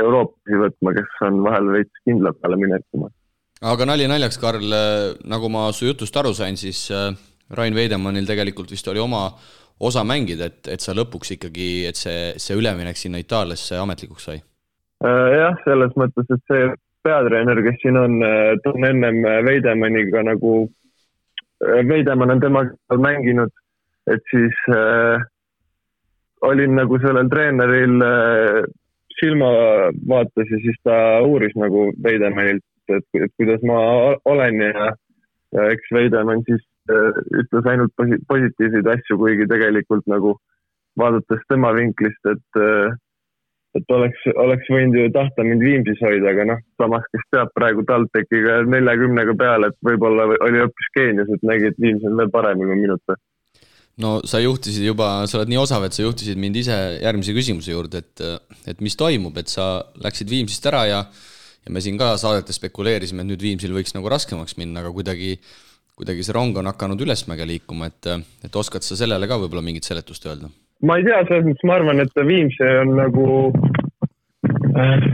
eurooplasi võtma, kes on vahel veits kindla peale minekuma. Aga naljaks, Karl, nagu ma su jutust aru sain, siis Rain Veidemannil tegelikult vist oli oma osa mängida, et sa lõpuks ikkagi, et see üleminek sinna Itaaliasse ametlikuks sai? Jah, selles mõttes, et see peatreener, kes siin on ennem Veidemanniga nagu, Veidemann on temaga mänginud, et siis olin nagu sellel treeneril silmavaates ja siis ta uuris nagu Veidemannilt, et kuidas ma olen ja eks Veidemann siis ütles ainult positiivseid asju, kuigi tegelikult nagu vaadates tema vinklist, et oleks võinud ju tahta mind Viimsis hoida, aga samas, kes teab praegu TalTechiga 40 peale, et võib-olla oli hoopis Keenias, et nägi, et Viims on veel paremini minuta. No sa juhtisid juba, sa oled nii osav, et sa juhtisid mind ise järgmise küsimuse juurde, et mis toimub, et sa läksid Viimsist ära ja me siin ka saadetes spekuleerisime, et nüüd Viimsil võiks nagu raskemaks minna, aga kuidagi see rong on hakanud ülesmäge liikuma, et oskad sa sellele ka võib-olla mingit seletust öelda? Ma ei tea, selles mõttes ma arvan, et Viimse on nagu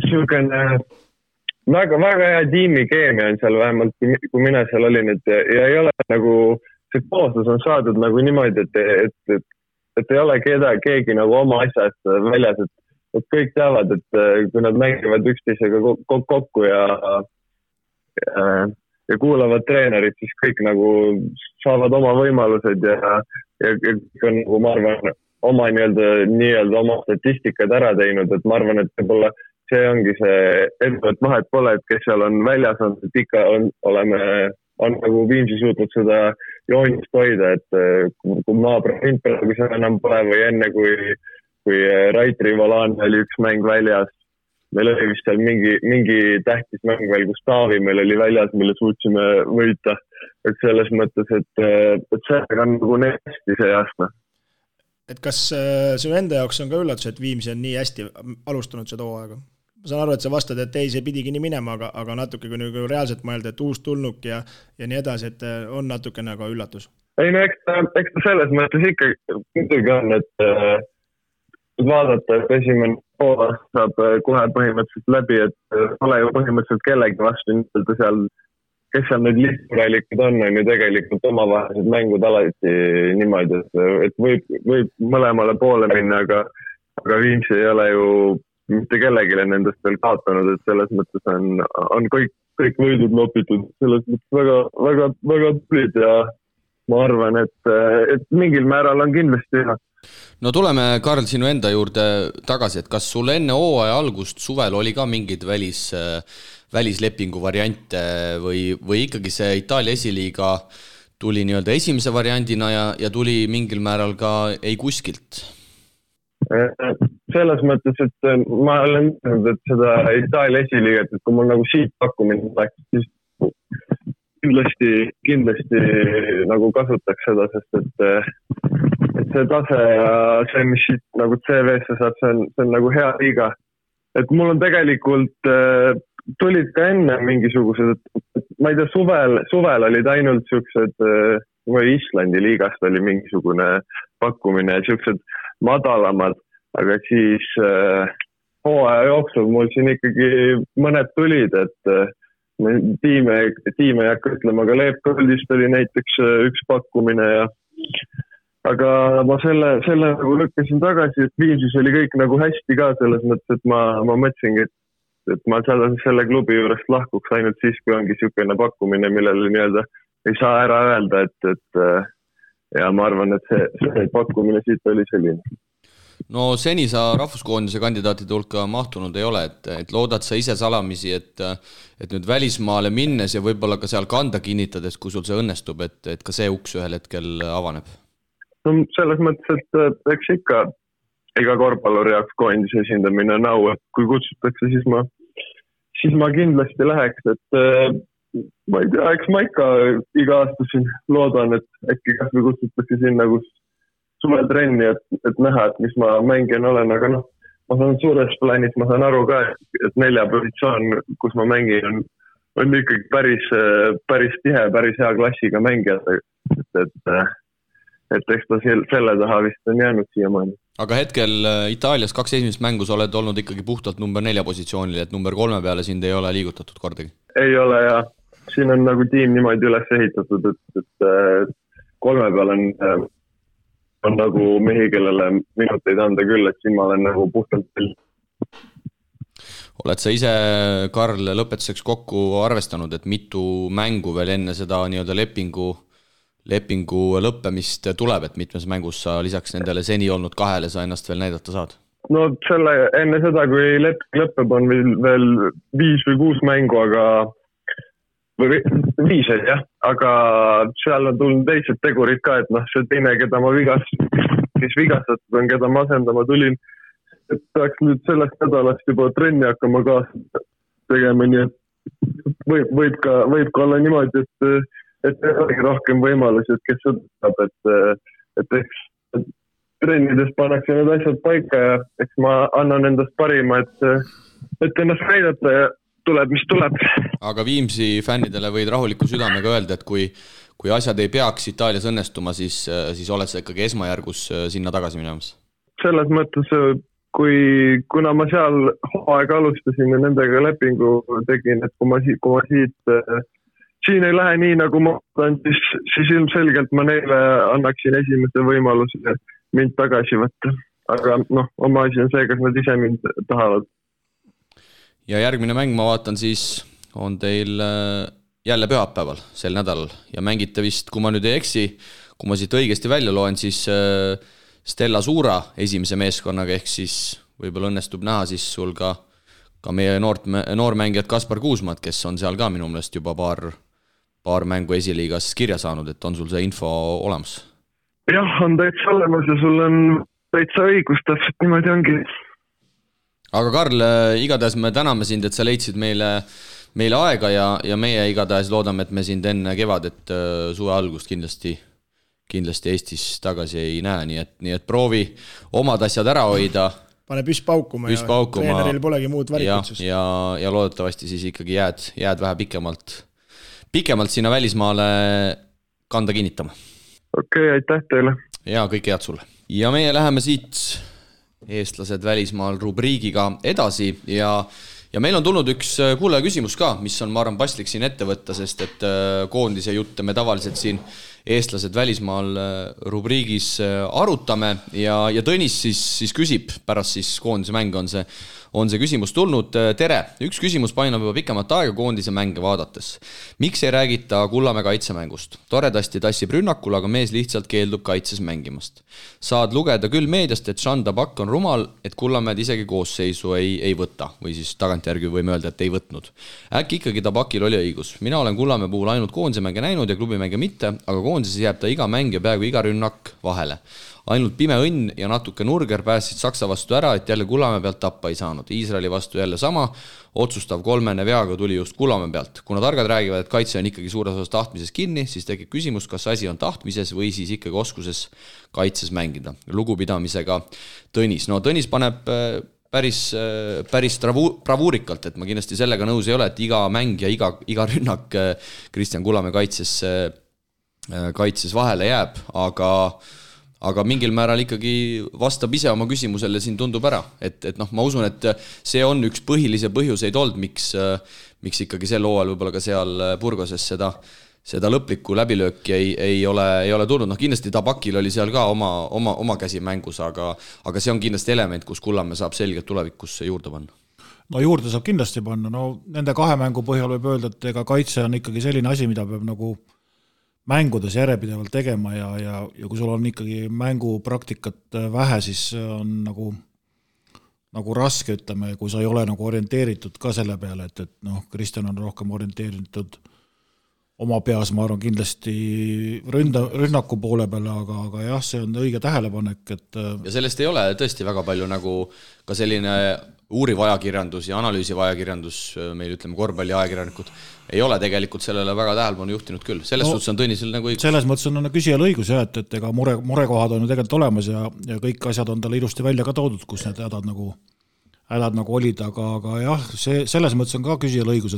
selline väga hea tiimikeemia on seal vähemalt, kui mina seal olin, ja ei ole nagu, see kooslus on saadud nagu niimoodi, et ei ole keegi nagu oma asjast väljas, et kõik teavad, et kui nad mängivad üksteisega kokku ja kuulavad treenerid, siis kõik nagu saavad oma võimalused ja kõik on nagu, ma arvan, oma nii-öelda oma statistikad ära teinud, et ma arvan, et võib-olla see ongi see edu, et vahet pole, et kes seal on väljas, et ikka on nagu Viimsi suutnud seda joonist hoida, et kui naabrid praegu seal enam pole või enne, kui Raitri Volane oli üks mäng väljas, meil oli vist seal mingi tähtis mäng veel, kus Taavi meil oli väljas, mille suutsime võita. Et selles mõttes, et see on nagu nii hästi see aasta. Et kas sinu enda jaoks on ka üllatus, et Viimsi on nii hästi alustanud seda hooaega? Ma saan aru, et sa vastad, et ei, see pidigi nii minema, aga natuke kui nagu reaalselt mõelda, et uus tulnuk ja nii edasi, et on natuke nagu üllatus. Ei, no eks ta selles mõttes ikkagi on, et vaadata, et esimene pool saab kohe põhimõtteliselt läbi, et ole ju põhimõtteliselt kellegi vastu nii-öelda seal, kes seal nüüd lihtsuralikud on ju tegelikult omavahelised mängud alati niimoodi, et võib mõlemale poole minna, aga Viimsi ei ole ju mitte kellegile nendest veel kaotanud, et selles mõttes on kõik võidud nopitud, selles mõttes väga tulid ja ma arvan, et mingil määral on kindlasti ühe. No tuleme, Karl, sinu enda juurde tagasi, et kas sul enne hooaja algust suvel oli ka mingid välislepingu variante või ikkagi see Itaalia esiliiga tuli nii-öelda esimese variandina ja tuli mingil määral ka ei kuskilt? Selles mõttes, et ma olen mõelnud, et seda Itaalia esiliiget, et kui mul nagu siit pakkumine läks, siis kindlasti nagu kasutaks seda, sest et see tase ja see, mis siit nagu CV-sse saab, see on nagu hea liiga. Et mul on tegelikult tulid ka enne mingisugused, ma ei tea, suvel olid ainult siuksed, või Islandi liigast oli mingisugune pakkumine ja siuksed madalamad, aga siis hooaja jooksul mul siin ikkagi mõned tulid, et tiime ei hakka ütlema, aga Leepkoldist oli näiteks üks pakkumine aga ma selle nagu lükkasin tagasi, et Viimsis oli kõik nagu hästi ka selles mõttes, et ma mõtlesingi, et ma selle klubi juurest lahkuks ainult siis, kui ongi niisugune pakkumine, millele nii-öelda ei saa ära öelda, et ja ma arvan, et see pakkumine siit oli selline. No seni sa rahvuskoondise kandidaatide hulka mahtunud ei ole, et loodad sa ise salamisi, et nüüd välismaale minnes ja võib-olla ka seal kanda kinnitades, kui sul see õnnestub, et ka see uks ühel hetkel avaneb? No selles mõttes, et eks ikka iga korvpalluri jaoks koondise esindamine on au, et kui kutsutakse, siis ma kindlasti läheks, et ma ei tea, eks ma ikka iga aasta siin loodan, et äkki kas või kutsutakse sinna, kus suvetrenni, et näha, et mis ma mängin olen, aga ma saan suures plaanis, ma saan aru ka, et 4 positsioon, kus ma mängin, on ikkagi päris tihe, päris hea klassiga mängijad, et eks ta selle taha vist on jäänud siiamaani. Aga hetkel Itaalias 2 esimest mängus oled olnud ikkagi puhtalt number 4 positsioonil, et number 3 peale sind ei ole liigutatud kordagi? Ei ole ja siin on nagu tiim niimoodi üles ehitatud, et 3 peal on nagu mehi, kellele minuteid anda küll, et siin ma olen nagu puhtalt veel. Oled sa ise, Karl, lõpetuseks kokku arvestanud, et mitu mängu veel enne seda nii-öelda lepingu lõppemist tuleb, et mitmes mängus sa lisaks nendele seni olnud 2 sa ennast veel näidata saad? No enne seda, kui leping lõpeb, on veel 5 või 6 mängu, või 5, jah, aga seal on tulnud teised tegurid ka, et see teine, keda ma vigastatud on, keda ma asendama tulin, et peaks nüüd sellest nädalast juba trenni hakkama kaasa tegema, nii et võib ka olla niimoodi, et ei olegi rohkem võimalusi, et kes seda saab, et eks trennides pannakse need asjad paika ja eks ma annan endast parima, et ennast näidata ja tuleb, mis tuleb. Aga Viimsi fännidele võid rahuliku südamega öelda, et kui asjad ei peaks Itaalias õnnestuma, siis oled sa ikkagi esmajärgus sinna tagasi minemas? Selles mõttes, kuna ma seal hooaega alustasin ja nendega lepingu tegin, et kui ma siin ei lähe nii, nagu ma olen, siis ilmselgelt ma neile annaksin esimese võimaluse mind tagasi võtta. Aga oma asi on see, kas nad ise mind tahavad. Ja järgmine mäng, ma vaatan, siis on teil jälle pühapäeval sel nädalal ja mängite vist, kui ma nüüd ei eksi, kui ma siit õigesti välja loen, siis Stella Suura esimese meeskonnaga, ehk siis võib-olla õnnestub näha siis sul ka meie noormängijad Kaspar Kuusmaad, kes on seal ka minu meelest juba paar mängu esiliigas kirja saanud, et on sul see info olemas? Jah, on täitsa olemas ja sul on täitsa õigus, täpselt niimoodi ongi. Aga Karl, igatahes me täname sind, et sa leidsid meile aega ja meie igatahes loodame, et me sind enne kevadet suve algust kindlasti Eestis tagasi ei näe, nii et proovi omad asjad ära hoida. Pane püss paukuma ja treeneril polegi muud varikutsust. Ja loodetavasti siis ikkagi jääd vähe pikemalt sinna välismaale kanda kinnitama. Okei, aitäh teile. Ja kõike head sulle. Ja meie läheme siit eestlased välismaal rubriigiga edasi ja meil on tulnud üks kuulaja küsimus ka, mis on, ma arvan, paslik siin ette võtta, sest et koondise jutte me tavaliselt siin eestlased välismaal rubriigis arutame ja Tõnis siis küsib, pärast siis koondise mänge on see küsimus tulnud. Tere, üks küsimus painab juba pikemat aega koondise mänge vaadates. Miks ei räägita Kullamäe kaitsemängust? Toredasti tassib rünnakul, aga mees lihtsalt keeldub kaitses mängimast. Saad lugeda küll meediast, et Jean Tabak on rumal, et Kullamäed isegi koosseisu ei võta, või siis tagantjärgi võime öelda, et ei võtnud. Äkki ikkagi Tabakil oli õigus. Mina olen Kullamäe puhul ainult koondise mänge näinud ja klubimänge mitte, aga koondises jääb ta iga mäng ja peaaegu iga rünnak vahele. Ainult pime õnn ja natuke nurger päästsid Saksa vastu ära, et jälle Kullamäe pealt tappa ei saanud. Iisraeli vastu jälle sama, otsustav kolmene veaga tuli just Kullamäe pealt. Kuna targad räägivad, et kaitse on ikkagi suures osas tahtmises kinni, siis tekib küsimus, kas asi on tahtmises või siis ikkagi oskuses kaitses mängida. Lugupidamisega Tõnis. No Tõnis paneb päris bravuurikalt, et ma kindlasti sellega nõus ei ole, et iga mäng ja iga rünnak Kristjan Kullamäe kaitses vahele jääb, aga mingil määral ikkagi vastab ise oma küsimusele, siin tundub ära, et ma usun, et see on üks põhilisi põhjuseid olnud, miks ikkagi sel hooajal võib-olla ka seal Burgoses seda lõplikku läbilööki ei ole tulnud. Kindlasti Tabakil oli seal ka oma käsi mängus, aga see on kindlasti element, kus Kullamäe saab selgelt tulevikus juurde panna. No juurde saab kindlasti panna, nende 2 mängu põhjal võib öelda, et ega kaitse on ikkagi selline asi, mida peab nagu mängudes järjepidevalt tegema ja kui sul on ikkagi mängupraktikat vähe, siis on nagu raske, ütleme, kui sa ei ole nagu orienteeritud ka selle peale, et Kristjan on rohkem orienteeritud oma peas, ma arvan, kindlasti rünnaku poole peale, aga jah, see on õige tähelepanek, et ja sellest ei ole tõesti väga palju nagu ka selline uuriv ajakirjandus ja analüüsiv ajakirjandus, meil ütleme korvpalli ajakirjanikud, ei ole tegelikult sellele väga tähelepanu juhtinud küll. Selles suhtes on Tõnisel nagu õigus. Selles mõttes on küsijal õigus, et ega murekohad on ju tegelikult olemas ja kõik asjad on talle ilusti välja ka toodud, kus need hädad nagu olid, aga jah, selles mõttes on ka küsijal õigus,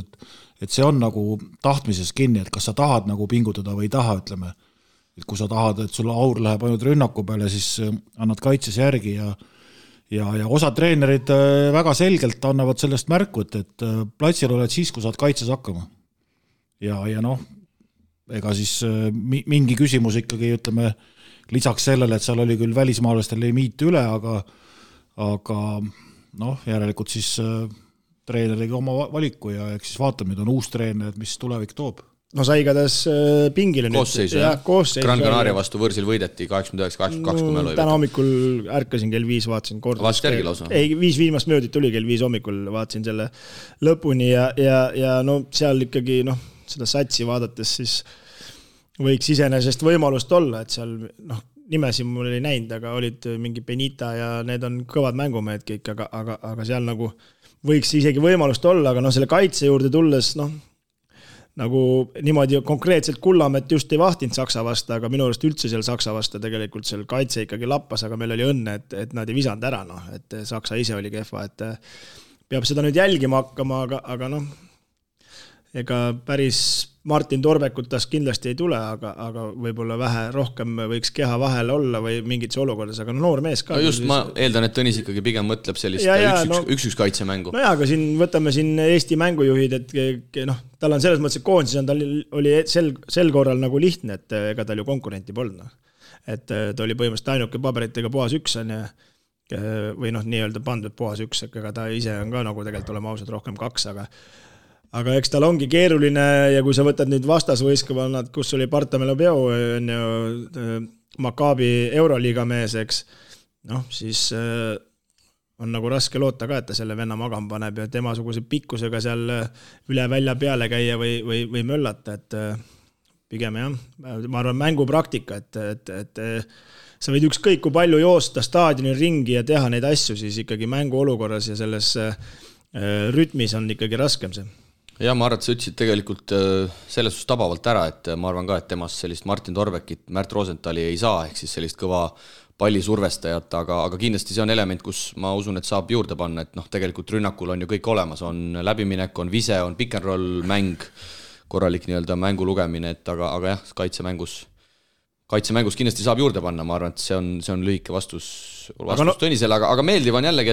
et see on nagu tahtmises kinni, et kas sa tahad nagu pingutada või ei taha, ütleme. Et kui sa tahad, et sul aur läheb ainult rünnaku peale, siis annad kaitses järgi ja osa treenerid väga selgelt annavad sellest märku, et platsil oled siis, kui saad kaitses hakkama. Ja ega siis mingi küsimus ikkagi, ütleme, lisaks sellele, et seal oli küll välismaalastel limiit üle, aga järelikult siis treener tegi oma valiku ja eks siis vaatame, nüüd on uus treener, mis tulevik toob. No sa igatahes pingile koosseisu, Gran Canaria vastu võrsil võideti 89-82, kui me lõi. Täna hommikul ärkasin kell 5, vaatasin kord. Vaatsid järgi lausa? Ei, 5 viimast möödit tuli kell 5 hommikul, vaatasin selle lõpuni ja seal ikkagi seda satsi vaadates siis võiks iseenesest võimalust olla, et seal nimesi mul ei näinud, aga olid mingi Benita ja need on kõvad mängumehed kõik, aga seal nagu võiks isegi võimalust olla, aga selle kaitse juurde tulles nagu niimoodi konkreetselt Kullamäed just ei vahtinud Saksa vasta, aga minu arust üldse seal Saksa vasta tegelikult seal kaitse ikkagi lappas, aga meil oli õnne, et nad ei visanud ära, et Saksa ise oli kehva, et peab seda nüüd jälgima hakkama, aga ega päris Martin Torbekut tast kindlasti ei tule, aga võib-olla vähe rohkem võiks keha vahel olla või mingites olukordades, aga noor mees ka. No just, ma eeldan, et Tõnis ikkagi pigem mõtleb sellist üks kaitsemängu. No aga võtame siin Eesti mängujuhid, et tal on selles mõttes, et koondises tal oli sel korral nagu lihtne, et ega tal ju konkurenti polnud. Et ta oli põhimõtteliselt ainuke paberitega puhas üks või nii-öelda pandud puhas üks, ega ta ise on ka nagu tegelikult olema ausad rohkem 2, aga eks tal ongi keeruline ja kui sa võtad nüüd vastasvõistkonnad, kus oli Partamelo Peo, Maccabi Euroliiga mees, eks, siis on nagu raske loota ka, et ta selle venna magama paneb ja temasuguse pikkusega seal üle välja peale käia või möllata, et pigem jah, ma arvan mängupraktika, et sa võid ükskõik kui palju joosta staadioni ringi ja teha neid asju, siis ikkagi mängu olukorras ja selles rütmis on ikkagi raskem see. Ja ma arvan, et sa ütlesid tegelikult selles suhtes tabavalt ära, et ma arvan ka, et temast sellist Martin Torbekit, Märt Rosenthali ei saa, ehk siis sellist kõva pallisurvestajat, aga kindlasti see on element, kus ma usun, et saab juurde panna, et tegelikult rünnakul on ju kõik olemas, on läbiminek, on vise, on pick and roll mäng, korralik nii-öelda mängu lugemine, aga jah, kaitsemängus kindlasti saab juurde panna, ma arvan, et see on lühike vastus Tõnisele, aga meeldiv on jällegi,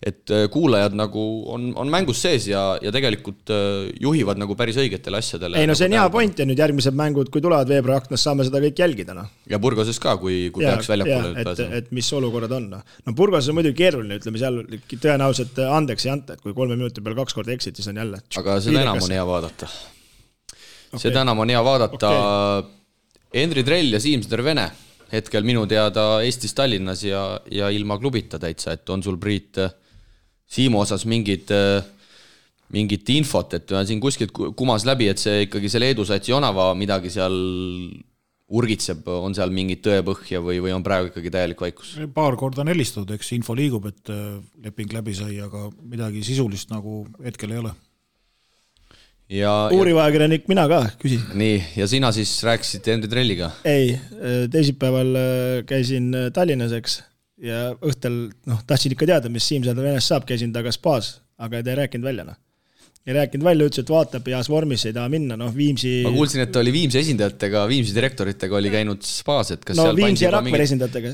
et kuulajad nagu on mängus sees ja tegelikult juhivad nagu päris õigetele asjadele. Ei, see on hea point ja nüüd järgmised mängud, kui tulevad veebruaraknas, saame seda kõik jälgida. Ja Burgoses ka, kui peaks väljapoole pääsema. Et mis olukorrad on. No Burgoses on muidugi keeruline, ütleme seal tõenäoliselt andeks ei anta, et kui 3 minuti peal 2 korda exit, siis on jälle. Aga seda enam on hea vaadata. Seda enam on hea vaadata. Henri Trell ja Siim Stervene hetkel minu teada Eestis Tallinnas ja ilma klubita täitsa, et on sul Priit Siimu osas mingit infot, et siin kuskilt kumas läbi, et see ikkagi selle Edu Satsi Jonava midagi seal urgitseb, on seal mingit tõepõhja või on praegu ikkagi täielik vaikus? Paar korda on helistatud, eks info liigub, et leping läbi sai, aga midagi sisulist nagu hetkel ei ole. Uurivajakirjanik mina ka, küsi. Nii, ja sina siis rääkisid Henri Trelliga? Ei, teisipäeval käisin Tallinnas, eks, ja õhtel, tahtsin ikka teada, mis Siim-Sõda Venest saab, käisin taga spaas, aga ei rääkinud välja, Ei rääkinud välja, ütles, et vaatab heas vormis, ei taha minna, Viimsi... Ma kuulsin, et oli Viimsi esindajatega, Viimsi direktoritega oli käinud spaas, et kas seal Viimsi ja Rakvere esindajatega.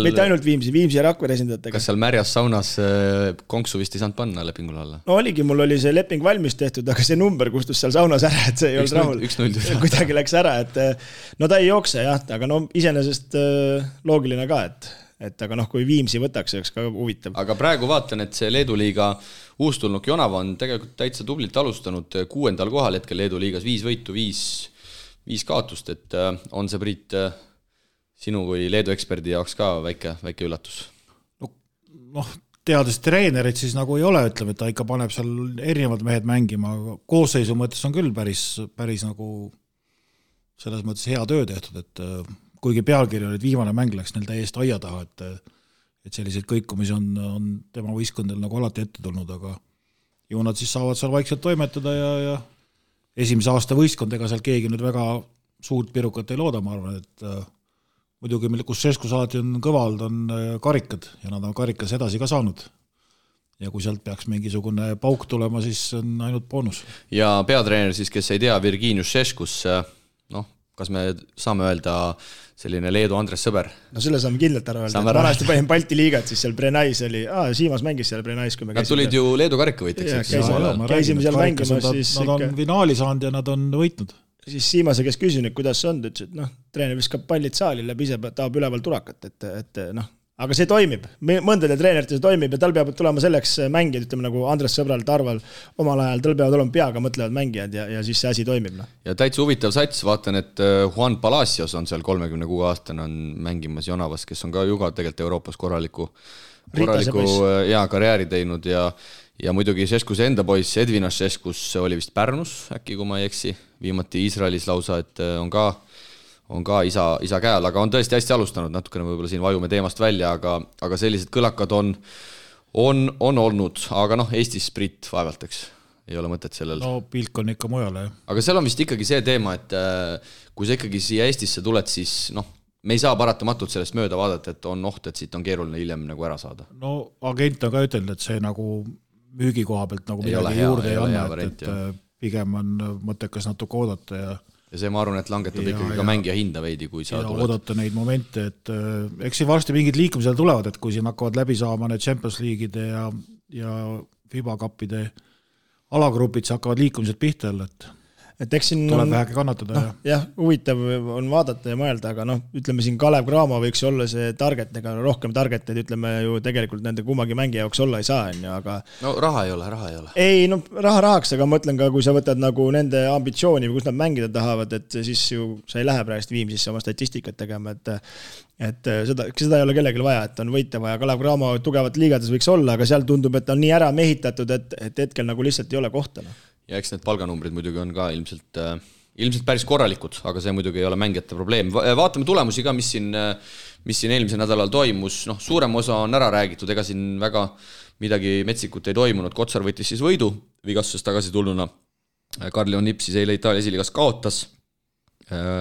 Mitte ainult Viimsi ja Rakvere esindajatega. Kas seal märjas saunas konksu vist ei saanud panna lepingul alla? Oligi, mul oli see leping valmis tehtud, aga see number kustus seal saunas ära, et see ei olnud rahul. 1-0. Kuidagi läks ära, et ta ei jookse, jah, aga iseenesest loogiline ka, et aga kui Viimsi võtaks, oleks ka huvitav. Aga praegu vaatan, et see Leedu liiga uustulnuk Jonava on tegelikult täitsa tublilt alustanud 6. kohal hetkel Leedu liigas 5 võitu, 5 kaotust, et on see, Priit, sinu kui Leedu eksperdi jaoks ka väike üllatus? Teades treenerit siis nagu ei ole, ütleme, et ta ikka paneb seal erinevad mehed mängima, aga koosseisu mõttes on küll päris nagu selles mõttes hea töö tehtud, et kuigi pealkiri oli, et viimane mäng läks neil täiesti aia taha, et selliseid kõikumisi on tema võistkondel nagu alati ette tulnud, aga ju nad siis saavad seal vaikselt toimetada ja esimese aasta võistkond, ega seal keegi nüüd väga suurt pirukat ei looda, ma arvan, et muidugi, kus Šeškus alati on kõvald, on karikad ja nad on karikas edasi ka saanud. Ja kui sealt peaks mingisugune pauk tulema, siis on ainult boonus. Ja peatreener siis, kes ei tea, Virginius Šeškus, kas me saame öelda selline Leedu Andres Sõber? Selle saame kindlalt ära öelda. Vanasti panin Balti liigat, siis seal Brenais oli, Siimas mängis seal Brenais, kui me käisime. Nad tulid ju Leedu karikkavõitjaks. Käisime seal mängimas. Nad on finaali saanud ja nad on võitnud. Siis Siimase, kes küsin, kuidas see on, ütles, et treener viskab pallid saali läbi, ise tahab üleval turakat, et aga see toimib. Mõndade treenerite see toimib ja tal peab tulema selleks mängijad, ütleme nagu Andres Sõbral, Tarval omal ajal, tal peavad olema peaga mõtlevad mängijad ja siis see asi toimib. Ja täitsa huvitav sats, vaatan, et Juan Palacios on seal 36 aastane on mängimas Jonavas, kes on ka juga tegelikult Euroopas korraliku karjääri teinud ja muidugi Šeškuse enda poiss Edvinas Šeškus oli vist Pärnus, äkki kui ma ei eksi, viimati Iisraelis lausa, et on ka isa käel, aga on tõesti hästi alustanud, natukene võib-olla siin vajume teemast välja, aga sellised kõlakad on olnud, aga Eestis Priit vaevalteks, ei ole mõtet sellel. Pilk on ikka mujale, jah. Aga seal on vist ikkagi see teema, et kui sa ikkagi siia Eestisse tuled, siis me ei saa paratamatult sellest mööda vaadata, et on oht, et siit on keeruline hiljem nagu ära saada. Agent on ka ütelnud, et see nagu müügi koha pealt nagu midagi juurde ei anna, et pigem on mõttekas natuke oodata ja see ma arvan, et langetab ikkagi ka mängija hinda veidi, kui sa tuled. Oodata neid momente, et eks siin varsti mingid liikumised tulevad, et kui siin hakkavad läbi saama need Champions League'ide ja FIBA Cupide alagrupid, siis hakkavad liikumised pihta jälle, et eks siin tuleb vähegi kannatada. Jah, huvitav on vaadata ja mõelda, aga ütleme siin Kalev Cramo võiks olla see target, ega rohkem targeted, ütleme ju tegelikult nende kummagi mängija jaoks olla ei saa, aga... raha ei ole. Ei, raha rahaks, aga ma mõtlen ka, kui sa võtad nagu nende ambitsiooni või kus nad mängida tahavad, et siis ju sa ei lähe praegust Viimsisse oma statistikat tegema, et seda ei ole kellelegi vaja, et on võita vaja. Kalev Cramo tugevat liigades võiks olla, aga seal tundub, et on nii ära mehitatud, et hetkel nagu lihtsalt ei ole kohta. Ja eks need palganumbrid muidugi on ka ilmselt päris korralikud, aga see muidugi ei ole mängijate probleem. Vaatame tulemusi ka, mis siin eelmisel nädalal toimus. Suurem osa on ära räägitud, ega siin väga midagi metsikut ei toimunud. Kotsar võttis siis võidu vigastusest tagasi tulnuna. Karl-Leon Nipp siis eile Itaalia esiliigas kaotas.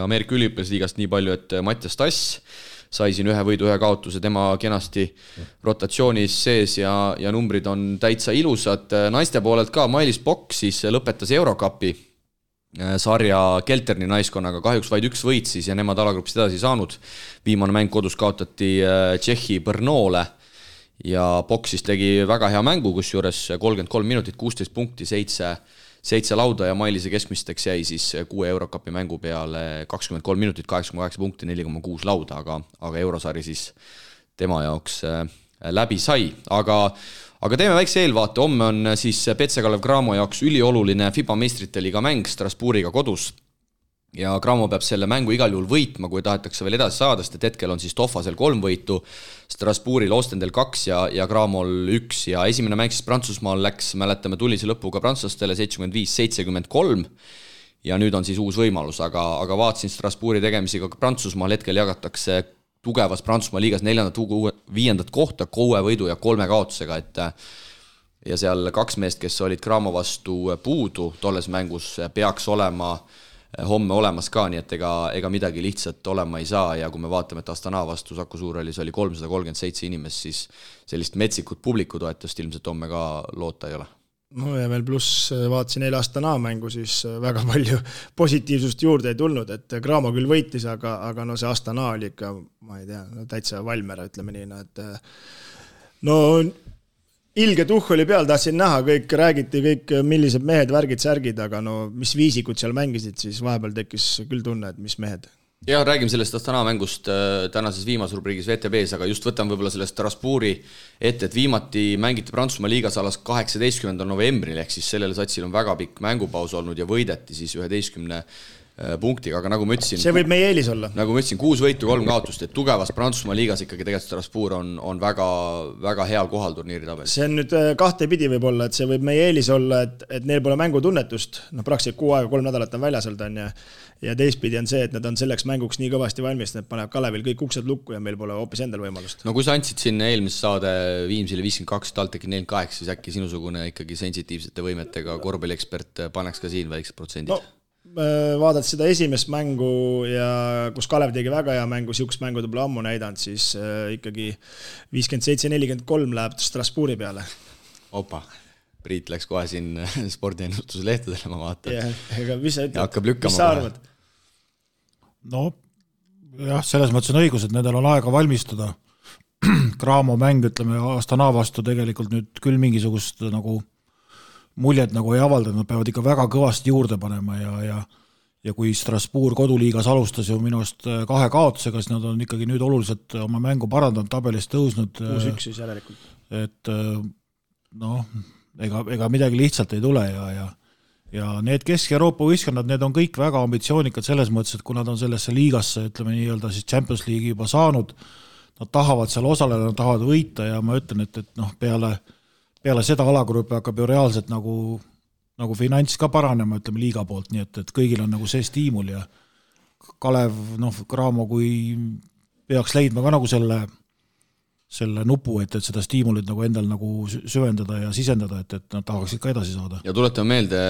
Ameerika üliõpilasliigast nii palju, et Mattias Tass sai siin ühe võidu, ühe kaotuse, tema kenasti rotatsioonis sees ja numbrid on täitsa ilusad. Naiste poolelt ka Mailis Pokk siis lõpetas Eurocupi sarja Kelterni naiskonnaga, kahjuks vaid üks võit siis ja nemad alagrupist edasi saanud. Viimane mäng kodus kaotati Tšehhi Brnole ja Pokk siis tegi väga hea mängu, kus juures 33 minutit, 16 punkti, 7 lauda ja Mailise keskmisteks jäi siis 6 Eurocupi mängu peale 23 minutit, 8,8 punkti, 4,6 lauda, aga Eurosari siis tema jaoks läbi sai. Aga teeme väikse eelvaate, homme on siis PC Kalev Cramo jaoks ülioluline FIBA meistrite liiga mäng Strasbourgiga kodus. Ja Cramo peab selle mängu igal juhul võitma, kui tahetakse veel edasi saada, sest hetkel on siis Toffasel 3 võitu, Strasbourgil Ostendel 2 ja Cramol 1 ja esimene mäng siis Prantsusmaal läks, mäletame, tullise lõpuga prantslastele 75-73 ja nüüd on siis uus võimalus, aga vaatasin Strasbourgi tegemisi ka Prantsusmaal, hetkel jagatakse tugevas Prantsusmaa liigas 4.-5. kohta 6 võidu ja 3 kaotusega, et ja seal 2 meest, kes olid Cramo vastu puudu tolles mängus, peaks olema homme olemas ka, nii et ega midagi lihtsalt olema ei saa ja kui me vaatame, et Astana vastu Saku Suurhallis oli 337 inimest, siis sellist metsikut publikutoetust ilmselt homme ka loota ei ole. No ja veel pluss vaatasin eile Astana mängu, siis väga palju positiivsust juurde ei tulnud, et Cramo küll võitis, aga no see Astana oli ikka, ma ei tea, täitsa valmera, ütleme nii, et no ilge tuhh oli peal, tahtsin näha, kõik räägiti, kõik millised mehed, värgid, särgid, aga no mis viisikud seal mängisid, siis vahepeal tekkis küll tunne, et mis mehed. Ja räägime sellest Astana mängust tänases viimases rubriigis VTB-s, aga just võtan võib-olla sellest Strasbourgi ette, et viimati mängiti Prantsusmaa liigas alas 18. novembril, ehk siis sellel satsil on väga pikk mängupaus olnud ja võideti siis 11 punktiga, aga nagu ma ütlesin... See võib meie eelis olla. Nagu ma ütlesin, 6 võitu, 3 kaotust, et tugevas Prantsusmaa liigas ikkagi tegelikult Strasbourg on väga, väga heal kohal turniiri tabelis. See on nüüd kahte pidi võib olla, et see võib meie eelis olla, et neil pole mängutunnetust, praktiliselt 6 aega, 3 nädalat on väljas olnud ja teistpidi on see, et nad on selleks mänguks nii kõvasti valmis, et panevad Kalevil kõik uksed lukku ja meil pole hoopis endal võimalust. No kui sa andsid siin eelmise saade Viimsile 52, TalTechi 48, siis äkki sinusugune ikkagi sensitiivsete võimetega korvpalliekspert paneks ka siin väiksed protsendid? No, vaadad seda esimest mängu ja kus Kalev tegi väga hea mängu, siukest mängu ta pole ammu näidanud, siis ikkagi 57-43 läheb Strasbourgi peale. Opa, Priit läks kohe siin spordiennustuslehtedele, ma vaatan. Ega mis sa ütled? Hakkab lükkama. Mis sa arvad? No, jah, selles mõttes on õigus, et nendel on aega valmistuda. Cramo mäng, ütleme, Astana vastu tegelikult nüüd küll mingisugust nagu muljet nagu ei avaldanud, nad peavad ikka väga kõvasti juurde panema ja kui Strasbourg koduliigas alustas ju minust 2 kaotusega, siis nad on ikkagi nüüd oluliselt oma mängu parandanud, tabelist tõusnud. 6-1 siis järelikult. Et noh, ega midagi lihtsalt ei tule ja need Kesk-Euroopa võistkonnad, need on kõik väga ambitsioonikad selles mõttes, et kui nad on sellesse liigasse, ütleme nii-öelda siis Champions League'i juba saanud, nad tahavad seal osaleda, nad tahavad võita ja ma ütlen, et noh, peale seda alagrupi hakkab ju reaalselt nagu finants ka paranema, ütleme liiga poolt, nii et kõigil on nagu see stiimul ja Kalev, Cramo, kui peaks leidma ka nagu selle nupu, et seda stiimulit nagu endal nagu süvendada ja sisendada, et nad tahaksid ka edasi saada. Ja tuletame meelde,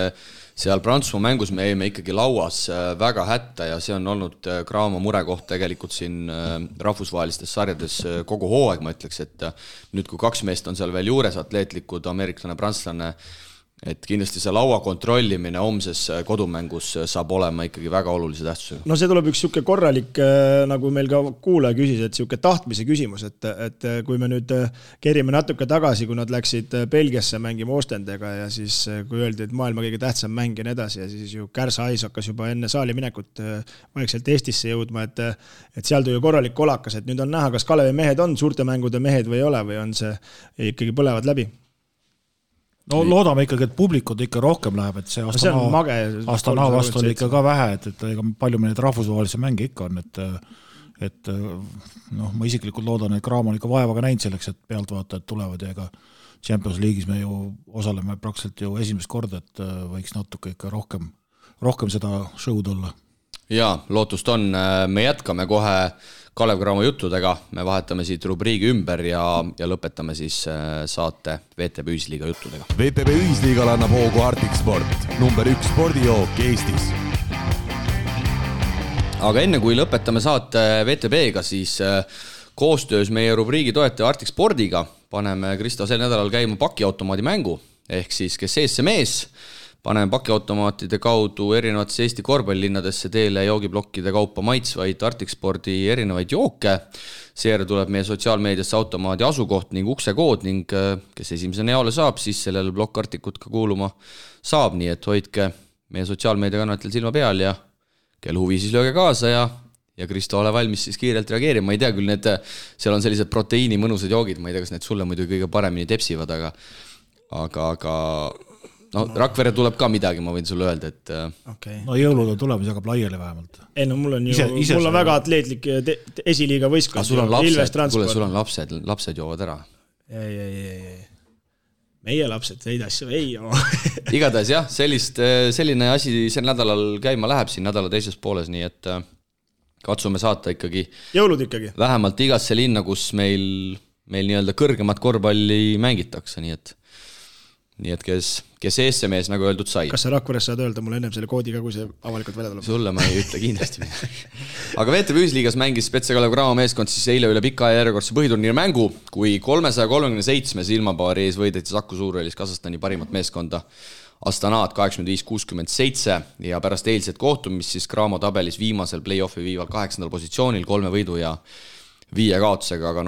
seal Prantsusmaa mängus me jäime ikkagi lauas väga hätta ja see on olnud Cramo murekoht tegelikult siin rahvusvahelistes sarjades kogu hooaeg, ma ütleks, et nüüd kui 2 meest on seal veel juures, atleetlikud, ameeriklane, prantslane, et kindlasti see laua kontrollimine homses kodumängus saab olema ikkagi väga olulise tähtsusega. No see tuleb üks siuke korralik, nagu meil ka kuulaja küsis, et siuke tahtmise küsimus, et kui me nüüd kerime natuke tagasi, kui nad läksid Belgiasse mängima Ostendega ja siis kui öeldi, et maailma kõige tähtsam mäng ja nii edasi ja siis ju Kärsa Ais hakkas juba enne saali minekut vaikselt Eestisse jõudma, et seal tuli korralik kolakas, et nüüd on näha, kas Kalevi mehed on suurte mängude mehed või ei ole või on see ikkagi põlevad läbi. No loodame ikkagi, et publikud ikka rohkem läheb, et see Astana vastu oli ikka ka vähe, et palju meil neid rahvusvahelisi mänge ikka on, et ma isiklikult loodan, et Cramo on ikka vaevaga näinud selleks, et pealtvaatajad tulevad ja ega Champions League'is me ju osaleme praktiliselt ju esimest korda, et võiks natuke ikka rohkem seda show'd olla. Jaa, lootust on. Me jätkame kohe Kalev Cramo juttudega, me vahetame siit rubriigi ümber ja lõpetame siis saate VTB Ühisliiga juttudega. VTB Ühisliigal annab hoogu Arctic Sport, number 1 spordijook Eestis. Aga enne kui lõpetame saate VTB-ga, siis koostöös meie rubriigi toetaja Arctic Spordiga paneme Kristo sel nädalal käima pakiautomaadi mängu, ehk siis kes ees see mees, paneme pakiautomaatide kaudu erinevatesse Eesti korvpallilinnadesse teele joogiblokkide kaupa maitsvaid Arctic Spordi erinevaid jooke. Seejärel tuleb meie sotsiaalmeediasse automaadi asukoht ning uksekood ning kes esimesena jaole saab, siis sellele blokk Arcticut ka kuuluma saab, nii et hoidke meie sotsiaalmeediakanatel silma peal ja kel huvi siis lööge kaasa ja Kristo ole valmis siis kiirelt reageerima. Ma ei tea küll, seal on sellised proteiini mõnusad joogid, ma ei tea, kas need sulle muidu kõige paremini tepsivad, aga no Rakvere tuleb ka midagi, ma võin sulle öelda, et okay. No jõulud on tulemas, jagab laiali vähemalt. Ei no mul on väga atleetlik esiliiga võistkond. Sul on lapsed joovad ära. Ei. meie lapsed neid asju ei joo. Igatahes jah, selline asi sel nädalal käima läheb siin nädala teises pooles, nii et katsume saata ikkagi jõulud ikkagi vähemalt igasse linna, kus meil nii-öelda kõrgemat korvpalli mängitakse, nii et kes eessemees, nagu öeldud, sai. Kas sa Rakveres saad öelda mulle ennem selle koodi ka, kui see avalikult välja tuleb? Sulle ma ei ütle kindlasti midagi. Aga VTV Ühisliigas mängis Spetse Kalev Cramo meeskond siis eile üle pika järjekordse põhiturniiri mängu, kui 337 silmapaari ees võideti Saku Suurhallis Kasahstani parimat meeskonda Astanaat 85-67 ja pärast eilset kohtumist siis Cramo tabelis viimasel play-offi viival 8. positsioonil 3 võidu ja 5 kaotusega, aga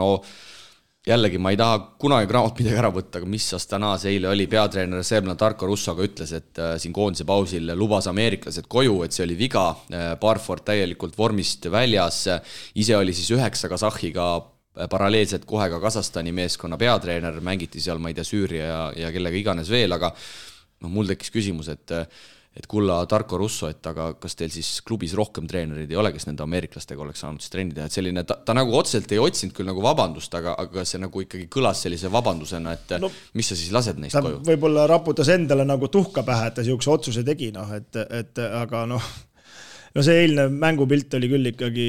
jällegi ma ei taha kunagi Cramot midagi ära võtta, aga mis Astanaas eile oli, peatreener Serbna Tarko Russoga ütles, et siin koondise pausil lubas ameeriklased koju, et see oli viga, Barford täielikult vormist väljas, ise oli siis 9 Kasahhiga paralleelselt kohe ka Kasahstani meeskonna peatreener, mängiti seal, ma ei tea, Süüria ja kellega iganes veel, aga mul tekkis küsimus, et kulla Tarko Russo, et aga kas teil siis klubis rohkem treenerid ei ole, kes nende ameeriklastega oleks saanud siis trenni teha, et selline, ta nagu otseselt ei otsinud küll nagu vabandust, aga see nagu ikkagi kõlas sellise vabandusena, et mis sa siis lased neist koju? Võib-olla raputas endale nagu tuhka pähe, et ta siukse otsuse tegi, aga see eilne mängupilt oli küll ikkagi,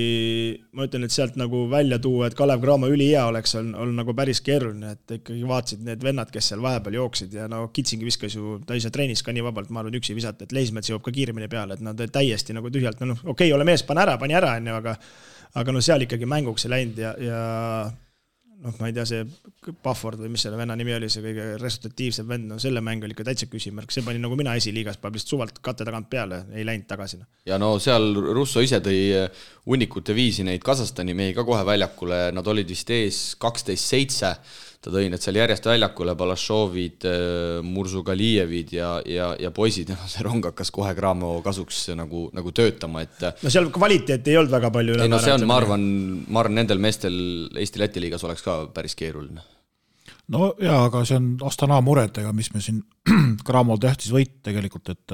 ma ütlen, et sealt nagu välja tuua, et Kalev Cramo ülihea oleks olnud nagu päris keeruline, et ikkagi vaatsid need vennad, kes seal vahepeal jooksid ja Kitsingi viskas ju, ta ise treenis ka nii vabalt, ma arvan, üksi visata, et Leismets jõuab ka kiiremini peale, et nad täiesti nagu tühjalt, okei, ole mees, pani ära, aga seal ikkagi mänguks ei läinud ja ma ei tea, see Bufford või mis selle venna nimi oli, see kõige resultatiivsem vend, selle mäng oli ikka täitsa küsimärk, see pani nagu mina esiliigas, paneb lihtsalt suvalt katte tagant peale, ei läinud tagasi. Ja seal Russo ise tõi hunnikute viisi neid Kasahstani mehi ka kohe väljakule, nad olid vist ees 12-7, ta tõi need seal järjest väljakule, Balashovid, Mursugalijevid ja poisid, see rong hakkas kohe Cramo kasuks nagu töötama, et seal kvaliteet ei olnud väga palju see on, ma arvan, nendel meestel Eesti-Läti liigas oleks ka päris keeruline. No jaa, aga see on Astana muredega, mis me siin Cramo tähtis võit tegelikult, et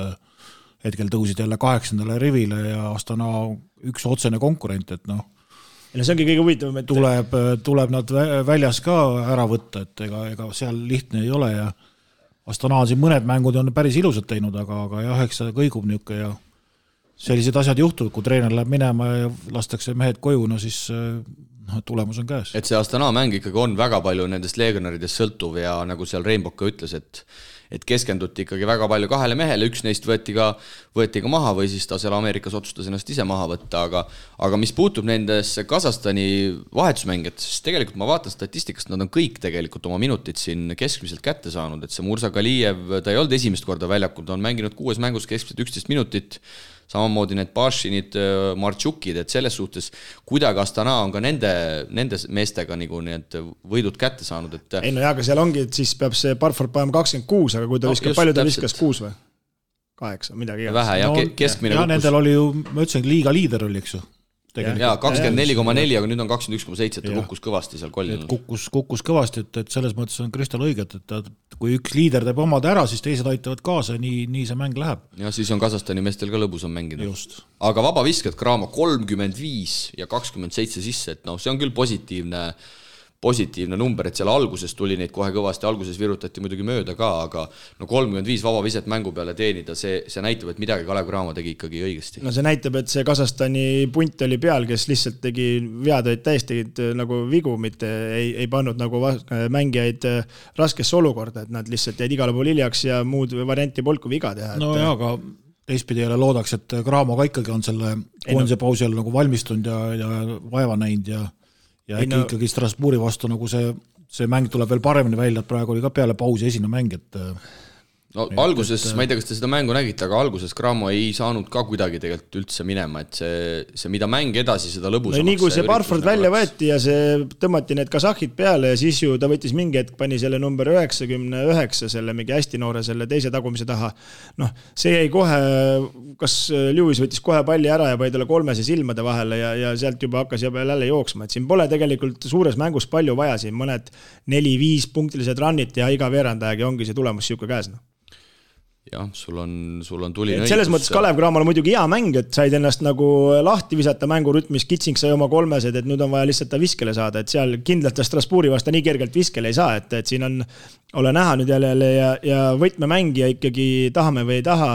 hetkel tõusid jälle 8. rivile ja Astana üks otsene konkurent, et see ongi kõige huvitavam, et tuleb nad väljas ka ära võtta, et ega seal lihtne ei ole ja Astana siin mõned mängud on päris ilusad teinud, aga jah, eks see kõigub niuke ja sellised asjad juhtuvad, kui treener läheb minema ja lastakse mehed koju, siis tulemus on käes. Et see Astana mäng ikkagi on väga palju nendest legionaridest sõltuv ja nagu seal Rainbow ka ütles, et keskenduti ikkagi väga palju 2 mehele, üks neist võeti ka maha või siis ta seal Ameerikas otsustas ennast ise maha võtta, aga mis puutub nendesse Kasahstani vahetusmängijad, siis tegelikult ma vaatan statistikast, nad on kõik tegelikult oma minutid siin keskmiselt kätte saanud, et see Mursagalijev, ta ei olnud esimest korda väljakul, ta on mänginud 6 mängus keskmiselt 11 minutit, samamoodi need Pašinid, Martšukid, et selles suhtes kuidagi Astana on ka nende meestega nagu need võidud kätte saanud. Et ei aga seal ongi, et siis peab see Barford panema 26, aga kui ta viskab, palju ta viskas 6 või? 8, midagi. Vähe ja keskmine kukkus. Ja nendel oli ju, ma ütlesin, liiga liider oli, eks ju. Jaa, 24,4, aga nüüd on 21,7, ta kukkus kõvasti seal kollil. Kukkus kõvasti, et selles mõttes on Kristal õiget, et kui üks liider teeb omad ära, siis teised aitavad kaasa, nii see mäng läheb. Ja siis on Kasahstani meestel ka lõbus on mängida. Just. Aga vabaviskad Cramo 35 ja 27 sisse, et see on küll positiivne number, et seal alguses tuli neid kohe kõvasti, alguses virutati muidugi mööda ka, aga 35 vabaviset mängu peale teenida, see näitab, et midagi Kalev Cramo tegi ikkagi õigesti. See näitab, et see Kasahstani punt oli peal, kes lihtsalt tegi vead, täiesti nagu vigu, mitte ei pannud nagu mängijaid raskesse olukorda, et nad lihtsalt jäid igale pool hiljaks ja muud varianti polnud kui viga teha. Jaa, aga teistpidi jälle loodaks, et Cramo ka ikkagi on selle koondise pausi all nagu valmistunud ja vaeva näinud ja ikkagi Strasbourgi vastu nagu see mäng tuleb veel paremini välja, et praegu oli ka peale pausi esine mäng, et alguses, ma ei tea, kas te seda mängu nägite, aga alguses Cramo ei saanud ka kuidagi tegelikult üldse minema, et see mida mäng edasi, seda lõbusamaks. Nii kui see Barford välja võeti ja see tõmmati need kasahhid peale ja siis ju ta võttis mingi hetk, pani selle number 99, selle mingi hästi noore selle teise tagumise taha. See jäi kohe, kas Lewis võttis kohe palli ära ja pani talle 3 silmade vahele ja sealt juba hakkas jälle jooksma, et siin pole tegelikult suures mängus palju vaja, siin mõned 4-5 punktilised runnid ja iga veerandajagi ongi see tulemus siuke käes. jah, sul on tuline õigus. Selles mõttes Kalev Cramola muidugi hea mäng, et said ennast nagu lahti visata mängurütmis, Kitsing sai oma 3, et nüüd on vaja lihtsalt ta viskele saada, et seal kindlalt Strasbourgi vasta nii kergelt viskele ei saa, et siin ole näha nüüd jälle ja võtmemängija ikkagi tahame või ei taha,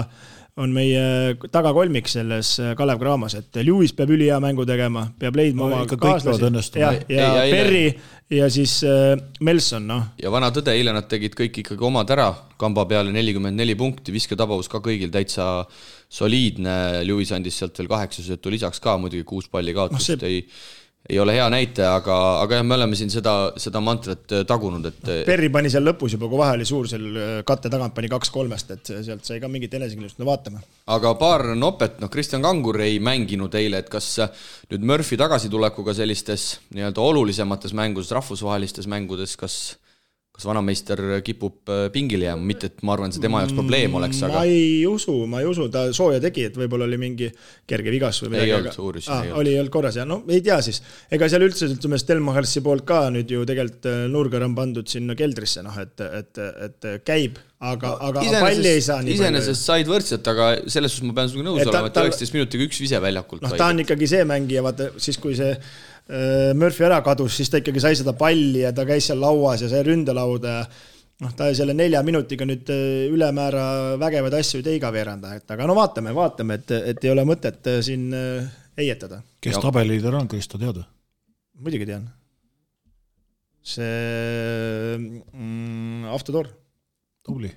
on meie tagakolmik selles Kalev Cramos, et Lewis peab ülihea mängu tegema, peab leidma oma kaaslasi ja Perri ja siis Melson, noh. Ja vana tõde, eile nad tegid kõik ikkagi omad ära, kamba peale 44 punkti, visketavavus ka kõigil täitsa soliidne, Lewis andis sealt veel 8 söötu lisaks ka, muidugi 6 palli kaotust ei ole hea näite, aga jah, me oleme siin seda mantrat tagunud, et Perri pani seal lõpus juba, kui vahe oli suur, seal katte tagant pani 2-3, et sealt sai ka mingit enesekindlust, no vaatame. Aga paar nopet, Kristjan Kangur ei mänginud eile, et kas nüüd Murphy tagasitulekuga sellistes nii-öelda olulisemates mängudes, rahvusvahelistes mängudes, kas vanameister kipub pingile jääma, mitte et ma arvan, see tema jaoks probleem oleks, aga... Ma ei usu, ta sooja tegi, et võib-olla oli mingi kerge vigas või midagi. Ei olnud uuris. Oli korras ja ei tea siis. Ega seal üldse Stelmachersi poolt ka nüüd ju tegelikult nurgar on pandud sinna keldrisse, et käib, aga palli ei saa nii palju. Iseenesest said võrdselt, aga selles suhtes ma pean sinuga nõus olema, et 19 minutiga üks vise väljakult. Ta on ikkagi see mängija, vaata, siis kui see Murphy ära kadus, siis ta ikkagi sai seda palli ja ta käis seal lauas ja sai ründelauda ja ta selle 4 minutiga nüüd ülemäära vägevad asju ei teiga veeranda, aga no vaatame, et ei ole mõtet siin eietada. Kes tabeliider on, Kristo teada? Muidugi tean. See Avtodor. Tubli.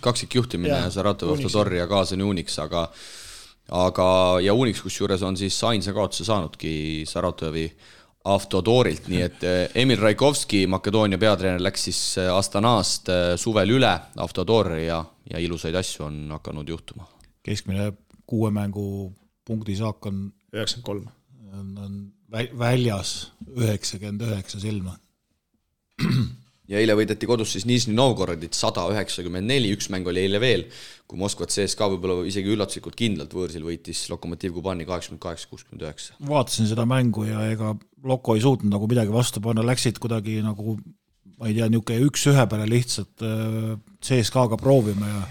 Kaksik juhtimine Saratov, Avtodor ja Kaasani Unix, ja Unix kusjuures on siis ainsa kaotuse saanudki Saratovi Avtodorilt, nii et Emil Raikovski, Makedoonia peatreener, läks siis Astanast suvel üle Avtodori ja ilusaid asju on hakanud juhtuma. Keskmine 6 mängu punkti saak on 93. On väljas 99 silma. Ja eile võideti kodus siis Nižni Novgorodit 194, üks mäng oli eile veel, kui Moskvat CSKA võib-olla isegi üllatuslikult kindlalt võõrsil võitis Lokomotiv Kubani 88-69. Vaatasin seda mängu ja ega Loko ei suutnud nagu midagi vastu panna, läksid kuidagi nagu, ma ei tea, niisugune 1-1 peale lihtsalt CSKA-ga proovima ja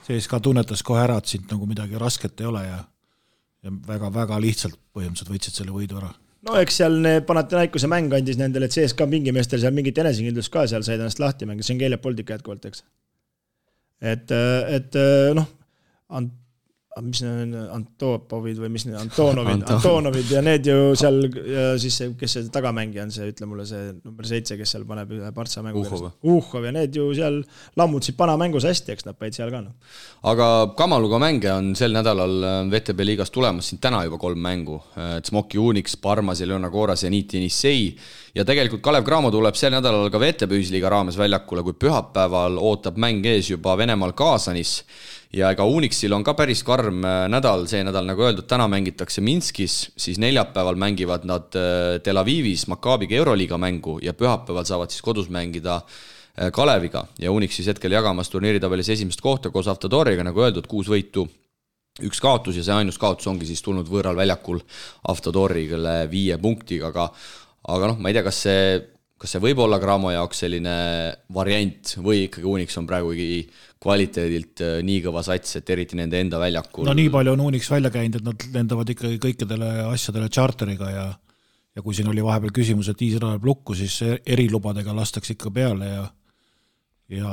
CSKA tunnetas kohe ära, et sind nagu midagi rasket ei ole ja väga-väga lihtsalt põhimõtteliselt võitsid selle võidu ära. No eks seal Panathinaikose mäng andis nendele, et CSKA pingimeestel seal mingit enesekindlust ka seal said ennast lahti mängida, see on Keele Poldika jätkuvalt, eks. Et noh, mis need Antopovid või mis need Antonovid ja need ju seal, ja siis see, kes see tagamängija on, see ütle mulle see number 7, kes seal paneb ühe Partsa mängu Uhhov ja need ju seal lammutasid panamängus hästi, eks nad päid seal ka. Aga Kamaluga mänge on sel nädalal VTB liigas tulemas siin täna juba 3 mängu, Smoki Unix, Parmas, Leona Koras ja Niiti Nissei ja tegelikult Kalev Cramo tuleb sel nädalal ka VTB ühisliiga raames väljakule, kui pühapäeval ootab mäng ees juba Venemaal Kaasanis ja ega Unixil on ka päris karm nädal, see nädal nagu öeldud, täna mängitakse Minskis, siis neljapäeval mängivad nad Tel Avivis Makaabiga Euroliiga mängu ja pühapäeval saavad siis kodus mängida Kaleviga ja Unix siis hetkel jagamas turniiritabelis esimest kohta koos Avtodoriga, nagu öeldud, 6 võitu, 1 kaotus ja see ainus kaotus ongi siis tulnud võõral väljakul Avtodorigale 5 punktiga, aga noh, ma ei tea, kas see võib olla Cramo jaoks selline variant või ikkagi Unix on praegu kvaliteedilt nii kõva sats, et eriti nende enda väljakul. No nii palju on Unix välja käinud, et nad lendavad ikkagi kõikidele asjadele charteriga ja kui siin oli vahepeal küsimus, et Iisrael läheb lukku, siis erilubadega lastakse ikka peale ja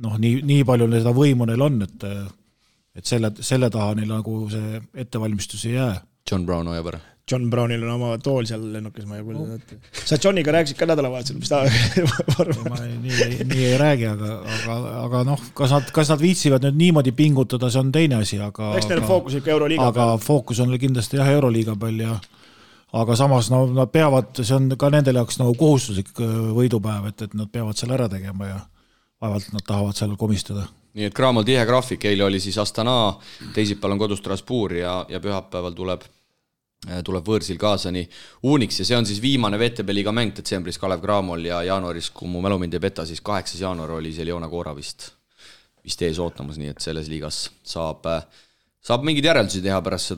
noh, nii palju seda võimu neil on, et selle taha neil nagu see ettevalmistus ei jää. John Brown hoiab ära. John Brownil on oma tool seal lennukis, ma ei kuulda. Sa Johniga rääkisid ka nädalavahetusel, mis ta ma nii ei räägi, aga noh, kas nad viitsivad nüüd niimoodi pingutada, see on teine asi, eks neil fookus ikka Euroliiga peal. Aga fookus on kindlasti jah Euroliiga peal aga samas nad peavad, see on ka nendele jaoks nagu kohustuslik võidupäev, et nad peavad seal ära tegema ja vaevalt nad tahavad seal komistada. Nii et Cramol tihe graafik, eile oli siis Astana, teisipäeval on kodus Strasbourg ja pühapäeval tuleb võõrsil Kaasani Unix ja see on siis viimane VTB liiga mäng detsembris Kalev Cramol ja jaanuaris, kui mu mälu mind ei peta, siis 8. jaanuar oli see Leona Koora vist ees ootamas, nii et selles liigas saab mingid järeldusi teha pärast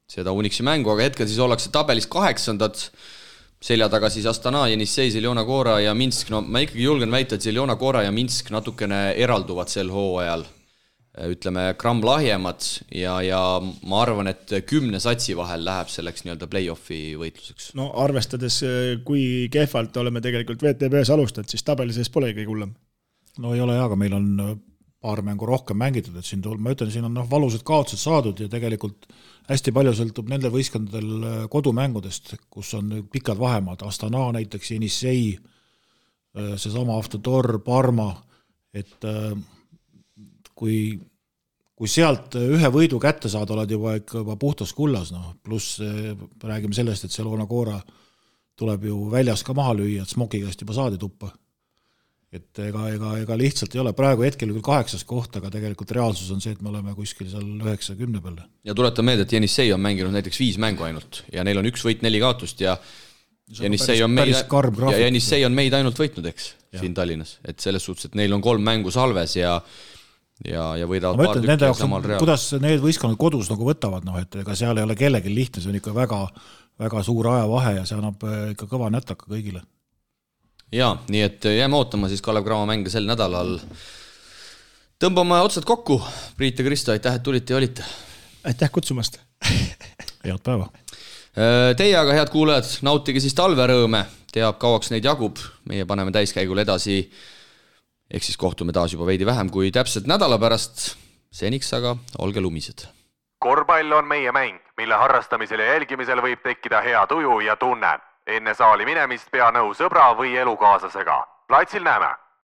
seda Unixi mängu, aga hetkel siis ollakse tabelis 8. selja taga siis Astana, Jenissei, Zeljona Gora ja Minsk. No ma ikkagi julgen väita, et Zeljona Gora ja Minsk natukene eralduvad sel hooajal. Ütleme, gramm lahjemad ja ma arvan, et 10 satsi vahel läheb selleks nii-öelda play-offi võitluseks. No arvestades, kui kehvalt oleme tegelikult VTB-s alustanud, siis tabeli sees pole kõige hullem. No ei ole aga meil on paar mängu rohkem mängitud, et ma ütlen, siin on valusad kaotused saadud ja tegelikult hästi palju sõltub nendel võistkondadel kodumängudest, kus on pikad vahemaad, Astana näiteks, Jenissei, seesama Avtodor, Parma, et kui sealt ühe võidu kätte saada, oled juba puhtas kullas, pluss räägime sellest, et Zeljona Gora tuleb ju väljas ka maha lüüa, et Smokiga juba saadi tuppa. Et ega lihtsalt ei ole, praegu hetkel küll 8. koht, aga tegelikult reaalsus on see, et me oleme kuskil seal 9-10 peale. Ja tuletan meelde, et Jenissei on mänginud näiteks 5 mängu ainult ja neil on 1 võit 4 kaotust ja Jenissei on meid ainult võitnud, eks, siin Tallinnas. Et selles suhtes, et neil on 3 mängu salves ja võidavad paar tükki samal real. Kuidas need võistkonnad kodus nagu võtavad, et ega seal ei ole kellegi lihtne, see on ikka väga, väga suur ajavahe ja see annab ikka kõva nätaka kõigile. Jaa, nii et jääme ootama siis Kalev Cramo mänge sel nädalal. Tõmbame otsad kokku. Priit ja Kristo, aitäh, et tulite ja olite. Aitäh kutsumast. Head päeva. Teie aga, head kuulajad, nautige siis talverõõme. Teab, kauaks neid jagub. Meie paneme täiskäigul edasi. Ehk siis kohtume taas juba veidi vähem kui täpselt nädala pärast. Seniks aga olge lumised. Korvpall on meie mäng, mille harrastamisel ja jälgimisel võib tekkida hea tuju ja tunne. Enne saali minemist pea nõu sõbra või elukaaslasega. Platsil näeme!